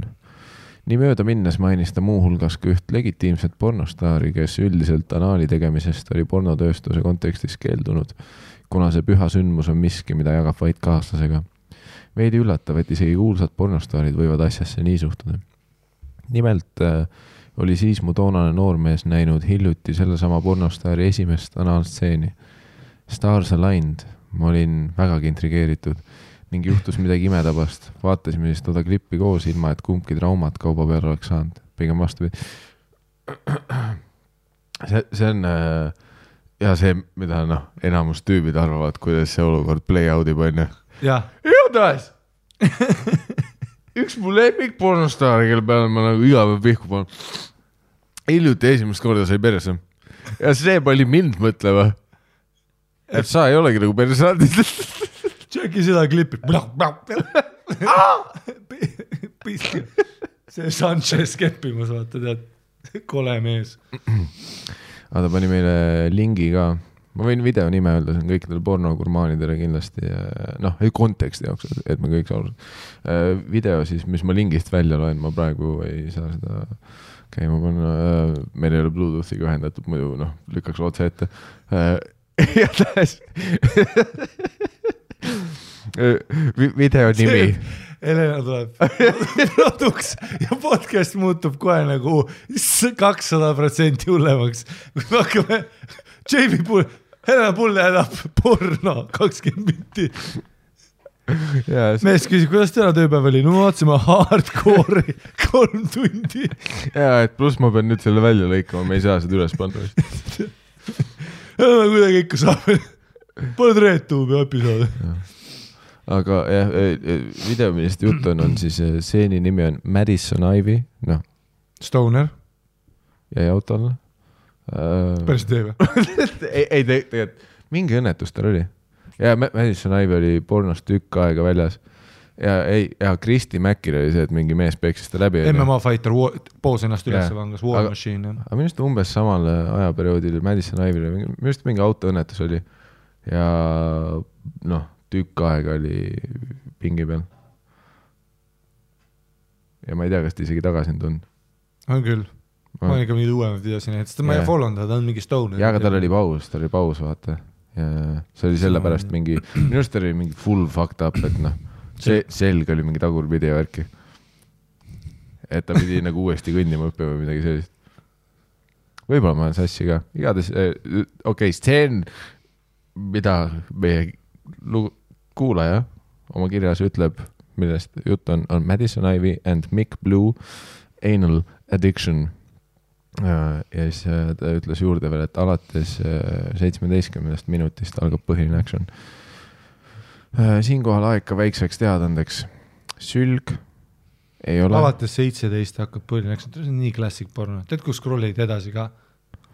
Nii mööda minnes mainis ta muuhulgas ka üht legitiimset pornostaari, kes üldiselt anaali tegemisest oli pornotööstuse kontekstis keeldunud, kuna see püha sündmus on miski, mida jagab vaid kaaslasega. Veidi üllatav, et isegi kuulsad pornostaarid võivad asjasse nii suhtuda. Nimelt oli siis mu toonane noormees näinud hiljuti sellesama pornostaari esimest anaalstseeni. Stars aligned, ma olin vägagi intrigeeritud ning juhtus midagi imetabast. Vaatasime siis toda klippi koos ilma, et kumbki traumat kauba peale oleks saanud. Pigem vastupidi. See on ja see, mida enamus tüübid arvavad, kuidas see olukord play out'ib on. Ja. Igatahes! Üks mu lemmik pornostaari, kelle peale ma nagu iga päev pihku panen. Hiljuti esimest korda sai perse. Ja see pani mind mõtlema. Et sa ei olegi nagu persaadis. Tšeki seda klippi. See Sanchez keppimas, vaata, tead, kole mees. Ta pani meile lingi ka. Ma võin video nime öelda, see on kõikidele pornogurmaanidele kindlasti. Ei konteksti jaoks, et me kõik saavad. Video siis, mis ma lingist välja loen, ma praegu ei saa seda käima panna. Meil ei ole Bluetoothiga ühendatud, muidu lükkaks otse ette. Ja tähes video nimi Helena tuleb produks ja podcast muutub kohe nagu 200% hullemaks. Kui me hakkame Jamie Pull, Helena Pull jäädab porno 20 minti. Mees küsib, kuidas täna tööpäev oli? No ma vaatasime hardcore'i 3 tundi. Ja, et pluss ma pean nüüd selle välja lõikama, me ei saa seda üles panna. Kuidagi ikka saab. Pole reetuubi episoodi. Aga jah, video, millest jutt on siis seeni nimi on Madison Ivy. Stoner. Jäi autole. Päris teeme. Ei, tegelikult mingi õnnetus tal oli. Ja Madison Ivy oli pornost tükk aega väljas. Ja Kristi Mäkil oli see, et mingi mees peeksis ta läbi. MMA fighter poos ennast üles vangas, War Machine. Aga minust umbes samal ajaperioodil Madison Ivy, minust mingi autoõnnetus oli. Ja tükk aega oli pingi peal. Ja ma ei tea, kas ta isegi tagasi on tulnud. On küll. Ma olen ikka mingi uuemad videosin, et ma ei follownud, ta on mingi Stoner. Ja aga tal oli paus, vaata. Ja see oli selle pärast mingi, minust oli mingi full fucked up, et see selg oli mingi tagurpidi värki. Et ta pidi nagu uuesti kõndima õppima või midagi sellist. Võib-olla ma olen sassi ka. Igades, stseen, mida meie kuulaja oma kirjas ütleb, millest jutt on Madison Ivy and Mick Blue Anal Addiction. ja siis ta ütles juurde veel, et alates 17 minutist algab põhiline action. Siinkohal aeg ka väikseks teadandeks. Sülg ei ole... Alates 17 hakkab põhiline action. See on nii klassik porno. Tead, kus scrollid edasi ka?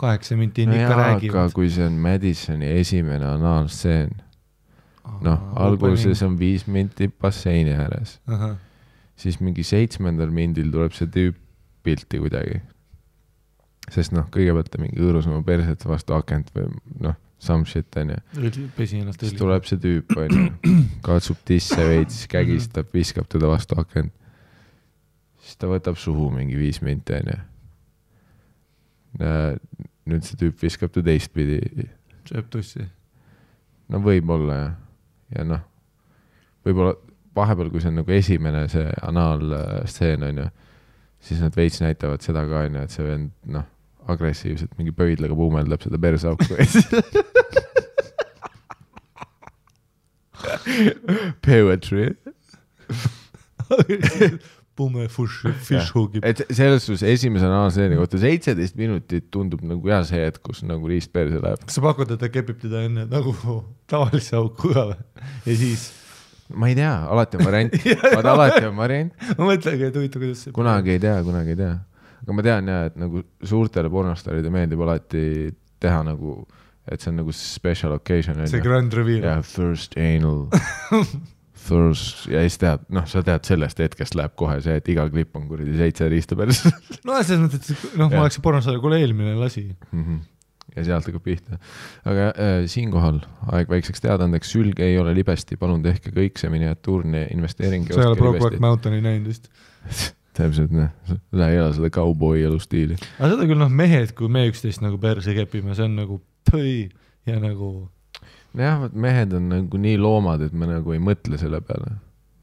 8 minti ikka räägivad. Aga kui see on Madisoni esimene anaalstseen, alguses on 5 minti basseini ääres. Siis mingi 7. mindil tuleb see tüüp pilti kuidagi. Sest kõigepealt ta mingi õõrus oma perset vastu akent või some shit on ju. Pesi ennast siis tuleb see tüüp on ju, katsub tisse veits, kägistab, viskab teda vastu akent. Siis ta võtab suhu mingi 5 minti on ju. Nüüd see tüüp viskab ta teistpidi. Sööb tussi. No võib-olla ja võib-olla vahepeal, kui see on nagu esimene see anaalstseen on ju, siis nad veits näitavad seda ka on ju, et see vend agressiivselt mingi pöidlaga puumeldab seda persauku. Poetry. Pume fish hugib. Et selles suus esimese anaalstseeni kohta 17 minutit tundub nagu hea see, et kus nagu riist perse läheb. Kas sa pakud, et ta kepib teda enne nagu tavalise auku ka või? Ja siis... Ma ei tea, alati on variant. Alati on variant. Ma mõtlengi, et huvitav, kuidas see... Kunagi ei tea. Aga ma tean et nagu suurtele pornostaride meeldib alati teha nagu, et see on nagu special occasion. See grand reveal. Ja first anal. First, ja siis tead, sa tead sellest hetkest läheb kohe see, et iga klipp on kuridi 7 riista päris. Selles mõttes, et ma oleks pornostarja, kuule eelmine lasi. Ja sealt hakkab pihta. Aga siinkohal aeg väikseks teadandeks, sülg ei ole libesti, palun tehke kõik see miniatuurne investeering. Sa ei ole Brokeback Mountaini näinud vist. Täpselt, sa ei ela seda cowboy elustiili. Aga seda küll mehed, kui me üksteist nagu perse kepime, see on nagu tõi ja nagu... Jah, mehed on nagu nii loomad, et me nagu ei mõtle selle peale.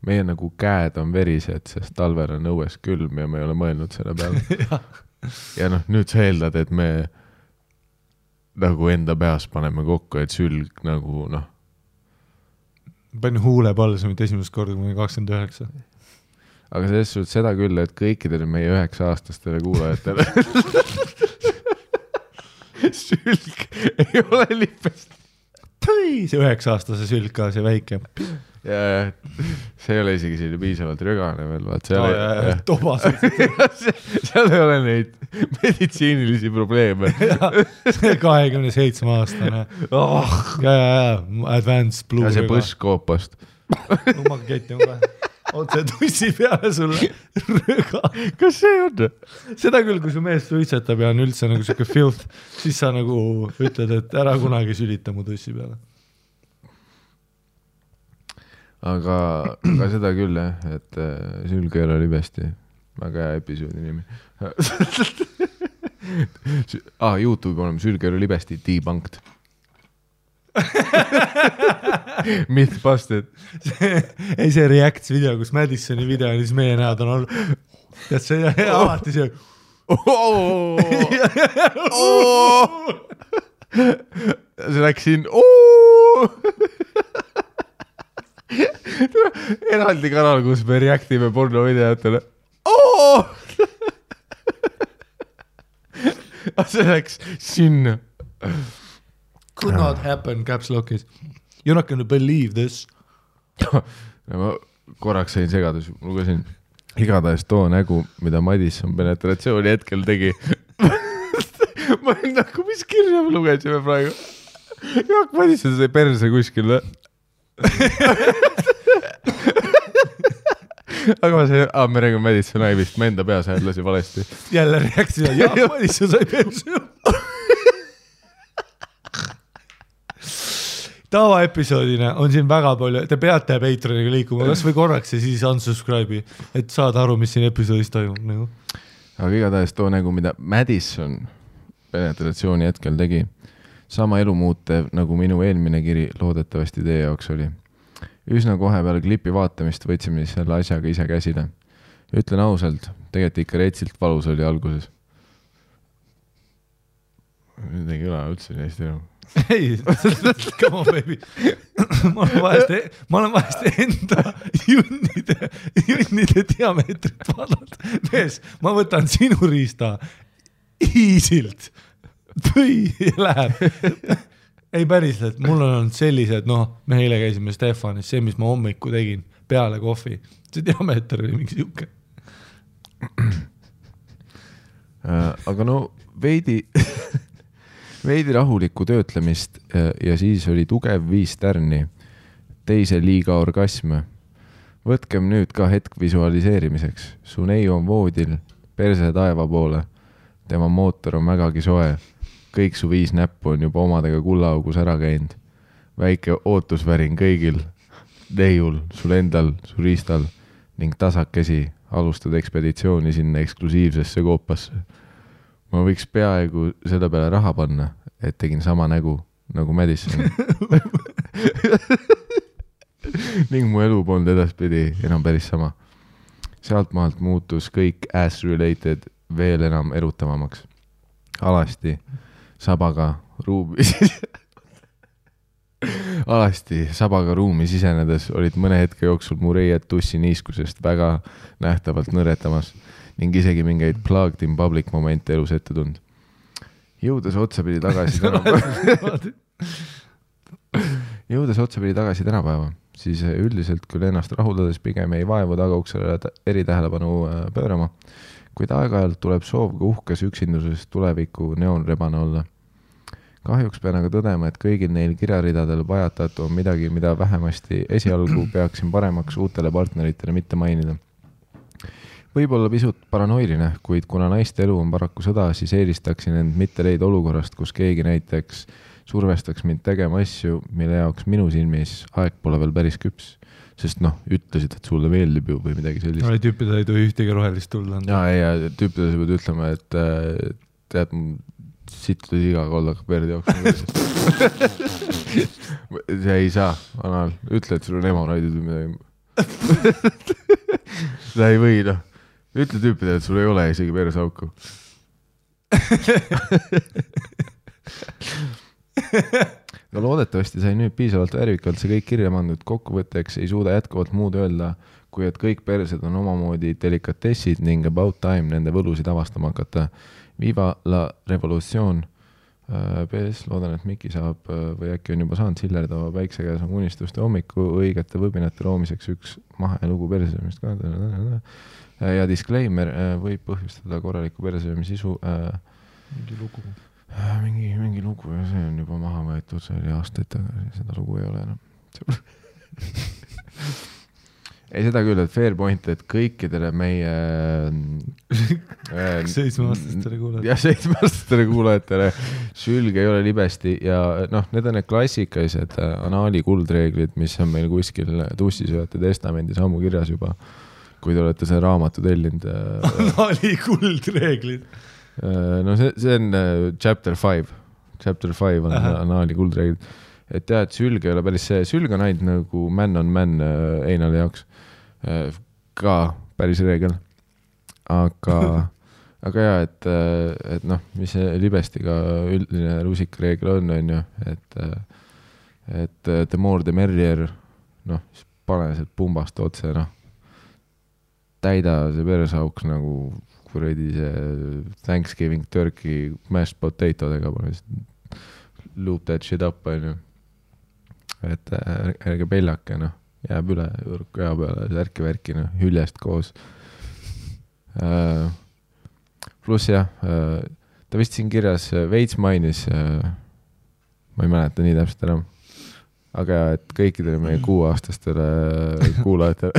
Meie nagu käed on verised, sest talvel on õues külm ja me ei ole mõelnud selle peale. Ja nüüd sa eeldad, et me nagu enda peas paneme kokku, et sülg nagu Panin huule palsumit esimest korda, kui 29. Aga selles suhtes seda küll, et kõikidele meie 9-aastastele kuulajatele sülg ei ole lipest. See 9-aastase sülg ka, see väike. Ja see ei ole isegi selline piisavalt rögane veel, vaat tobas. seal ei ole neid meditsiinilisi probleeme. 27-aastane. Advanced blue. Ja see põskkoopast. Lummaga keti on ka. Otse tussi peale sulle röga. Kas see on? Seda küll, kui su mees suitsetab ja on üldse nagu siuke filth, siis sa nagu ütled, et ära kunagi sülita mu tussi peale. Aga seda küll, et sülg ei ole libesti. Väga hea episoodi nimi. YouTube'i oleme sülg ei ole libesti debunked. Mythbusted. See Reacts video, kus Madisoni video on, siis meie näod on olnud. Tead see alati see. See läks siin. Eraldi kanal, kus me reactime porno videotele. See läks sinna. Could not happen, caps lockis. You're not gonna believe this. Ma korraks sain segadus, lugesin igatahes too nägu, mida Madison penetratsiooni hetkel tegi. Ma olin nagu, mis kirja me lugesime praegu? Jaak Madison sai perse kuskil. Aga ma sain, me räägime Madison Ivist, ma enda peas häälasi valesti. Jälle reaktsioon, Jaak Madison sai perse. Tavaepisoodina on siin väga palju, te peate Patreoniga liikuma, kas või korraks ja siis unsubscribe'i, et saada aru, mis siin episoodis toimub. Nagu. Aga igatahes too nägu, mida Madison penetratsiooni hetkel tegi, sama elumuutev nagu minu eelmine kiri loodetavasti teie jaoks oli. Üsna kohe peale klipi vaatamist võtsime selle asjaga ise käsile. Ütlen ausalt, tegelikult ikka retsilt valus oli alguses. Nüüd ei kõla üldse neist enam. Ei, come on baby. Ma olen vahest enda junnide diameetrit vaadanud. Mees, ma võtan sinu riista easilt või läheb. Ei päriselt, mul on olnud sellised, me eile käisime Stefanis, see, mis ma hommiku tegin peale kohvi, see diameeter oli mingi siuke. Aga veidi rahulikku töötlemist ja siis oli tugev 5 tärni, teise liiga orgasm. Võtkem nüüd ka hetk visualiseerimiseks. Su neiu on voodil, perse taeva poole. Tema mootor on vägagi soe. Kõik su 5 näppu on juba omadega kullaaugus ära käinud. Väike ootusvärin kõigil. Neiul, sul endal, su riistal ning tasakesi alustad ekspeditsiooni sinna eksklusiivsesse koopasse. Ma võiks peaaegu selle peale raha panna, et tegin sama nägu nagu Madison. Ning mu elu polnud edaspidi enam päris sama. Sealt maalt muutus kõik ass-related veel enam erutavamaks. Alasti sabaga ruumi sisenedes olid mõne hetke jooksul mu reied tussi niiskusest väga nähtavalt nõretamas ning isegi mingeid plugged in public momente elus ette tund. Jõudes otsapidi tagasi tänapäeva, siis üldiselt küll ennast rahuldades pigem ei vaevu tagauksele eritähelepanu pöörama, kuid aeg-ajalt tuleb soov ka uhkes üksinduses tuleviku neonrebane olla. Kahjuks pean aga tõdema, et kõigil neil kirjaridadel pajatatu on midagi, mida vähemasti esialgu peaksin paremaks uutele partneritele mitte mainida. Võib-olla pisut paranoiline, kuid kuna naiste elu on paraku sõda, siis eelistaksin end mitte leida olukorrast, kus keegi näiteks survestaks mind tegema asju, mille jaoks minu silmis aeg pole veel päris küps. Sest ütlesid, et sulle meeldib ju või midagi sellist. Tüüpidel ei tohi ühtegi rohelist tulla. Ja tüüpidel sa pead ütlema, et tead, sittus iga kollaka perdi jaoks. See ei saa, Anal. Ütle, et sul on hemoroidid või midagi. Seda ei või, Ütle tüüpidele, et sul ei ole isegi persauku. No loodetavasti sai nüüd piisavalt värvikalt see kõik kirja mandud. Kokkuvõtteks ei suuda jätkuvalt muud öelda, kui et kõik persed on omamoodi delikatessid ning about time nende võlusid avastama hakata. Viva la revolutsioon. PS, loodan, et Miki saab või äkki on juba saanud sillerdava päikse käes on unistuste hommiku õigete võbinate loomiseks üks mahelugu persöömist ka. Ja disclaimer võib põhjustada korraliku persöömise sisu. Mingi lugu. Mingi lugu ja see on juba maha võetud, see oli aastaid tagasi, seda lugu ei ole enam. Ei seda küll, et fair point, et kõikidele meie 7-aastastele kuulajatele. Ja 7-aastastele kuulajatele sülge ei ole libesti ja need on need klassikalised anaali kuldreeglid, mis on meil kuskil tussisööjate testamendis ammu kirjas juba, kui te olete see raamatu tellinud. Anaali kuldreeglid. No see on chapter 5. Chapter 5 on anaali kuldreeglid. Et jah, et sülg ei ole päris see. Sülg on ainult nagu man on man Einali jaoks. Ka päris reegel. Aga jah, et mis see libestiga üldine rusikareegel on ju, et the more the merrier, pane sealt pumbast otse, täida see persauks nagu kuradi see Thanksgiving turkey mashed potatodega, loop that shit up, on ju. Et ärge peljake, jääb üle kõja peale, särki-värki, hüljest koos. Pluss jah, ta vist siin kirjas veits mainis, ma ei mäleta nii täpselt enam, aga et kõikidele meie 6-aastastele kuulajatele,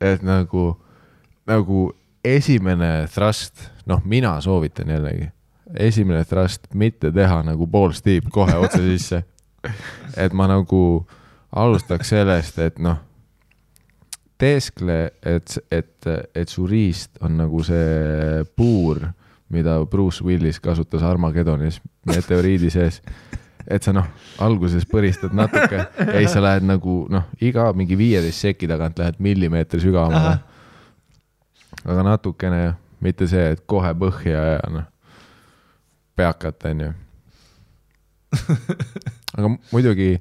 et nagu esimene thrust, mina soovitan jällegi, esimene thrust mitte teha nagu pool stiip kohe otse sisse. Et ma nagu alustaks sellest, et teeskle, et su riist on nagu see puur, mida Bruce Willis kasutas Armageddonis meteoriidi sees. Et sa alguses põristad natuke ja siis sa lähed nagu iga mingi 15 seki tagant lähed millimeetri sügavamale. Aga natukene, mitte see, et kohe põhja ja peakat, on ju. Aga muidugi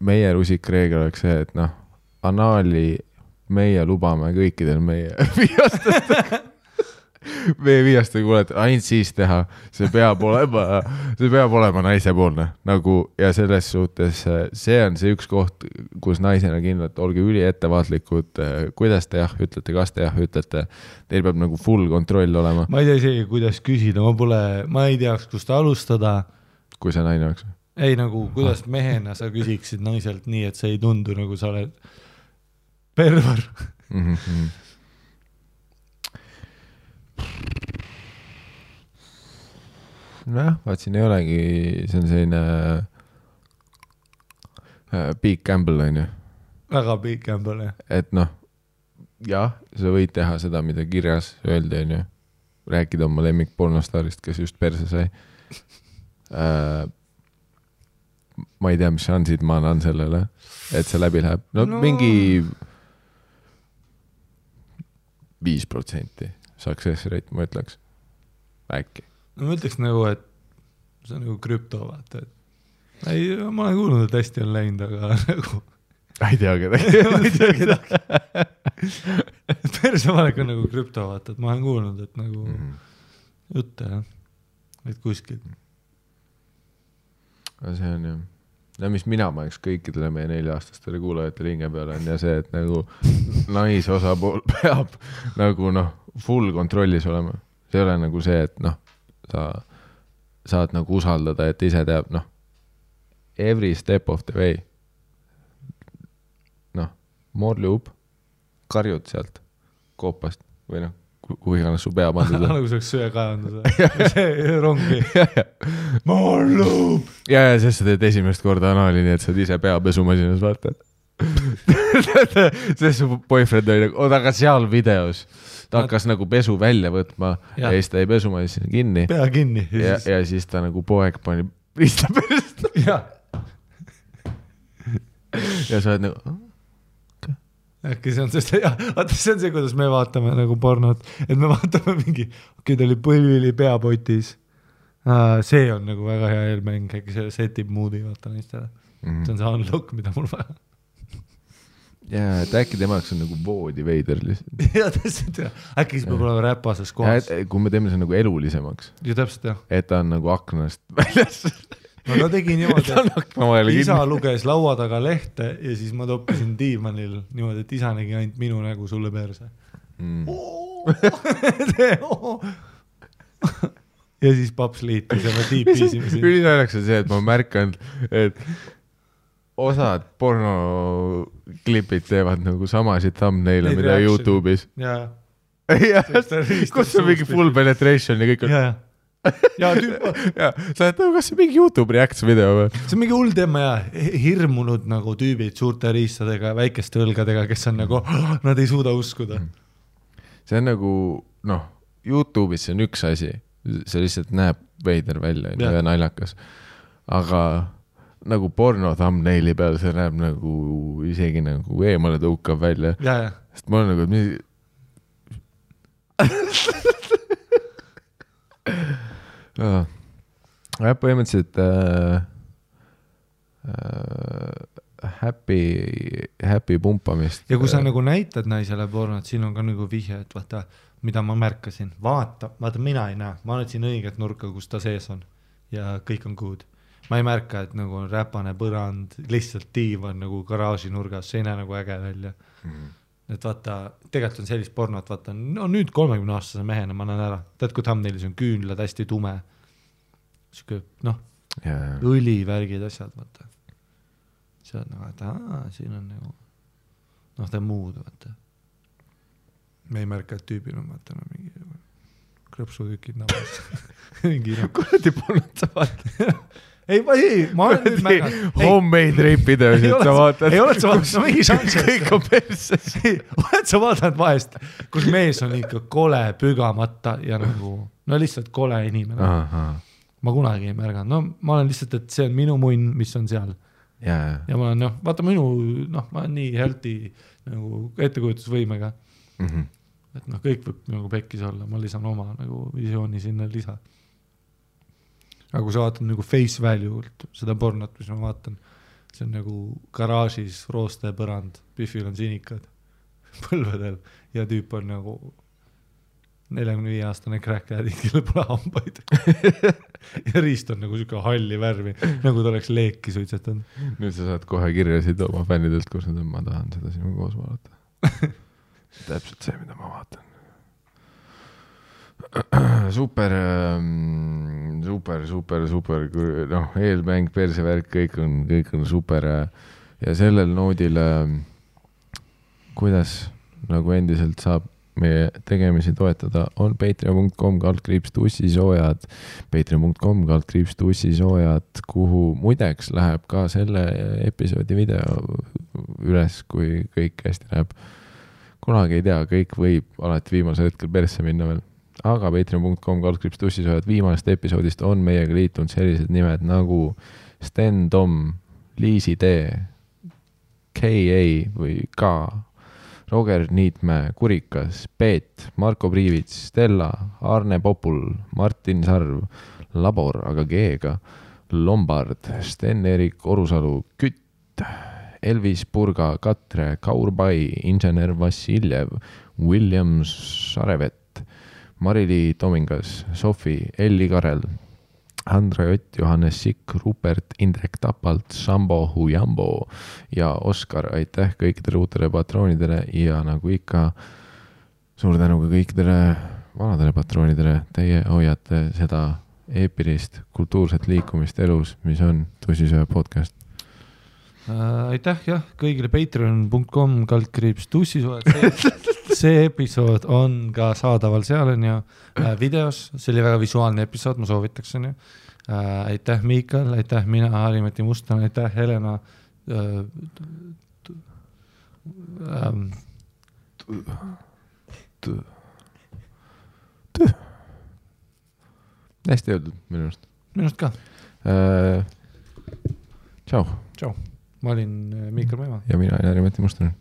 meie rusikreegel oleks see, et anaali meie lubame kõikidel meie viiastest. V5-st või kuuled, ainult siis teha, see peab olema naisepoolne nagu ja selles suhtes see on see üks koht, kus naisena kindlalt olge üli ettevaatlikud, kuidas te jah ütlete, kas te jah ütlete, teil peab nagu full kontroll olema. Ma ei tea isegi, kuidas küsida, ma ei teaks, kust alustada. Kui see naine oleks? Ei nagu, kuidas mehena sa küsiksid naiselt nii, et see ei tundu nagu sa oled perver. Nojah, vaat siin ei olegi, see on selline big gamble on ju. Väga big gamble, jah. Et noh, jah, sa võid teha seda, mida kirjas öeldi on ju. Rääkida oma lemmik pornostaarist, kes just perse sai. Ma ei tea, mis šansid ma annan sellele, et see läbi läheb. No mingi 5% success rate, ma ütleks. Äkki. No ma ütleks nagu, et see on nagu krüpto, vaata, et ei, ma olen kuulnud, et hästi on läinud, aga nagu ei tea kedagi. ma ei tea kedagi. Persevalek on nagu krüpto, vaata, et ma olen kuulnud, et nagu jutte, jah, et kuskil. Aga see on ju, no mis mina paneks kõikidele meie 4-aastastele kuulajatele hinge peale on ja see, et nagu naisosapool peab nagu noh, full kontrollis olema. See ei ole nagu see, et noh, sa saad nagu usaldada, et ise teab, noh, every step of the way. Noh, morlub, karjud sealt koopast või noh, kuhu iganes su pea pandud. Nagu see oleks söekaevandus. See rongi. Morlub! Ja, sest sa teed esimest korda anali, nii et sa ise pea pesumasinas vaata. Sest su boyfriend oli nagu, aga seal videos ta hakkas nagu pesu välja võtma ja siis ta ei pesumasina kinni. Pea kinni. Ja siis ta nagu poeg pani riista perest. Ja sa oled nagu... Äkki see on see, vaata see on see, kuidas me vaatame nagu pornot, et me vaatame mingi, ta oli põlvili peapotis. See on nagu väga hea eelmäng, äkki see setib moodi, vaata naistele. See on see unlock, mida mul vaja. Ja, et äkki temaks on nagu voodi veider lihtsalt. Ja täpselt, jah. Äkki siis peab olema räpasas kohas. Kui me teeme see nagu elulisemaks. Ja täpselt, jah. Et ta on nagu aknast väljas. No ta tegi niimoodi, isa luges laua taga lehte ja siis ma toppisin diivanil niimoodi, et isa nägi ainult minu nägu sulle perse. Ja siis paps liitis ja me tiipisime siin. Ülinäljaks on see, et ma märkan, et osad pornoklipid teevad nagu samasid thumbnail'e, mida YouTube'is. Ja. Kus on mingi full penetration ja kõik on... Ja. Ja sa oled nagu, kas see mingi YouTube reacts video või? See on mingi hull teema ja hirmunud nagu tüübid suurte riistadega, väikeste õlgadega, kes on nagu, nad ei suuda uskuda. See on nagu, noh, YouTube'is see on üks asi, see lihtsalt näeb veider välja ja naljakas, aga nagu porno thumbnaili peal see näeb nagu isegi nagu eemale tõukav välja. Sest ma olen nagu, põhimõtteliselt happy pumpamist. Ja kui sa nagu näitad naisele pornot, siin on ka nagu vihje, et vaata, mida ma märkasin. Vaata, mina ei näe. Ma olen siin õiget nurka, kus ta sees on. Ja kõik on good. Ma ei märka, et nagu on räpane põrand, lihtsalt diivan nagu garaaži nurgas. See ei näe nagu äge välja. Et vaata, tegelikult on sellist pornot, vaata, no nüüd 30-aastase mehena ma näen ära. Tead, kui thumbnailis on küünlad hästi tume. Siuke, noh, õlivärgid asjad, vaata. See on nagu, et siin on nagu, noh, ta muud, vaata. Me ei märka, et tüübil on, vaata, no mingi krõpsutükid nabas. Kuradi pornot sa vaata. Ei, ma olen nüüd märganud. Homemade rape videosid sa vaatad. Ei oled sa vaatanud, no mingi šanss. Kõik on perses. Oled sa vaatanud vahest, kus mees on ikka kole pügamata ja nagu, no lihtsalt kole inimene. Ma kunagi ei märganud. No ma olen lihtsalt, et see on minu munn, mis on seal. Ja ma olen, noh, vaata minu, noh, ma olen nii healthy nagu ettekujutusvõimega. Et noh, kõik võib nagu pekkis olla, ma lisan oma nagu visiooni sinna lisa. Aga kui sa vaatad nagu face value, seda pornot, mis ma vaatan, see on nagu garaažis rooste põrand, Biffil on sinikad põlvedel ja tüüp on nagu 45-aastane crackhead, kellel pole hambaid. Ja riist on nagu siuke halli värvi, nagu ta oleks leeki suitsetanud. Nüüd sa saad kohe kirjasid oma fännidelt, kus nad on, ma tahan seda sinu koos vaadata. Täpselt see, mida ma vaatan. Super, noh, eelmäng, persevärk, kõik on super ja sellel noodil, kuidas nagu endiselt saab meie tegemisi toetada, on patreon.com/tussisoojad, patreon.com/tussisoojad, kuhu muideks läheb ka selle episoodi video üles, kui kõik hästi läheb. Kunagi ei tea, kõik võib alati viimasel hetkel persse minna veel. Aga patreon.com/tussisoojad viimast episoodist on meiega liitunud sellised nimed nagu Sten Tom, Liisi D, K.A. või K, Roger Niitmäe, Kurikas, Peet, Marko Priivits, Stella, Arne Popul, Martin Sarv, Labor, aga G-ga, Lombard, Sten-Erik Orusalu, Kütt, Elvis Purga, Katre, Kaur Pai, Insener Vassiljev, William Sarevet, Marili Tomingas, Sofi, Elli Karel, Andra Jott, Johannes Sikk, Rupert, Indrek Tapalt, Sambo Hujambo ja Oskar, aitäh kõikidele uutele patroonidele ja nagu ikka suur tänu ka kõikidele vanadele patroonidele, teie hoiate seda eepilist kultuurset liikumist elus, mis on Tussisöö podcast. Aitäh jah, kõigile patreon.com/tussisoojad. See episood on ka saadaval seal on ju videos, see oli väga visuaalne episood, ma soovitaks on ju. Aitäh Miikal, aitäh mina, Harimati Mustan, aitäh Helena. Hästi öeldud minust. Minust ka. Tšau. Tšau. Ma olin Miikal Meema. Ja mina olin Harimati Mustan.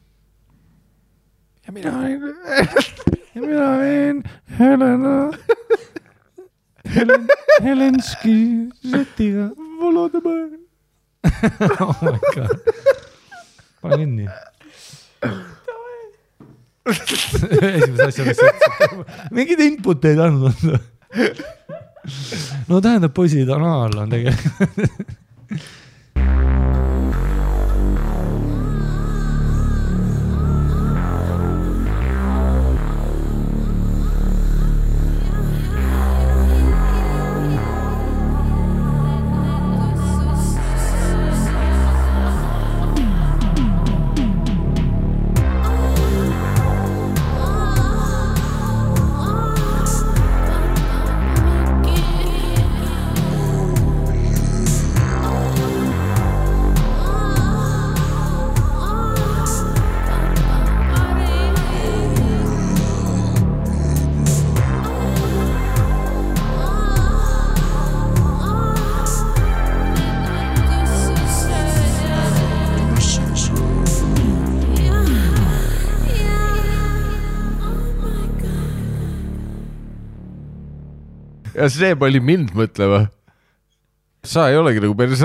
Ja mina olin Helena. Helenski Zetiga. Volodõmõr. Oh my god. Pane kinni. Esimese asja, mis mingid input ei andnud. No tähendab, poisid on all on tegelikult. Ja see pani mind mõtlema. Sa ei olegi nagu päris